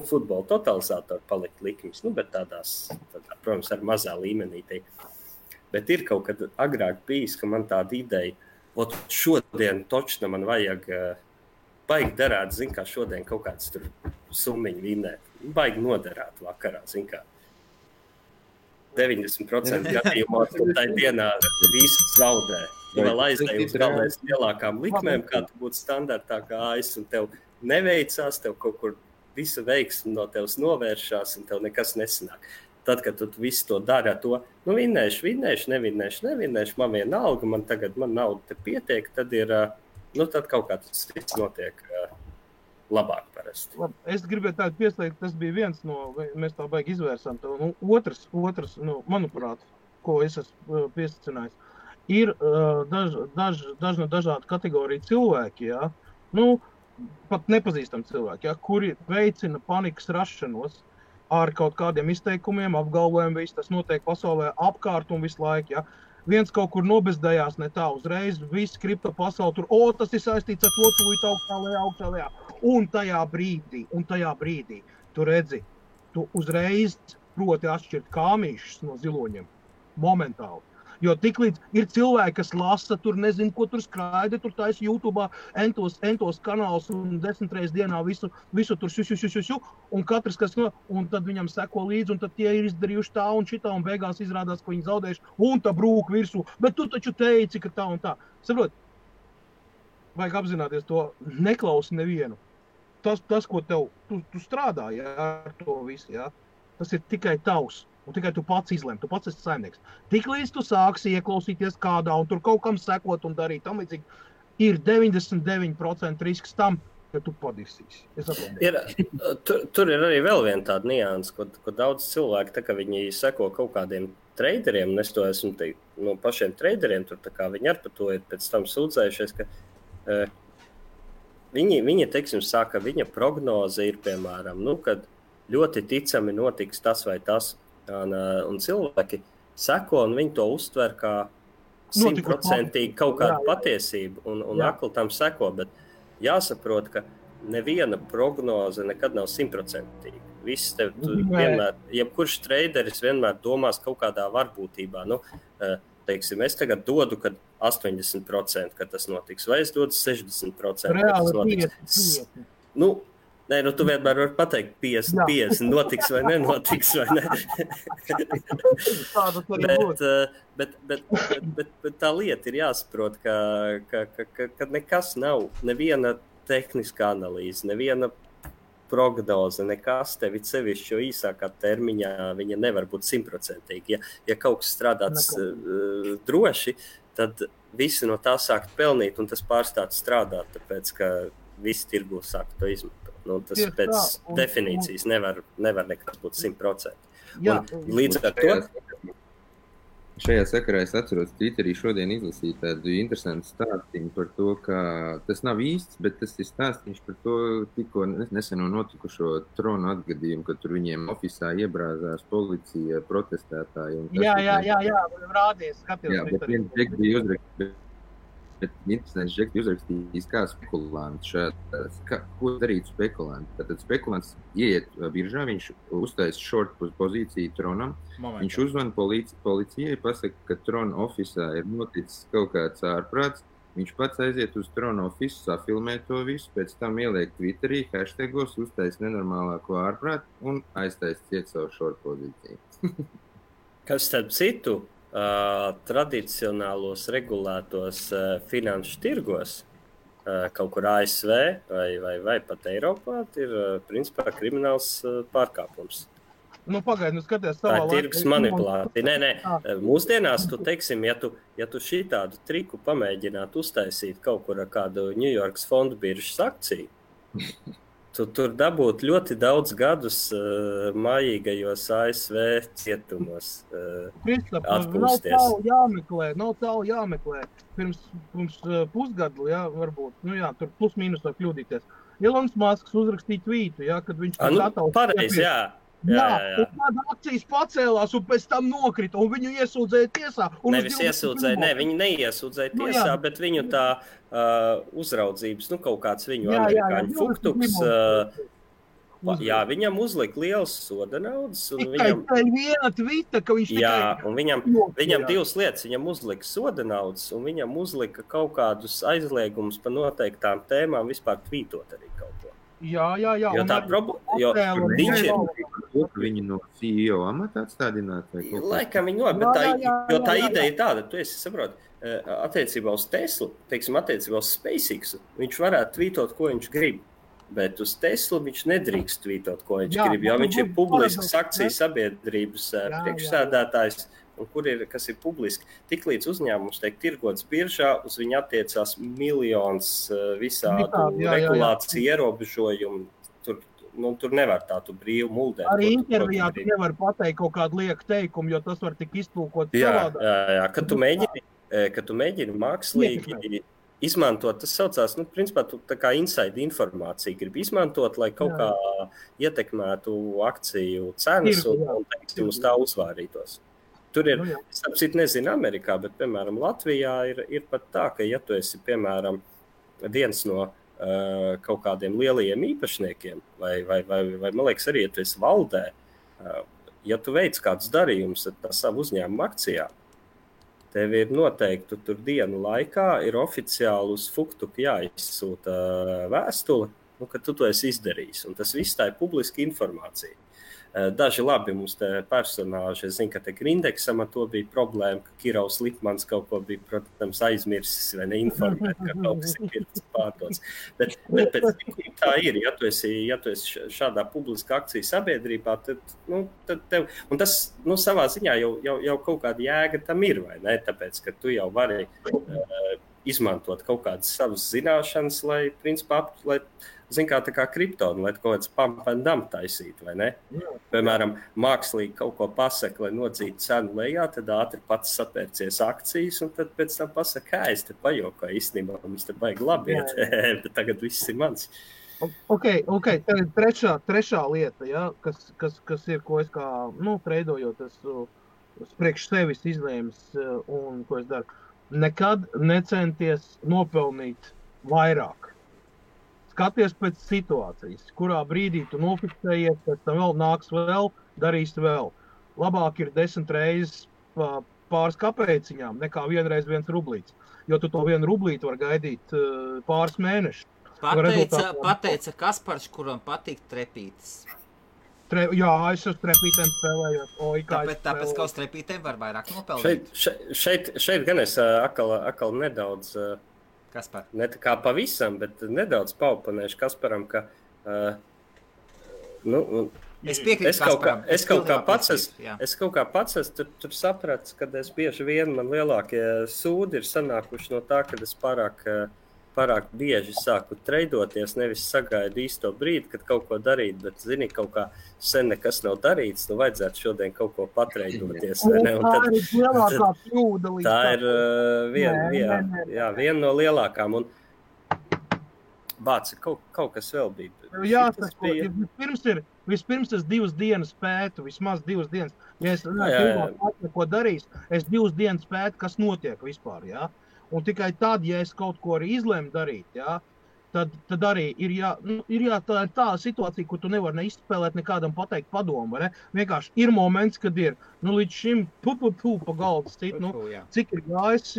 futbola totalizātoru palikt likmes, bet tādā, protams, ar mazā līmenī. Bet ir kaut kad agrāk bijis, ka man tāda ideja, šodien točna man vajag baigi derēt, kā šodien kaut kāds tur summiņu vinnēt. Baigi noderēt vakarā, kā 90% gadījumā tajā dienā visu zaudē. Ja vēl aizdeju uz galvenais lielākām likmēm, kā tu būtu standartā gājis, un tev neveicās, tev kaut kur visa veiksme no tevs novēršās, un tev nekas nesanāk. Tad, kad tu visu to dari ar to, vinnēšu, nevinnēšu, man vienalga, man nauda te pietiek, tad ir, tad kaut kā tas cits notiek labāk parasti. Es gribēju tādu pieslēgt, tas bija viens no, mēs tā baigi izvērsām, otrs, manuprāt, ko es esmu piesacinājis. Ir dažādu kategoriju cilvēki, pat nepazīstami cilvēki, kuri veicina panikas rašanos ar kaut kādiem izteikumiem, apgalvojumiem, viss tas notiek pasaulē apkārt un visu laiku. Viens kaut kur nobezdējās ne tā uzreiz, viss kripto pasauli tur, tas ir saistīts ar to tūlīt augstā lejā. Un tajā brīdī, tu redzi, tu uzreiz proti atšķirt kāmīšus no ziloņiem, momentāli. Jo tiklīdz ir cilvēki, kas lasa, tur nezinu, ko tur skraida, tur taisa YouTube'ā entos kanāls un 10 reizes dienā visu tur šu, un katrs, un tad viņam seko līdzi, un tad tie ir izdarījuši tā un šitā, un beigās izrādās, ka viņi zaudējuši, un tā brūk virsū, bet tu taču teici, ka tā un tā. Saprot, vajag apzināties to, neklausi nevienu. Tas ko tu strādā, ar to visu, tas ir tikai tavs. Un tikai tu pats izlem, tu pats esi saimnieks. Tiklīdz tu sāksi ieklausīties kādā un tur kaut kam sekot un darīt tam līdzīgi, ir 99% risks tam, ka tu padirsīsi. Tur ir arī vēl viena tāda nianses, ko daudz cilvēki, tā kā viņi seko kaut kādiem traderiem, un es to esmu no pašiem traderiem, tur tā kā viņi ar par to ir pēc tam sūdzējušies, ka viņi teiksim, saka, viņa prognoze ir, piemēram, kad ļoti ticami notiks tas vai tas, un cilvēki seko, un viņi to uztver kā 100% kaut kādu patiesību, un akli tam seko, bet jāsaprot, ka neviena prognoze nekad nav 100%. Viss vienmēr, jebkurš traderis vienmēr domās kaut kādā varbūtībā. teiksim, es tagad dodu, kad 80%, kad tas notiks, vai es dodu 60%, Reāli kad tas notiks. Nē, tu vienmēr vari pateikt 50, notiks vai nenotiks, vai ne? bet tā lieta ir jāsaprot, ka nekas nav, neviena tehniskā analīze, neviena prognoze, nekas tevi sevišķi, jo īsākā termiņā viņa nevar būt 100%. Ja kaut kas strādāts droši, tad visi no tā sākt pelnīt, un tas pārstāt strādāt, tāpēc, ka visi tirgu sāk to izmantot. Tas pēc definīcijas nevar nekas būt 100%. Līdz ar to... Šajā sakarā es atceros, Twitterī šodien izlasīju tādu interesantu stāstījumu par to, ka tas nav īsts, bet tas ir stāstīns par to tikko neseno notikušo tronu atgadījumu, kad tur viņiem ofisā iebrāzās policija, protestētāji. Jā, rādījis, skatījos. Jā, bet viens džeks bija uzrakstījis. Bet interesants džeks bija uzrakstījis kā spekulants ko darīt spekulanti. Tātad spekulants ieiet biržā, viņš uztais short pozīciju tronam, viņš uzvana policijai, pasaka, ka trona ofisā ir noticis kaut kāds ārprāts, viņš pats aiziet uz trona ofisu, safilmē to visu, pēc tam ieliek Twitterī, hashtagos, uztais nenormālāko ārprātu un aiztais ciet savu short pozīciju. Kas starp citu? Tradicionālos regulētos finanšu tirgos, kaut kur ASV vai pat Eiropā, ir principā krimināls pārkāpums. Pagaidi, skaties savā laikā. Tā ir tirgus manipulācija. Nē. Mūsdienās, teiksim, ja tu šī tādu triku pamēģinātu uztaisīt kaut kur ar kādu New Yorkas fondu biržas akciju, tu tur dabūt ļoti daudz gadus mājīgajos ASV cietumos atpūsties. Nav tālu jāmeklē. Pirms pusgadu, varbūt, tur plus mīnus var kļūdīties. Elons Musks uzrakstīja tvītu, kad viņš pareizi, jā. Un tāda akcijas pacēlās un pēc tam nokrita, un viņu iesūdzēja tiesā. Nevis iesūdzēja, viņi neiesūdzēja tiesā, bet viņu tā uzraudzības, kaut kāds viņu amerikāņu fuktuks, viņam uzlika liels soda naudas. Tikai viena tvita, ka viņš tikai... Jā, un viņam divas lietas, viņam uzlika soda naudas, un viņam uzlika kaut kādus aizliegumus par noteiktām tēmām vispār tvītot arī kaut ko. Jā. Jo tā problēma, Viņu no CEO amata atstādināt? Laikam viņi jo tā ideja ir tāda, tu esi saproti, attiecībā uz Teslu, teiksim, attiecībā uz SpaceX, viņš varētu tvītot, ko viņš grib, bet uz Teslu viņš nedrīkst tvītot, ko viņš grib, jo viņš ir publisks akciju sabiedrības priekšsēdētājs, un kas ir publiski. Tiklīdz uzņēmums tiek tirgots biržā, uz viņu attiecās miljons visādu regulāciju ierobežojumu. Tur nevar tādu brīvu muldēt. Arī intervijā tu nevar pateikt kaut kādu lieku teikumu, jo tas var tik iztulkot savādāk. Jā, kad tu mēģini mākslīgi izmantot, tas saucās, principā tu tā kā inside informāciju grib izmantot, lai kaut kā ietekmētu akciju cenas un teiksim, uz tā uzvārītos. Tur ir, es apcīt nezinu Amerikā, bet, piemēram, Latvijā ir pat tā, ka, ja tu esi, piemēram, viens no kaut kādiem lielajiem īpašniekiem, vai man liekas arī, ja tu esi valdē, ja tu veic kādus darījumus ar tā savu uzņēmumu akcijā, tev ir noteikti tur dienu laikā ir oficiāli uz Fuktuku jāizsūta vēstule, ka tu to esi izdarījis, un tas viss tā ir publiska informācija. Daži labi mums te personāži, es zinu, ka te Grindeksam ar to bija problēma, ka Kirovs Lipmans kaut ko bija, protams, aizmirsis vai neinformēt, ka kaut kas ir pārdots. Bet tā ir, ja tu esi šādā publiska akcija sabiedrībā, tad tev, un tas, savā ziņā jau kaut kāda jēga tam ir, vai ne? Tāpēc, ka tu jau vari izmantot kaut kādas savas zināšanas, lai, principā, tā kā kriptonu, lai kaut kāds pump and dump taisītu, vai ne? Piemēram, mākslīgi kaut ko pasaka, lai nodzītu cenu lejā, tad ātri pats sapērcies akcijas, un tad pēc tam pasaka, es te pajokoju, īstenībā mums te baigi labi iet, bet tagad viss ir mans. Ok, tad ir trešā lieta, kas ir, ko es kā, treidojot, es priekš sevis izlēmis, un ko es daru. Nekad necenties nopelnīt vairāk. Skaties pēc situācijas, kurā brīdī tu nofiksējies, pēc tam vēl nāks vēl, darīs vēl. Labāk ir 10 reizes pāris kapēciņām, nekā vienreiz 1 rublīts. Jo tu to 1 rublīti var gaidīt pāris mēnešus. Pateica Kaspars, kuram patīk trepītes. Jā, es uz trepītēm spēlējot. Tāpēc, ka uz trepītēm var vairāk nopelnīt. Šeit gan es akal nedaudz, Kaspar? Ne tā kā pavisam, bet nedaudz paupanēšu Kasparam, ka, es piekrītu Kasparam. Es kaut kā pats tur sapratu, kad es bieži vien man lielākie sūdi ir sanākuši no tā, kad es pārāk bieži sāku treidoties, nevis sagaidu īsto brīdi, kad kaut ko darīt, bet, zini, kaut kā sen nekas nav darīts, vajadzētu šodien kaut ko patreidoties. Tā ir lielākā kļūda. Tā ir viena no lielākām. Un Bāci, kaut kas vēl bija. Jāsaka, vispirms es 2 dienas pētu, vismaz 2 dienas. Ja es ko darīs, es 2 dienas pētu, kas notiek vispār, jā. Un tikai tad, ja es kaut ko arī izlēmu darīt, jā, tad arī ir tā situācija, kur tu nevar neizspēlēt nekādam pateikt padomu, vai ne? Vienkārši ir moments, kad ir, līdz šim pa galdu cit, cik ir gājis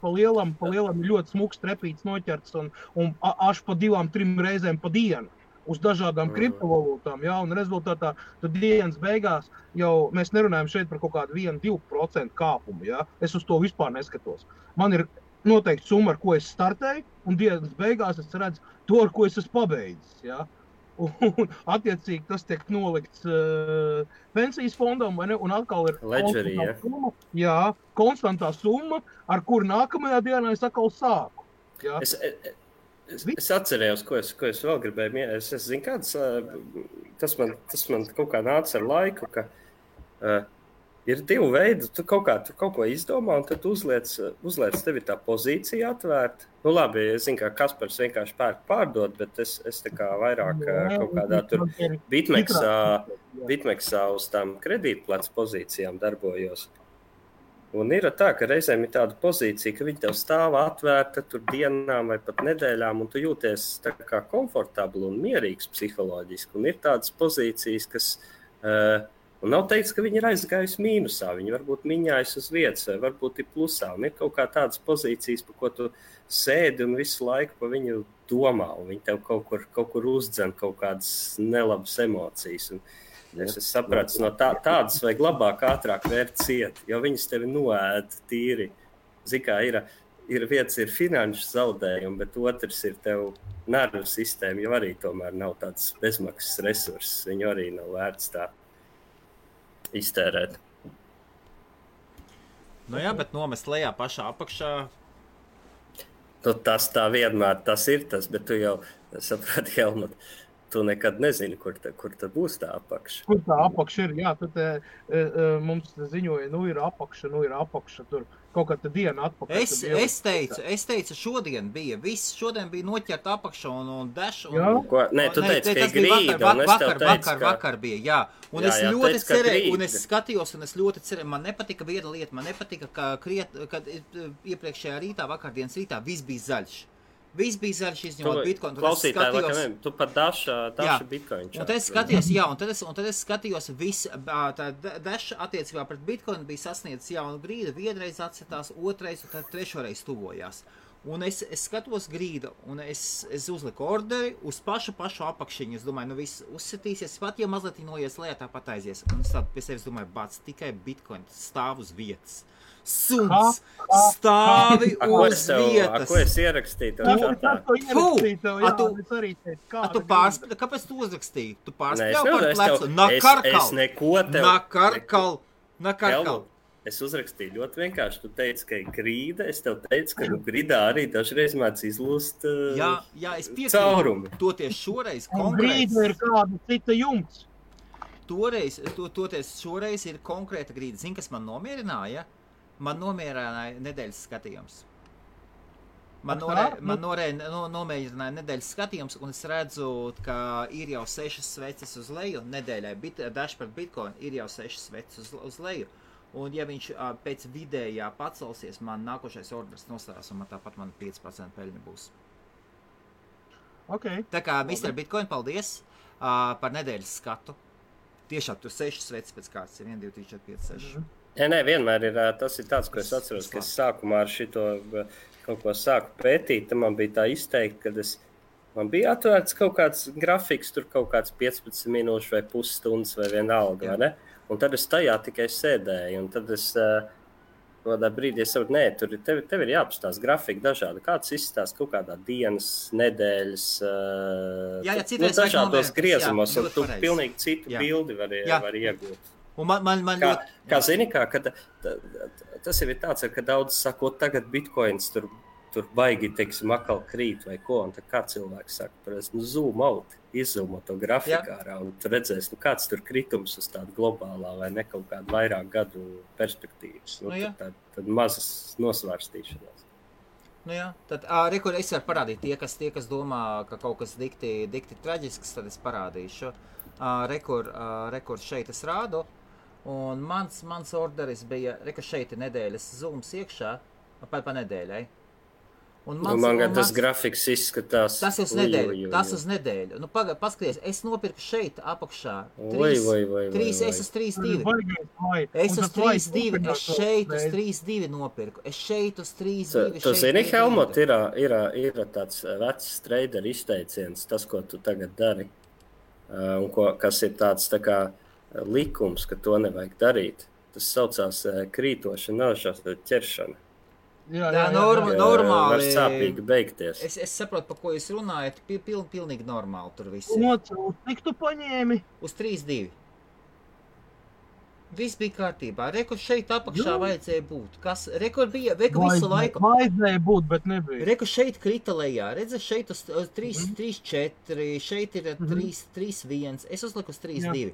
pa lielam ir ļoti smuks trepīts noķerts un až pa 2-3 reizēm pa dienu uz dažādām kriptovalūtām, jā, un rezultātā tad dienas beigās jau mēs nerunājam šeit par kaut kādu 1-2% kāpumu, jā, es uz to vispār neskatos. Man ir noteikti summa, ar ko es startēju, un dienas beigās es redzu to, ar ko es esmu pabeidzis, jā. Un attiecīgi tas tiek nolikts pensijas fondam, vai ne, un atkal ir summa, jā, konstantā summa, ar kuru nākamajā dienā es atkal sāku, jā. Es atcerējos, ko es vēl gribēju. Es zinu, kāds, tas man kaut kā nāca ar laiku, ka ir 2 veidi. Tu kaut ko izdomā, un tad uzliec tevi tā pozīcija atvērt. Labi, es zinu, ka Kaspars vienkārši pārdod, bet es tā kā vairāk kaut kādā tur Bitmexā uz tām kredītplats pozīcijām darbojos. Un ir tā, ka reizēm ir tāda pozīcija, ka viņi tev stāv atvērta tur dienām vai pat nedēļām, un tu jūties tā kā komfortabli un mierīgs psiholoģiski. Un ir tādas pozīcijas, kas, un nav teikts, ka viņi ir aizgājusi mīnusā, viņi varbūt miņājas uz vietas, vai varbūt ir plusā. Un ir kaut kā tādas pozīcijas, pa ko tu sēdi un visu laiku pa viņu domā, un viņi tev kaut kur uzdzen kaut kādas nelabas emocijas. Un es sapratu, no tādas vajag labāk, ātrāk vērt ciet, jo viņas tevi noēd tīri. Zikā, ir viens ir finanšu zaudējumi, bet otrs ir tev nervu sistēma, jo arī tomēr nav tāds bezmaksas resurss. Viņu arī nav vērts tā iztērēt. Jā, bet nomest lejā pašā apakšā. Tas tā vienmēr tas ir tas, bet tu jau saprati, Helmut, tu nekad nezini, kur tā būs tā apakša. Kur tā apakša ir, jā, tad mums ziņoja, ir apakša, tur kaut kāda diena atpakaļ. Es teicu, šodien bija noķert apakša un dash. Nē, tu teici, ka ir grīda, un es tev teicu, vakar bija, jā. Un es ļoti cerēju, un es skatījos, un es ļoti cerēju, man nepatika viena lieta, man nepatika, kad iepriekšējā rītā, vakardienas rītā, viss bija zaļš. Viss bija zaļš izņemot Bitcoin. Klausītāji, tu pat daša Bitcoin. Un tad es skatījos, un tad es skatījos, tā daša attiecībā pret Bitcoin bija sasniedzis jaunu grīdu, vienreiz atsetās, otrais, un tad trešoreiz tuvojās. Un es skatos grīdu, un es uzliku orderi uz pašu apakšiņu. Es domāju, viss uzsitīsies, pat ja mazliet noies lejā, tāpat aizies. Un es tādu pie sevis domāju, bāc, tikai Bitcoin stāv uz vietas. Suns stāvi uz vietas. Ko es ierakstīju? Kāpēc tu uzrakstīji? Tu pārspļauj par plecu? Nakarkal. Es uzrakstīju ļoti vienkārši. Tu teici, ka ir grīda. Es tev teicu, ka grīdā arī dažreiz mēdz izlūst es piekrītu. Toties šoreiz konkrēts. Grīda ir kāda cita jumts. Toties šoreiz ir konkrēta grīda. Zini, kas man nomierināja? Man nomierināja nedēļas skatījums. Man nomierināja nedēļas skatījums, un es redzu, ka ir jau 6 sveces uz leju. Nedēļai dash par Bitcoin ir jau 6 sveces uz leju. Un ja viņš pēc vidējā pacelsies, man nākošais orders nostājās, un tāpat man 5% peļņa būs. Okay. Tā kā Mr. Bitcoin, paldies par nedēļas skatu. Tiešām tur 6 sveces pēc kārtas ir 1, 2, 3, 4, 5, 6. Nē, vienmēr ir tas ir tāds, ko es atceros, ka es sākumā ar šito kaut ko sāku pētīt. Tad man bija tā izteikti, ka man bija atvērts kaut kāds grafiks, tur kaut kāds 15 minūšu vai pusstundas vai vienalga, vai ne? Un tad es tajā tikai sēdēju, un tad es kādā brīdī saprotu, tev ir jāapstāsta grafika dažādi. Kāds izstāsta kaut kādā dienas, nedēļas, dažādos griezumos, un tu pilnīgi citu bildi var iegūt. Un man kā zini, tas ir tāds, ka daudz saka, tagad bitcoins tur baigi, teiksim, akal krīt vai ko, un tad kā cilvēks saka, zoom out, izzoomo to grafiku ārā, un tu redzēsi, kāds tur kritums uz tādu globālā vai ne kaut kādu vairāk gadu perspektīvas. Tad mazas nosvārstīšanās. Tad rekur es varu parādīt tie, kas domā, ka kaut kas dikti traģisks, tad es parādīšu. Rekur šeit es rādu. Un mans orderis bija, šeit ir nedēļas zooms iekšā, pa nedēļai. Man tas grafiks izskatās. Tas uz nedēļu. Paskaties, es nopirku šeit apakšā. Es uz 3.2. Es uz 3.2. Es šeit uz 3.2 nopirku. Es šeit uz 3.2. Tu zini, Helmut, ir tāds vecs trader izteiciens, tas, ko tu tagad dari. Un kas ir tāds tā kā likums, ka to nevajag darīt. Tas saucās krītoša naušana ķeršana. Jā, normāli. Var sāpīgi beigties. Es saprotu, par ko jūs runājat. Pilnīgi normāli tur viss. Cik tu paņēmi? Uz 3.2. Viss bija kārtībā. Rekur šeit apakšā vajadzēja būt. Rekur visu laiku. Vajadzēja būt, bet nebija. Rekur šeit krita lejā. Redzi, šeit uz 3.4, šeit ir 3.1. Es uzliku uz 3.2.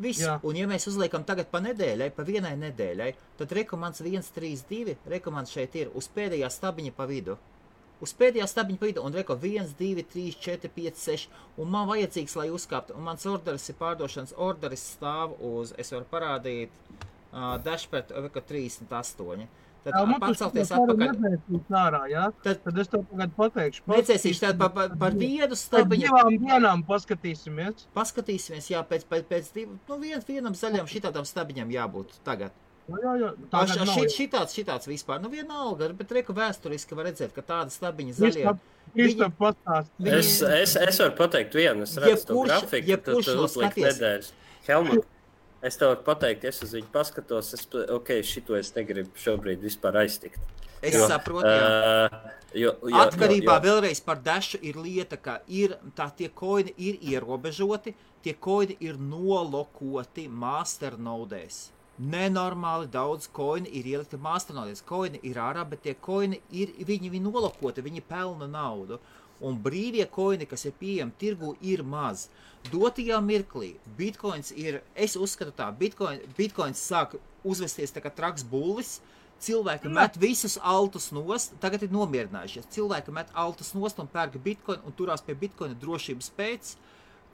Viss. Un ja mēs uzliekam tagad pa nedēļai, pa vienai nedēļai, tad rekomands 1.3.2, rekomands šeit ir uz pēdējā stabiņa pa vidu. Un reko 1, 2, 3, 4, 5, 6. Un man vajadzīgs, lai uzkāptu. Un mans orderis ir pārdošanas orderis stāv uz, es varu parādīt, dashpad 38. Tad pacelties atpakaļ. Tad es tev tagad pateikšu. Necēsīšu tad par vienu stabiņu. Pēc 2 dienām paskatīsimies. Paskatīsimies, jā, pēc vienam zaļam šitādam stabiņam jābūt tagad. Šitāds vispār, vienalga, bet reku vēsturiski var redzēt, ka tāda stabiņa zaļie. Es varu pateikt vienu, es redzu to grafiku, tad uzliek nedēļas. Helmut. Es tev varu pateikt, es uz viņu paskatos, šito es negribu šobrīd vispār aiztikt. Es saprotu, jā. Atkarībā vēlreiz par Dashu ir lieta, ka tie koini ir ierobežoti, tie koini ir nolokoti masternodēs. Nenormāli daudz koini ir ielikti masternodēs. Koini ir ārā, bet tie koini viņi nolokoti, viņi pelna naudu. Un brīvie koini, kas ir pieejami tirgu, ir maz. Dotajā mirklī bitcoins ir, es uzskatu tā, bitcoins sāk uzvesties tā kā traks bullis, cilvēki met visus altus nost, tagad ir nomierinājušies, cilvēki met altus nost un pērk bitcoin un turās pie bitcoina drošības pēc.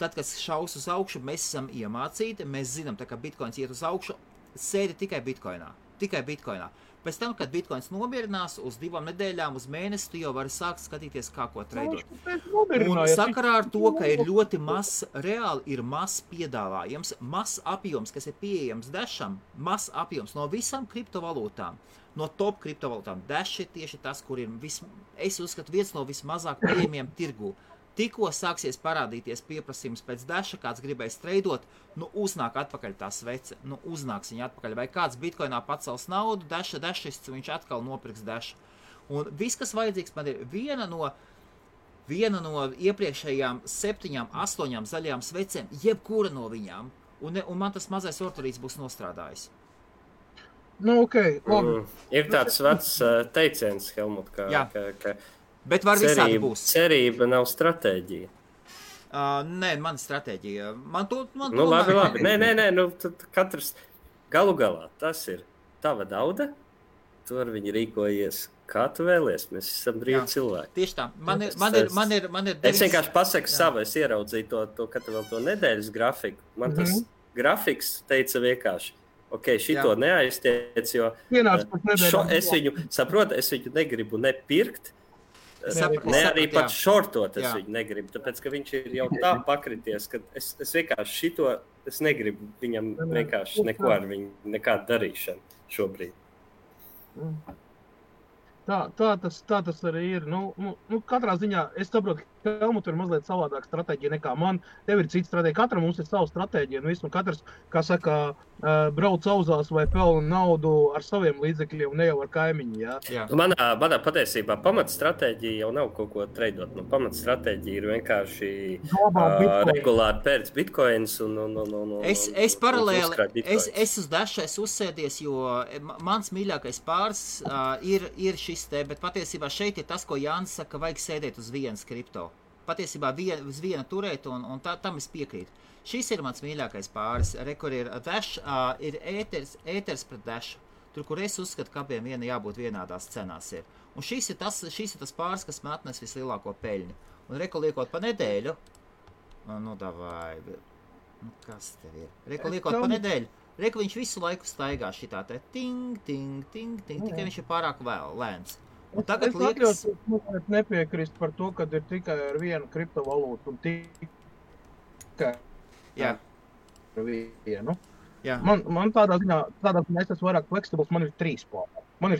Tad, kad šaus uz augšu, mēs esam iemācīti, mēs zinām, tā kā bitcoins iet uz augšu, sēdi tikai bitcoinā. Pēc tam, kad bitcoins nomierinās uz 2 nedēļām, uz mēnesi, tu jau vari sākt skatīties, kā ko treidot. Un sakarā ar to, ka ir ļoti mazs, reāli ir mazs piedāvājums, mazs apjoms, kas ir pieejams Dasham, mazs apjoms no visām kriptovalūtām, no top kriptovalūtām. Dash ir tieši tas, kur ir, es uzskatu, viens no vismazāk pieejamiem tirgu. Tikko sāksies parādīties pieprasījums pēc Dasha, kāds gribēs treidot, uznāk atpakaļ tā svece, uznāks viņa atpakaļ. Vai kāds bitcoinā pacels naudu, Dashists, viņš atkal nopirks Dasha. Un viss, kas vajadzīgs, man ir viena no iepriekšējām 7, 8 zaļajām svecēm, jebkura no viņām. Un man tas mazais orderīts būs nostrādājis. Ir tāds vecs teiciens, Helmut, ka bet var visādi būs. Cerība nav stratēģija. Nē, man stratēģija. Labi. Nē, tad katrs galu galā tas ir tava nauda, tu ar viņu rīkojies, kā tu vēlies. Mēs esam brīvi cilvēki. Tieši tā. Man ir es vienkārši pasaku savu, es ieraudzīju to katru vēl to nedēļas grafiku. Man tas grafiks teica vienkārši, šito neaiztiec, jo es viņu negribu nepirkt, ne arī pat šortot es viņu negribu, tāpēc, ka viņš ir jau tā pakrities, ka es vienkārši šito es negribu viņam vienkārši neko ar viņu, nekādu darīšanu šobrīd. Tā tas arī ir. Katrā ziņā es saprotu, ka Helmutam ir mazliet savādāka stratēģija nekā man. Tev ir cita stratēģija. Katram mums ir sava stratēģija. Un katrs, kā saka, brauc auzās vai pelna naudu ar saviem līdzekļiem, ne jau ar kaimiņu. Jā. Manā patiesībā pamatstratēģija jau nav kaut ko treidot. Pamatstratēģija ir vienkārši regulāri pērts bitcoins un Es paralēli, es uz Dasha uzsēdies, jo mans mīļākais pāris ir šis te, bet patiesībā šeit ir tas, ko Jānis saka, ka vajag sēdēt uz vienas kripto. Patiesībā uz viena turēt, un tam es piekrītu. Šis ir mans mīļākais pāris. Kur ir Dash, ir ēters pret Dash. Tur, kur es uzskatu, ka abiem jābūt vienādās cenās ir. Un šis ir tas pāris, kas man atnes vislielāko peļņu. Un liekot pa nedēļu, kas tev ir? Liekot pa nedēļu, viņš visu laiku staigā šitā te ting, tikai viņš ir pārāk lēns. Un tagad liekas... Es nepiekrist par to, ka ir tikai ar vienu kriptovalūtu un tikai ar vienu. Jā. Man tādā ziņā es esmu vairāk flexibles, man ir 3 pāri. Man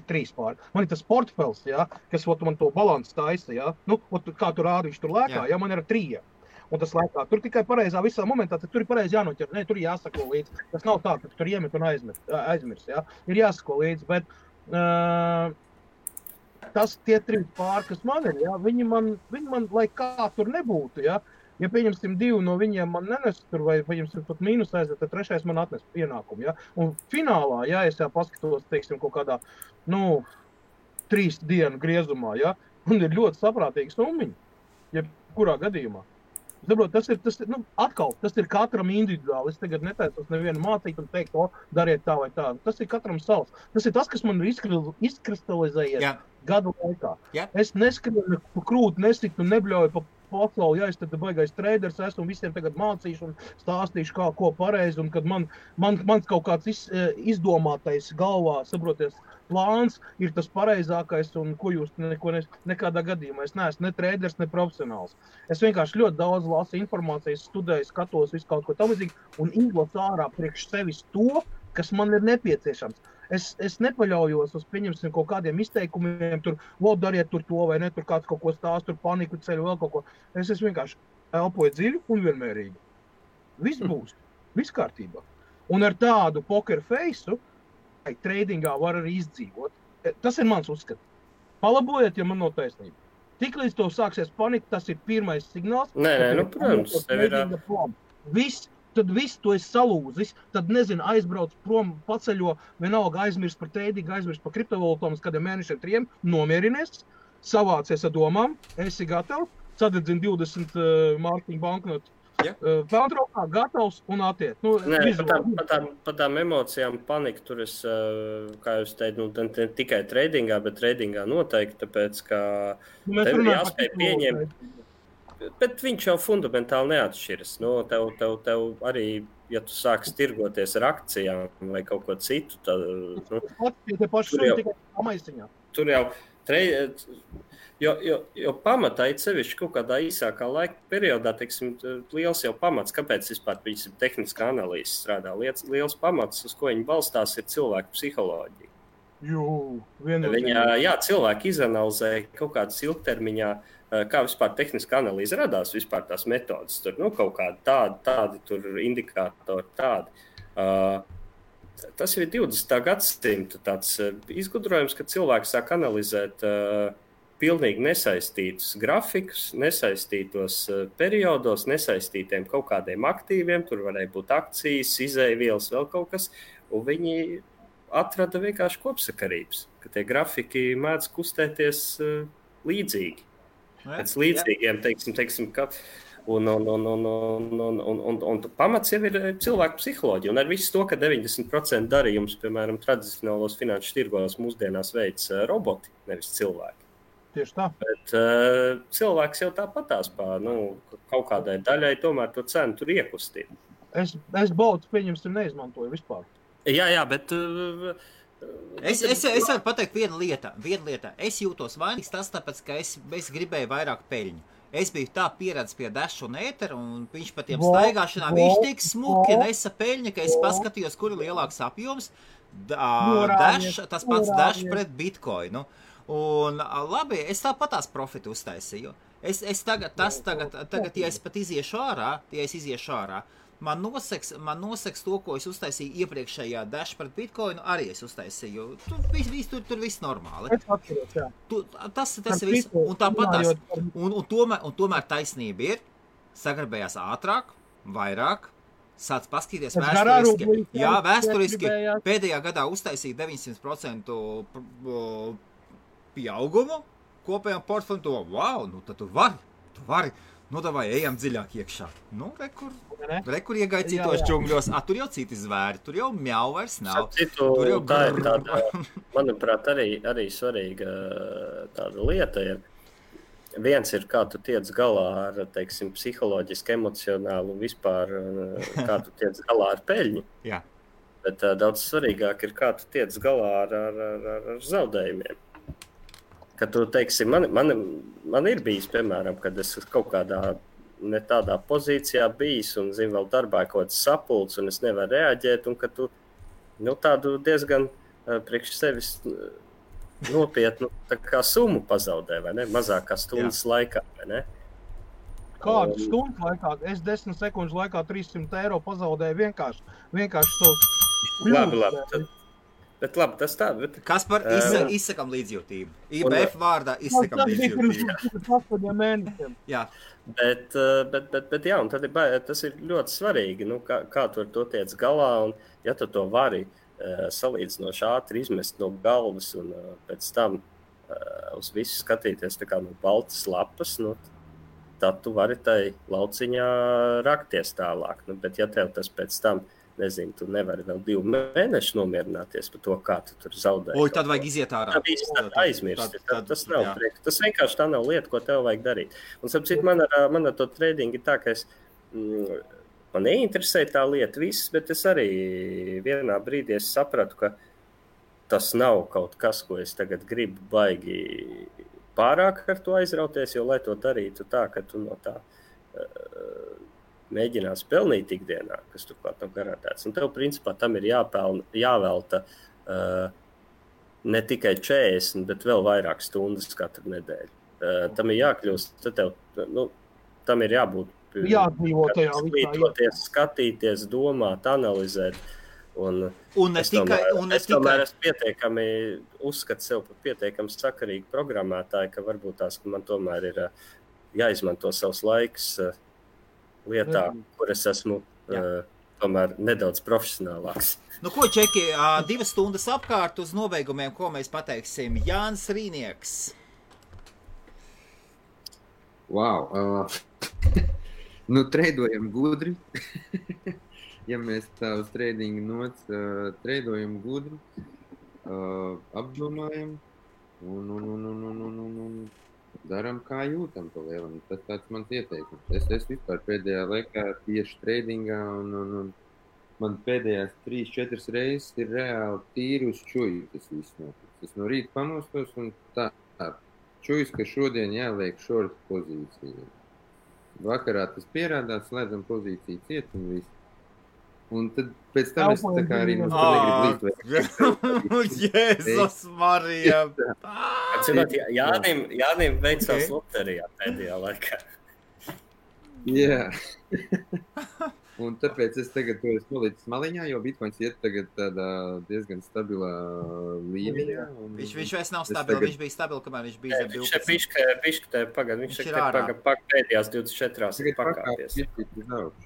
ir tas portfels, kas man to balansu taisa, kā tu rādi, viņš tur lēkā, man ir ar 3. Un tas lēkā. Tur tikai pareizā visā momentā, tur ir pareizi jānoķer. Ne, tur jāsako līdzi. Tas nav tā, ka tur iemet un aizmirs. Ir jāsako līdzi, bet tie 3 pāri, kas man ir, viņi man, lai kā tur nebūtu, ja pieņemsim 2 no viņiem man nenes tur, vai pieņemsim pat mīnus aiziet, tad 3. man atnes pienākumu, Un finālā, es paskatos, teiksim, kaut kādā, 3 dienu griezumā, un ir ļoti saprātīgi summiņi, kurā gadījumā. Saprot, tas ir katram individuāli. Es tagad netaisos nevienu mācīt un teikt, dariet tā vai tā. Tas ir katram savs. Tas ir tas, kas man ir izkristalizējies gadu laikā. Es neskrienu pa krūti, nesitu un nebļauju pa pasauli. Es tad baigais treiders esmu un visiem tagad mācīšu un stāstīšu, ko pareizi. Un kad mans kaut kāds izdomātais galvā, saproties, plāns ir tas pareizākais un ko jūs nekādā gadījumā. Es neesmu ne treiders, ne profesionāls. Es vienkārši ļoti daudz lasu informācijas, studēju, skatos visu kaut ko tamlīdzīgi un izlasu ārā priekš sevis to, kas man ir nepieciešams. Es nepaļaujos uz, pieņemsim, kaut kādiem izteikumiem, tur, dariet tur to vai ne, tur kāds kaut ko stāst, tur paniku ceļu, vēl kaut ko. Es vienkārši elpoju dziļi un vienmērīgi. Viss būs, viss kārtībā. Un ar tādu poker face-u tradingā var arī izdzīvot. Tas ir mans uzskats. Palabojiet, ja man nav taisnība. Tiklīdz to sāksies panika, tas ir pirmais signāls. Protams, tev ir... Tad viss to esi salūzis, tad, aizbrauc prom, paceļo, vienalga aizmirst par tradingu, aizmirst par kriptovalūtām, uz kādiem mēnešiem 3, nomierinies, savācies ar domām, esi gatavs, sadedzini 20 mārciņu banknotu. Pelntraukā gatavs un attiet. Par tām emocijām panika tur es, kā jūs teicu, ne tikai tradingā, bet tradingā noteikti, tāpēc, ka tev jāspēj pieņemt. Bet viņš jau fundamentāli neatšķiras. Tev arī, ja tu sāksi tirgoties ar akcijām vai kaut ko citu, tad... Tur jau... Jo pamatā ir sevišķi kaut kādā īsākā laika periodā, teiksim, liels jau pamats, kāpēc vispār viņas tehniskā analīze strādā. Liels pamats, uz ko viņi balstās, ir cilvēku psiholoģija. Cilvēki izanalizē kaut kādas ilgtermiņā, kā vispār tehniskā analīze radās, vispār tās metodas, tur, kaut kādi tādi tur indikātori, tādi. Tas ir 20. gadsimta tāds izgudrojums, ka cilvēki sāk analizēt pilnīgi nesaistītus grafikus, nesaistītos periodos, nesaistītiem kaut kādiem aktīviem, tur varēja būt akcijas, izēvielas, vēl kaut kas, un viņi atrada vienkārši kopsakarības, ka tie grafiki mēdz kustēties līdzīgi. Pēc līdzīgiem, teiksim, ka... Un pamats jau ir cilvēku psiholoģija. Un ar visu to, ka 90% darījums, piemēram, tradicionālos finanšu tirgos mūsdienās veids roboti, nevis cilvēki. Tieši tā. Bet cilvēks jau tāpatās kaut kādai daļai tomēr to cenu tur iekustīt. Es baudu, pieņemsim, neizmantoju vispār. Jā, bet... Es varu pateikt vienu lietu. Es jūtos vainīgs tas, tāpēc, ka es gribēju vairāk peļņu. Es biju tā pieredzis pie Dash un Ētera, un viņš pa tiem staigāšanām, viņš tik smuki nesa peļņa, ka es paskatījos, kur ir lielāks apjoms. Dash, tas pats Dash pret Bitcoinu. Un labi, es tāpatās profitu uztaisīju. Es tagad, ja es pat iziešu ārā, man noseks to, ko es uztaisīju iepriekšējā Dash pret Bitcoinu, arī es uztaisīju. Tur viss normāli. Es atceros, jā. Tas ir viss. Un tāpatās. Un tomēr taisnība ir, sagrabējās ātrāk, vairāk, sāc paskatīties vēsturiski. Jā, vēsturiski pēdējā gadā uztaisīja 900% pieaugumu kopējām portfeļu. Wow, nu tad tu vari. Nu, davai, ejam dziļāk iekšā. Nu, rekur iegāja citos džungļos. Tur jau citi zvēri, tur jau mjau vairs nav. Tur jau tā ir tāda, manuprāt, arī svarīga tāda lieta ir. Viens ir, kā tu tiec galā ar, teiksim, psiholoģiski, emocionāli un vispār, kā tu tiec galā ar peļņu. Jā. Bet daudz svarīgāk ir, kā tu tiec galā ar zaudējumiem. Kad tu, teiksim, man ir bijis, piemēram, kad es kaut kādā ne tādā pozīcijā bijis un, zinu, vēl darbā kaut kāds sapulcs un es nevaru reaģēt un ka tu, tādu diezgan priekš sevis nopietnu tā kā summu pazaudē, vai ne? Mazākā stundas laikā, vai ne? Kādu stundu laikā? Es 10 sekundžu laikā 300 eiro pazaudēju vienkārši tos Labi. Bet labi, tas tā. Kaspar, izsakam līdzjūtību. IBF vārdā izsakam līdzjūtību. Tas bija mēnešiem. Jā. Bet jā, un tad tas ir ļoti svarīgi, kā tu ar to tiec galā, un ja tu to vari salīdzinoši ātri izmest no galvas un pēc tam uz visu skatīties tā kā no baltas lapas, tad tu vari tai lauciņā rakties tālāk. Bet ja tev tas pēc tam nezinu, tu nevari vēl 2 mēnešus nomierināties par to, kā tu tur zaudēji. Tad vajag iziet ārā. Tā viss aizmirst. Tas nav prieks. Tas vienkārši tā nav lieta, ko tev vajag darīt. Un sapcīt, man ar to tradingu ir tā, ka man neinteresē tā lieta viss, bet es arī vienā brīdī sapratu, ka tas nav kaut kas, ko es tagad gribu baigi pārāk ar to aizrauties, jo lai to darītu tā, ka tu no tā mēģinās pelnīt ikdienā, kas turklāt nav garantēts. Un tev, principā, tam ir jāvelta ne tikai 40, bet vēl vairāk stundas katru nedēļu. Tam ir jākļūst, tad tev, tam ir jābūt jādzīvo tajā visā. Skatīties, domāt, analizēt. Un es tomēr esmu pietiekami uzskatu sev par pietiekami sakarīgu programmētāju, ka varbūt tās, ka man tomēr ir jāizmanto savs laiks lietā, kur es esmu tomēr nedaudz profesionālāks. Ko, Čeki, 2 stundas apkārt uz nobeigumiem, ko mēs pateiksim? Jānis Rīnieks. Wow. Treidojam gudri. Ja mēs tā uz trading nots treidojam gudri, apdomājam un daram, kā jūtam pa lielam. Tas tāds mans ieteikums. Es vispār pēdējā laikā tieši tradingā un man pēdējās 3-4 reizes ir reāli tīri uz čuju tas viss notiks. Es no rīta pamostos un tā čujus, ka šodien jāliek short pozīcija. Vakarā tas pierādās, slēdzam pozīciju ciet un viss. Un tad pēc tam es tā kā arī negribu līdz Jēzus Marija! Jānim veicās loterijā pēdējā laikā. Jā. Un tāpēc es tagad to esmu nolicis maliņā, jo Bitcoins iet tagad tādā diezgan stabilā līmenī. Viņš vairs nav stabils, viņš bija stabils, kamēr viņš bija zem 12. Viņš pēdējās 24 pakāpies.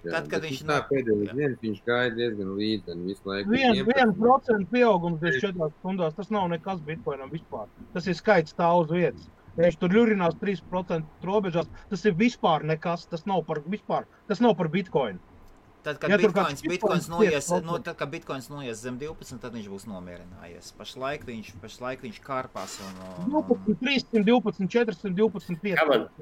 Tad, kad viņš tā pēdējais dienas, viņš gāja diezgan līdzi visu laiku. 1% pieaugums 24 stundās, tas nav nekas Bitcoinam vispār. Tas ir skaits stāv uz vietas. Ja viņš tur ļurinās 3% robežās, tas ir vispār nekas, tas nav par Bitcoinu. Tad, kad Bitcoins noies zem 12, tad viņš būs nomierinājies. Pašlaik viņš kārpās un... 312, 412, 5.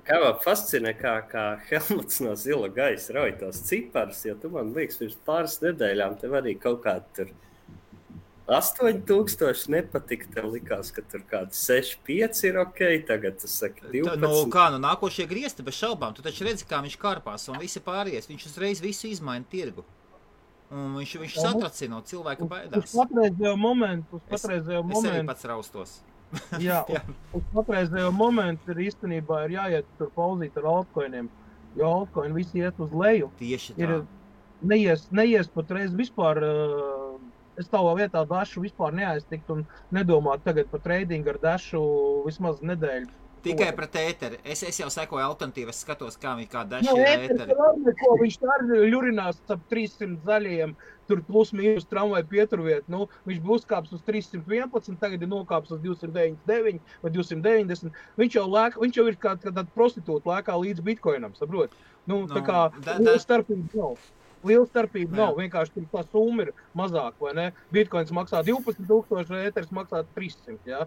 Kā man fascinē, kā Helmuts no zila gaisa rauj tos ciparus, jo tu man liekas, pirms pāris nedēļām tev arī kaut kādi tur 8000 nepatika, tev likās, ka tur kāds 6,5 ir ok, tagad tu saki 12. Nākošie griezti bez šaubām, tu taču redzi, kā viņš karpās un visi pārējais, viņš uzreiz visu izmaina tirgu. Un viņš satracina, cilvēka baidās. Uz patreizējo momentu. Es arī pats raustos. Jā, uz patreizējo momentu īstenībā ir jāiet tur pauzīt ar altcoiniem, jo altcoini visi iet uz leju. Tieši tā. Neies patreiz vispār, es tavā vietā Dašu vispār neaiztikt un nedomāt tagad par tradingu ar Dašu vismaz nedēļu. Tikai pret ēteri. Es jau sekoju alternatīvu, es skatos, kā Daša ir ēteri. Viņš tā ļurinās ap 300 zaļajiem, tur plus mīnus tramvaju pieturviet. Viņš būs kāps uz 311, tagad ir nokāps uz 299 vai 290. Viņš jau ir kā tāda prostitūta lēkā līdz bitcoinam, saprot? Tā kā starpība nav. Liela starpība nav, vienkārši tur tā summa ir mazāk, vai ne? Bitcoins maksā 12,000, ēteris maksā 300, jā?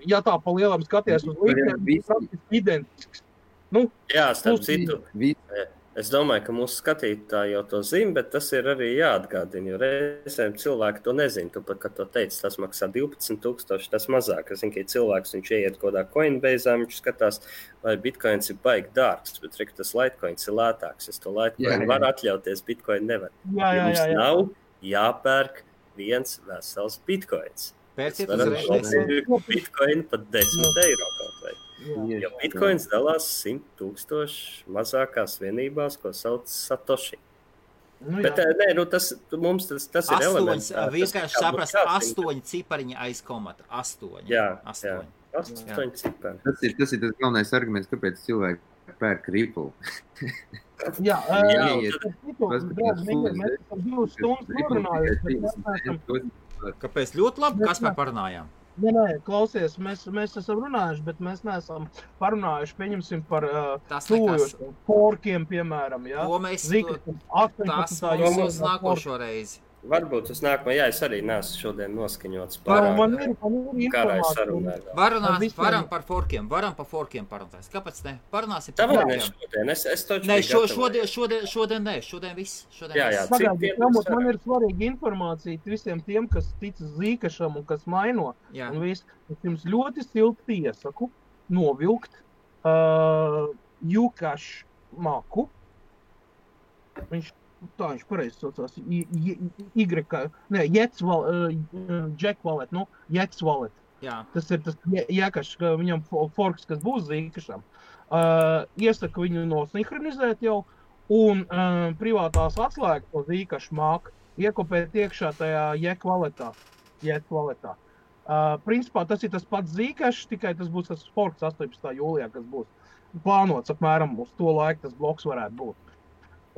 Ja tā pa lielam skaties uz līdzēm, tas praktiski identisks. Jā, starp citu, es domāju, ka mūsu skatītāji jau to zina, bet tas ir arī jāatgādina, jo reizēm cilvēki to nezina. Tu pat, kad to teici, tas maksā 12,000, tas mazāk. Es zinu, ka cilvēks, viņš ieiet kodā Coinbase, viņš skatās, vai Bitcoins ir baigi dārgs, bet tas Litecoins ir lētāks. Es to Litecoin varu atļauties, Bitcoin nevar. Jums nav jāpērk viens vesels Bitcoins. Pērciet uzreiz. Bitcoin pat 10 eiro kaut vai. Jo Bitcoins dalās 100,000 mazākās vienībās, ko sauc Satoshi. Bet mums tas ir elements. Vienkārši saprast 8 cipariņi aiz komata. 8. Jā, 8 cipari. Tas ir tas galvenais arguments, kāpēc cilvēki pērk Ripple. Jā, mēs esam 2 stundas norunājuši. Kāpēc ļoti labi, kas mēs parunājām? Nē, klausies, mēs esam runājuši, bet mēs neesam parunājuši, pieņemsim par tuvojošiem forkiem, piemēram, jā. To mēs, tas mums nākošo reizi. Varbūt uz nākamo, jā, es arī neesmu šodien noskaņots pārāk. Karā sarunāt. Varam par forkiem parunāt. Kāpēc ne? Parunāsim par forkiem. Tā šodien, es toču ne, šodien ne, šodien viss. Jā, man ir svarīga informācija visiem tiem, kas tic zīkašam un kas maino. Jā. Un viss, es jums ļoti silti iesaku novilkt Jukaš maku. Viņš pareizi saucās, Jack Wallet, Jacks Wallet. Jā. Tas ir tas Jekašs, viņam forks, kas būs zīkašam. Iesaku viņu nosinhronizēt jau, un privātās atslēgas to zīkašu māku iekopēt iekšā tajā Jack Walletā. Principā tas ir tas pats zīkašs, tikai tas būs tas forks 18. jūlijā, kas būs plānots apmēram uz to laiku tas bloks varētu būt.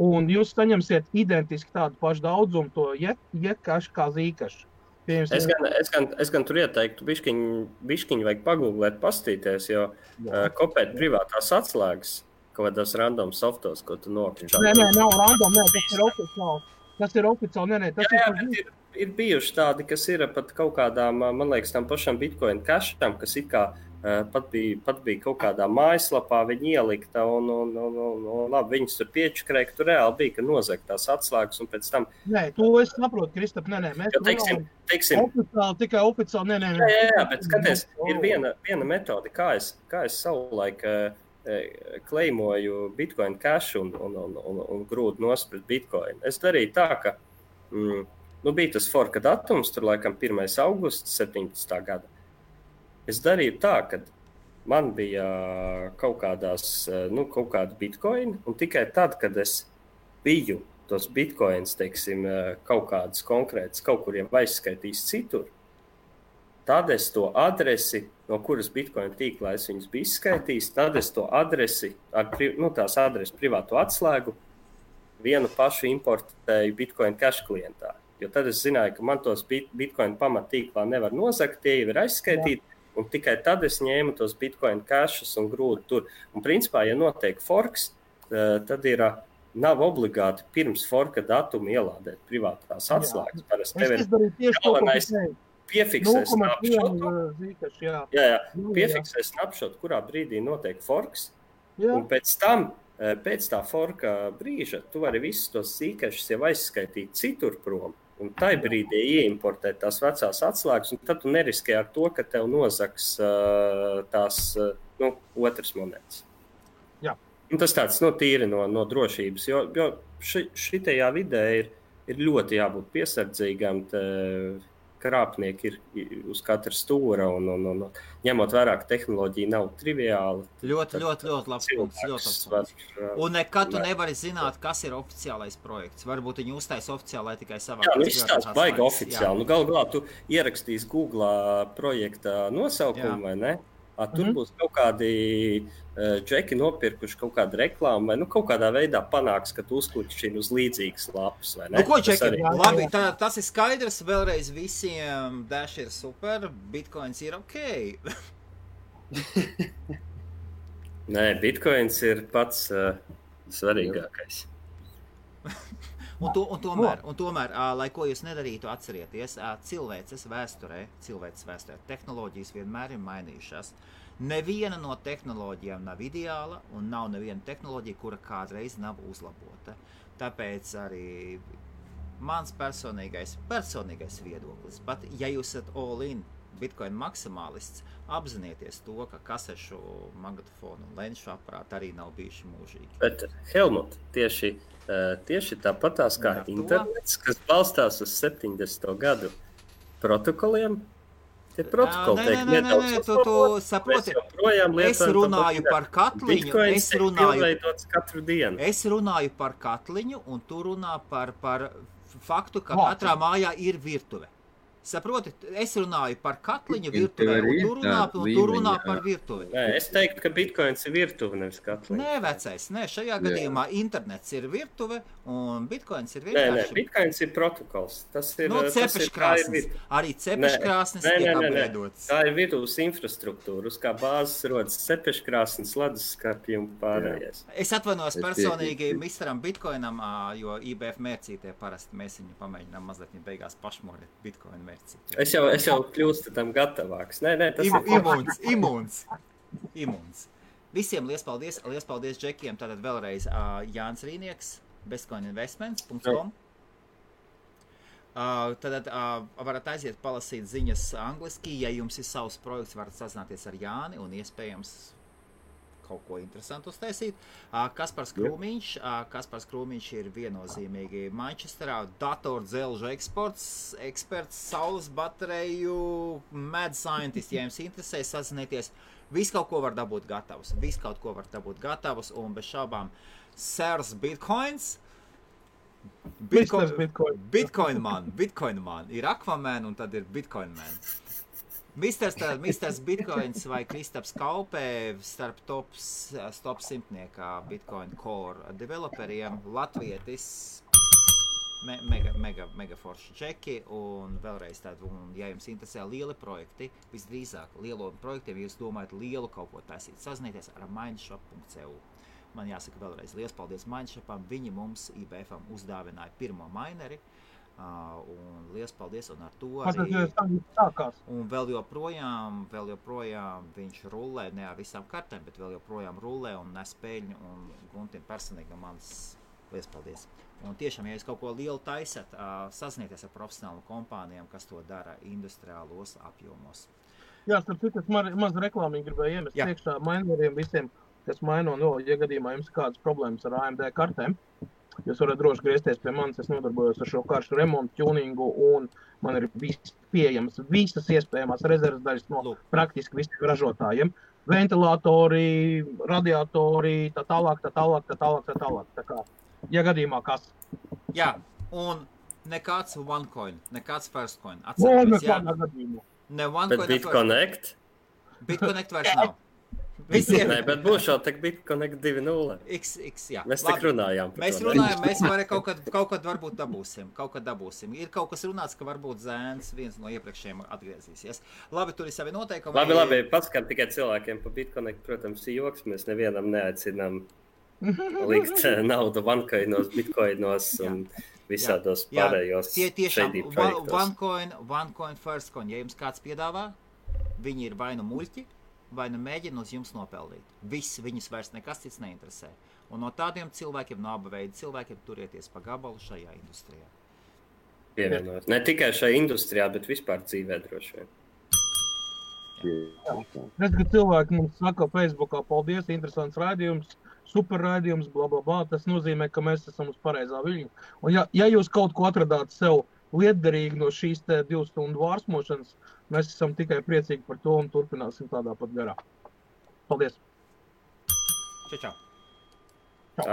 Un jūs saņemsiet identiski tādu pašu daudzumu to jekašu kā zīkašu. Es gan tur ieteiktu biškiņu vajag pagūglēt, pastīties, jo kopēt privātās atslēgas kaut kādos random softos, ko tu nokļūši. Nē, nav random, tas ir oficiāli. Ir bijuši tādi, kas ir pat kaut kādām, man liekas, tam pašam Bitcoin casham, kas it kā pat bija kaut kādā mājaslapā viņi ielikta un labi, viņas tur piečakrēja, ka tur reāli bija, ka nozagt tās atslēgas un pēc tam... Nē, to es saprotu, Kristap, nē, mēs teiksim, tikai oficiāli, nē. Jā, bet skaties, ir viena metode, kā es savulaik kleimoju Bitcoin cash un grūdu nosprit Bitcoin. Es darīju tā, ka bija tas forka datums, tur laikam 1. augusts 17. gada. Es darīju tā, ka man bija kaut kāda bitcoin, un tikai tad, kad es biju tos bitcoins, teiksim, kaut kādas konkrētas, kaut kur jau aizskaitījis citur, tad es to adresi, no kuras bitcoin tīklā es viņus biju izskaitījis, tad es to adresi, tās adresi privāto atslēgu, vienu pašu importēju Bitcoin cash klientā. Jo tad es zināju, ka man tos Bitcoin pamatīklā nevar nozagt, tie jau ir aizskaitīti. Un tikai tad es ņēmu tos Bitcoin cashus un grūdu tur. Un principā, ja notiek forks, tad nav obligāti pirms forka datuma ielādēt privātās atslēgas. Parasti tev ir galvenais piefiksē snapshotu. Piefiksē snapshotu, kurā brīdī notiek forks. Un pēc tam, pēc tā forka brīža, tu vari visus tos sīkašus jau aizskaitīt citur prom. Un tai brīdī ieimportēt tās vecās atslēgas, un tad tu neriskē ar to, ka tev nozaks tās otras monētas. Jā. Un tas tāds tīri no drošības, jo šitajā vidē ir ļoti jābūt piesardzīgam, krāpnieki ir uz katra stūra, un ņemot vērā, ka tehnoloģija nav triviāla. Ļoti labs punkts. Un nekad tu nevari zināt, kas ir oficiālais projekts. Varbūt viņi uztais oficiāli tikai savā. Jā, viņš tās baigi oficiāli. Galu galā tu ierakstīs Google projekta nosaukumu, vai ne? Tur būs kaut kādi džeki nopirkuši kaut kādu reklāmu, vai kaut kādā veidā panāks, ka tu uzkliķi uz līdzīgas lapas, vai ne? Ko džeki? Labi, tas ir skaidrs, vēlreiz visiem Dash ir super, Bitcoins ir ok. Nē, Bitcoins ir pats svarīgākais. Un tomēr, lai ko jūs nedarītu, atcerieties, cilvēces vēsturē, tehnoloģijas vienmēr ir mainījušās. Neviena no tehnoloģijām nav ideāla, un nav neviena tehnoloģija, kura kādreiz nav uzlabota. Tāpēc arī mans personīgais viedoklis, pat ja jūs esat all-in Bitcoin maksimālists, apzinieties to, ka kasešu, magnetofonu un lenšu aparāti arī nav bijuši mūžīgi. Bet, Helmut, tieši tāpatās kā internets, kas balstās uz 70. gadu protokoliem, tie protokoli tiek nedaudz tu saproti, es runāju par katliņu, es runāju par katliņu, un tu runā par faktu, ka katrā mājā ir virtuve. Saproti, es runāju par katliņu virtuvē, un tu runā par virtuvi. Nē, es teiktu, ka Bitcoins ir virtuve, nevis katliņa. Nē, vecais, šajā gadījumā internets ir virtuve, un Bitcoins ir vienkārši. Nē, Bitcoins ir protokols. Tas ir, cepeškrāsnes. Arī cepeškrāsnes tiek apveidotas. Tā ir virtuves infrastruktūra, uz kā bāzes rodas cepeškrāsnes, leduskapji un pārējais. Es atvainojos personīgi misteram Bitcoinam, jo IBF mērcītie parasti mēs viņu pamēģinām mazliet beigās pašmorēt Bitcoinu. Es jau kļūstu tam gatavāks. Nē, tas ir imūns. Visiem liels paldies džekiem. Tātad vēlreiz Jānis Rīnieks, bestcoininvestments.com. Tad varat aiziet palasīt ziņas angliski. Ja jums ir savs projekts, varat sazināties ar Jāni un iespējams kaut ko interesantu uztaisīt. Kaspars Krūmiņš ir viennozīmīgi Manchesterā datordzelžu eksperts, saules bateriju, mad scientist, ja jums interesē, sazinieties. Viss kaut ko var dabūt gatavus, un bez šaubām Sirs Bitcoins. Bitcoin man. Ir Aquaman un tad ir Bitcoin man. Misters Bitcoins vai Kristaps Kaupē starp top 100 Bitcoin Core developeriem, latvietis, mega forši čeki, un vēlreiz tādu, ja jums interesē lieli projekti, visdrīzāk lielo projektiem, ja jūs domājat lielu kaut ko taisīt, sazinieties ar mindshop.cu. Man jāsaka vēlreiz liels paldies Mindshopam, viņi mums IBFam uzdāvināja pirmo mineri, un liels paldies, un ar to arī un vēl joprojām viņš rullē, ne ar visām kartēm, bet vēl joprojām rullē un nes peļņu, un Guntim personīgi mans liels paldies. Un tiešām, ja jūs kaut ko lielu taisat, sazinieties ar profesionālu kompānijām, kas to dara industriālos apjomos. Jā, starp citu, maz reklāmīgi gribēju iemest priekšā maineriem visiem, kas maino, ja gadījumā jums kādas problēmas ar AMD kartēm. Jūs varat droši griezties pie manis, es nodarbojos ar šo karšu remontu, tuningu, un man ir pieejams visas iespējamās rezerves daļas no praktiski visiem ražotājiem. Ventilatori, radiatori, tā tālāk. Tā kā, ja gadījumā kas. Jā, un nekāds OneCoin, nekāds FirstCoin. Atcerieties, jā. Bet BitConnect? BitConnect vairs nav. Visiem. Nē, bet būs jau tak BitConnect 2.0. Jā. Mēs tik runājām par to. Mēs kaut kad varbūt dabūsim. Ir kaut kas runāts, ka varbūt Zēns viens no iepriekšējiem atgriezīsies. Labi, tur ir savi noteikumi. Labi, paskat tikai cilvēkiem par BitConnect, protams, joks. Mēs nevienam neaicinām likt naudu OneCoinos, Bitcoinos un visādos pārējos shady projektos. OneCoin, FirstCoin. Ja jums kāds piedāvā, viņi ir vai nu muļķi, vai nu mēģina uz jums nopelnīt. Viņus vairs nekas cits neinteresē. Un no tādiem cilvēkiem, no abu veidu cilvēkiem, turieties pa gabalu šajā industrijā. pievienojos. Ne tikai šajā industrijā, bet vispār dzīvē droši vien. Redz, ka cilvēki mums saka Facebookā, paldies, interesants raidījums, super raidījums, blablabla. Tas nozīmē, ka mēs esam uz pareizā viļņa. Un ja jūs kaut ko atradāt sev lietderīgi no šīs 2 stundu vārsmošanas, mēs esam tikai priecīgi par to un turpināsim tādā pat garā. Paldies! Čau, čau! Tā.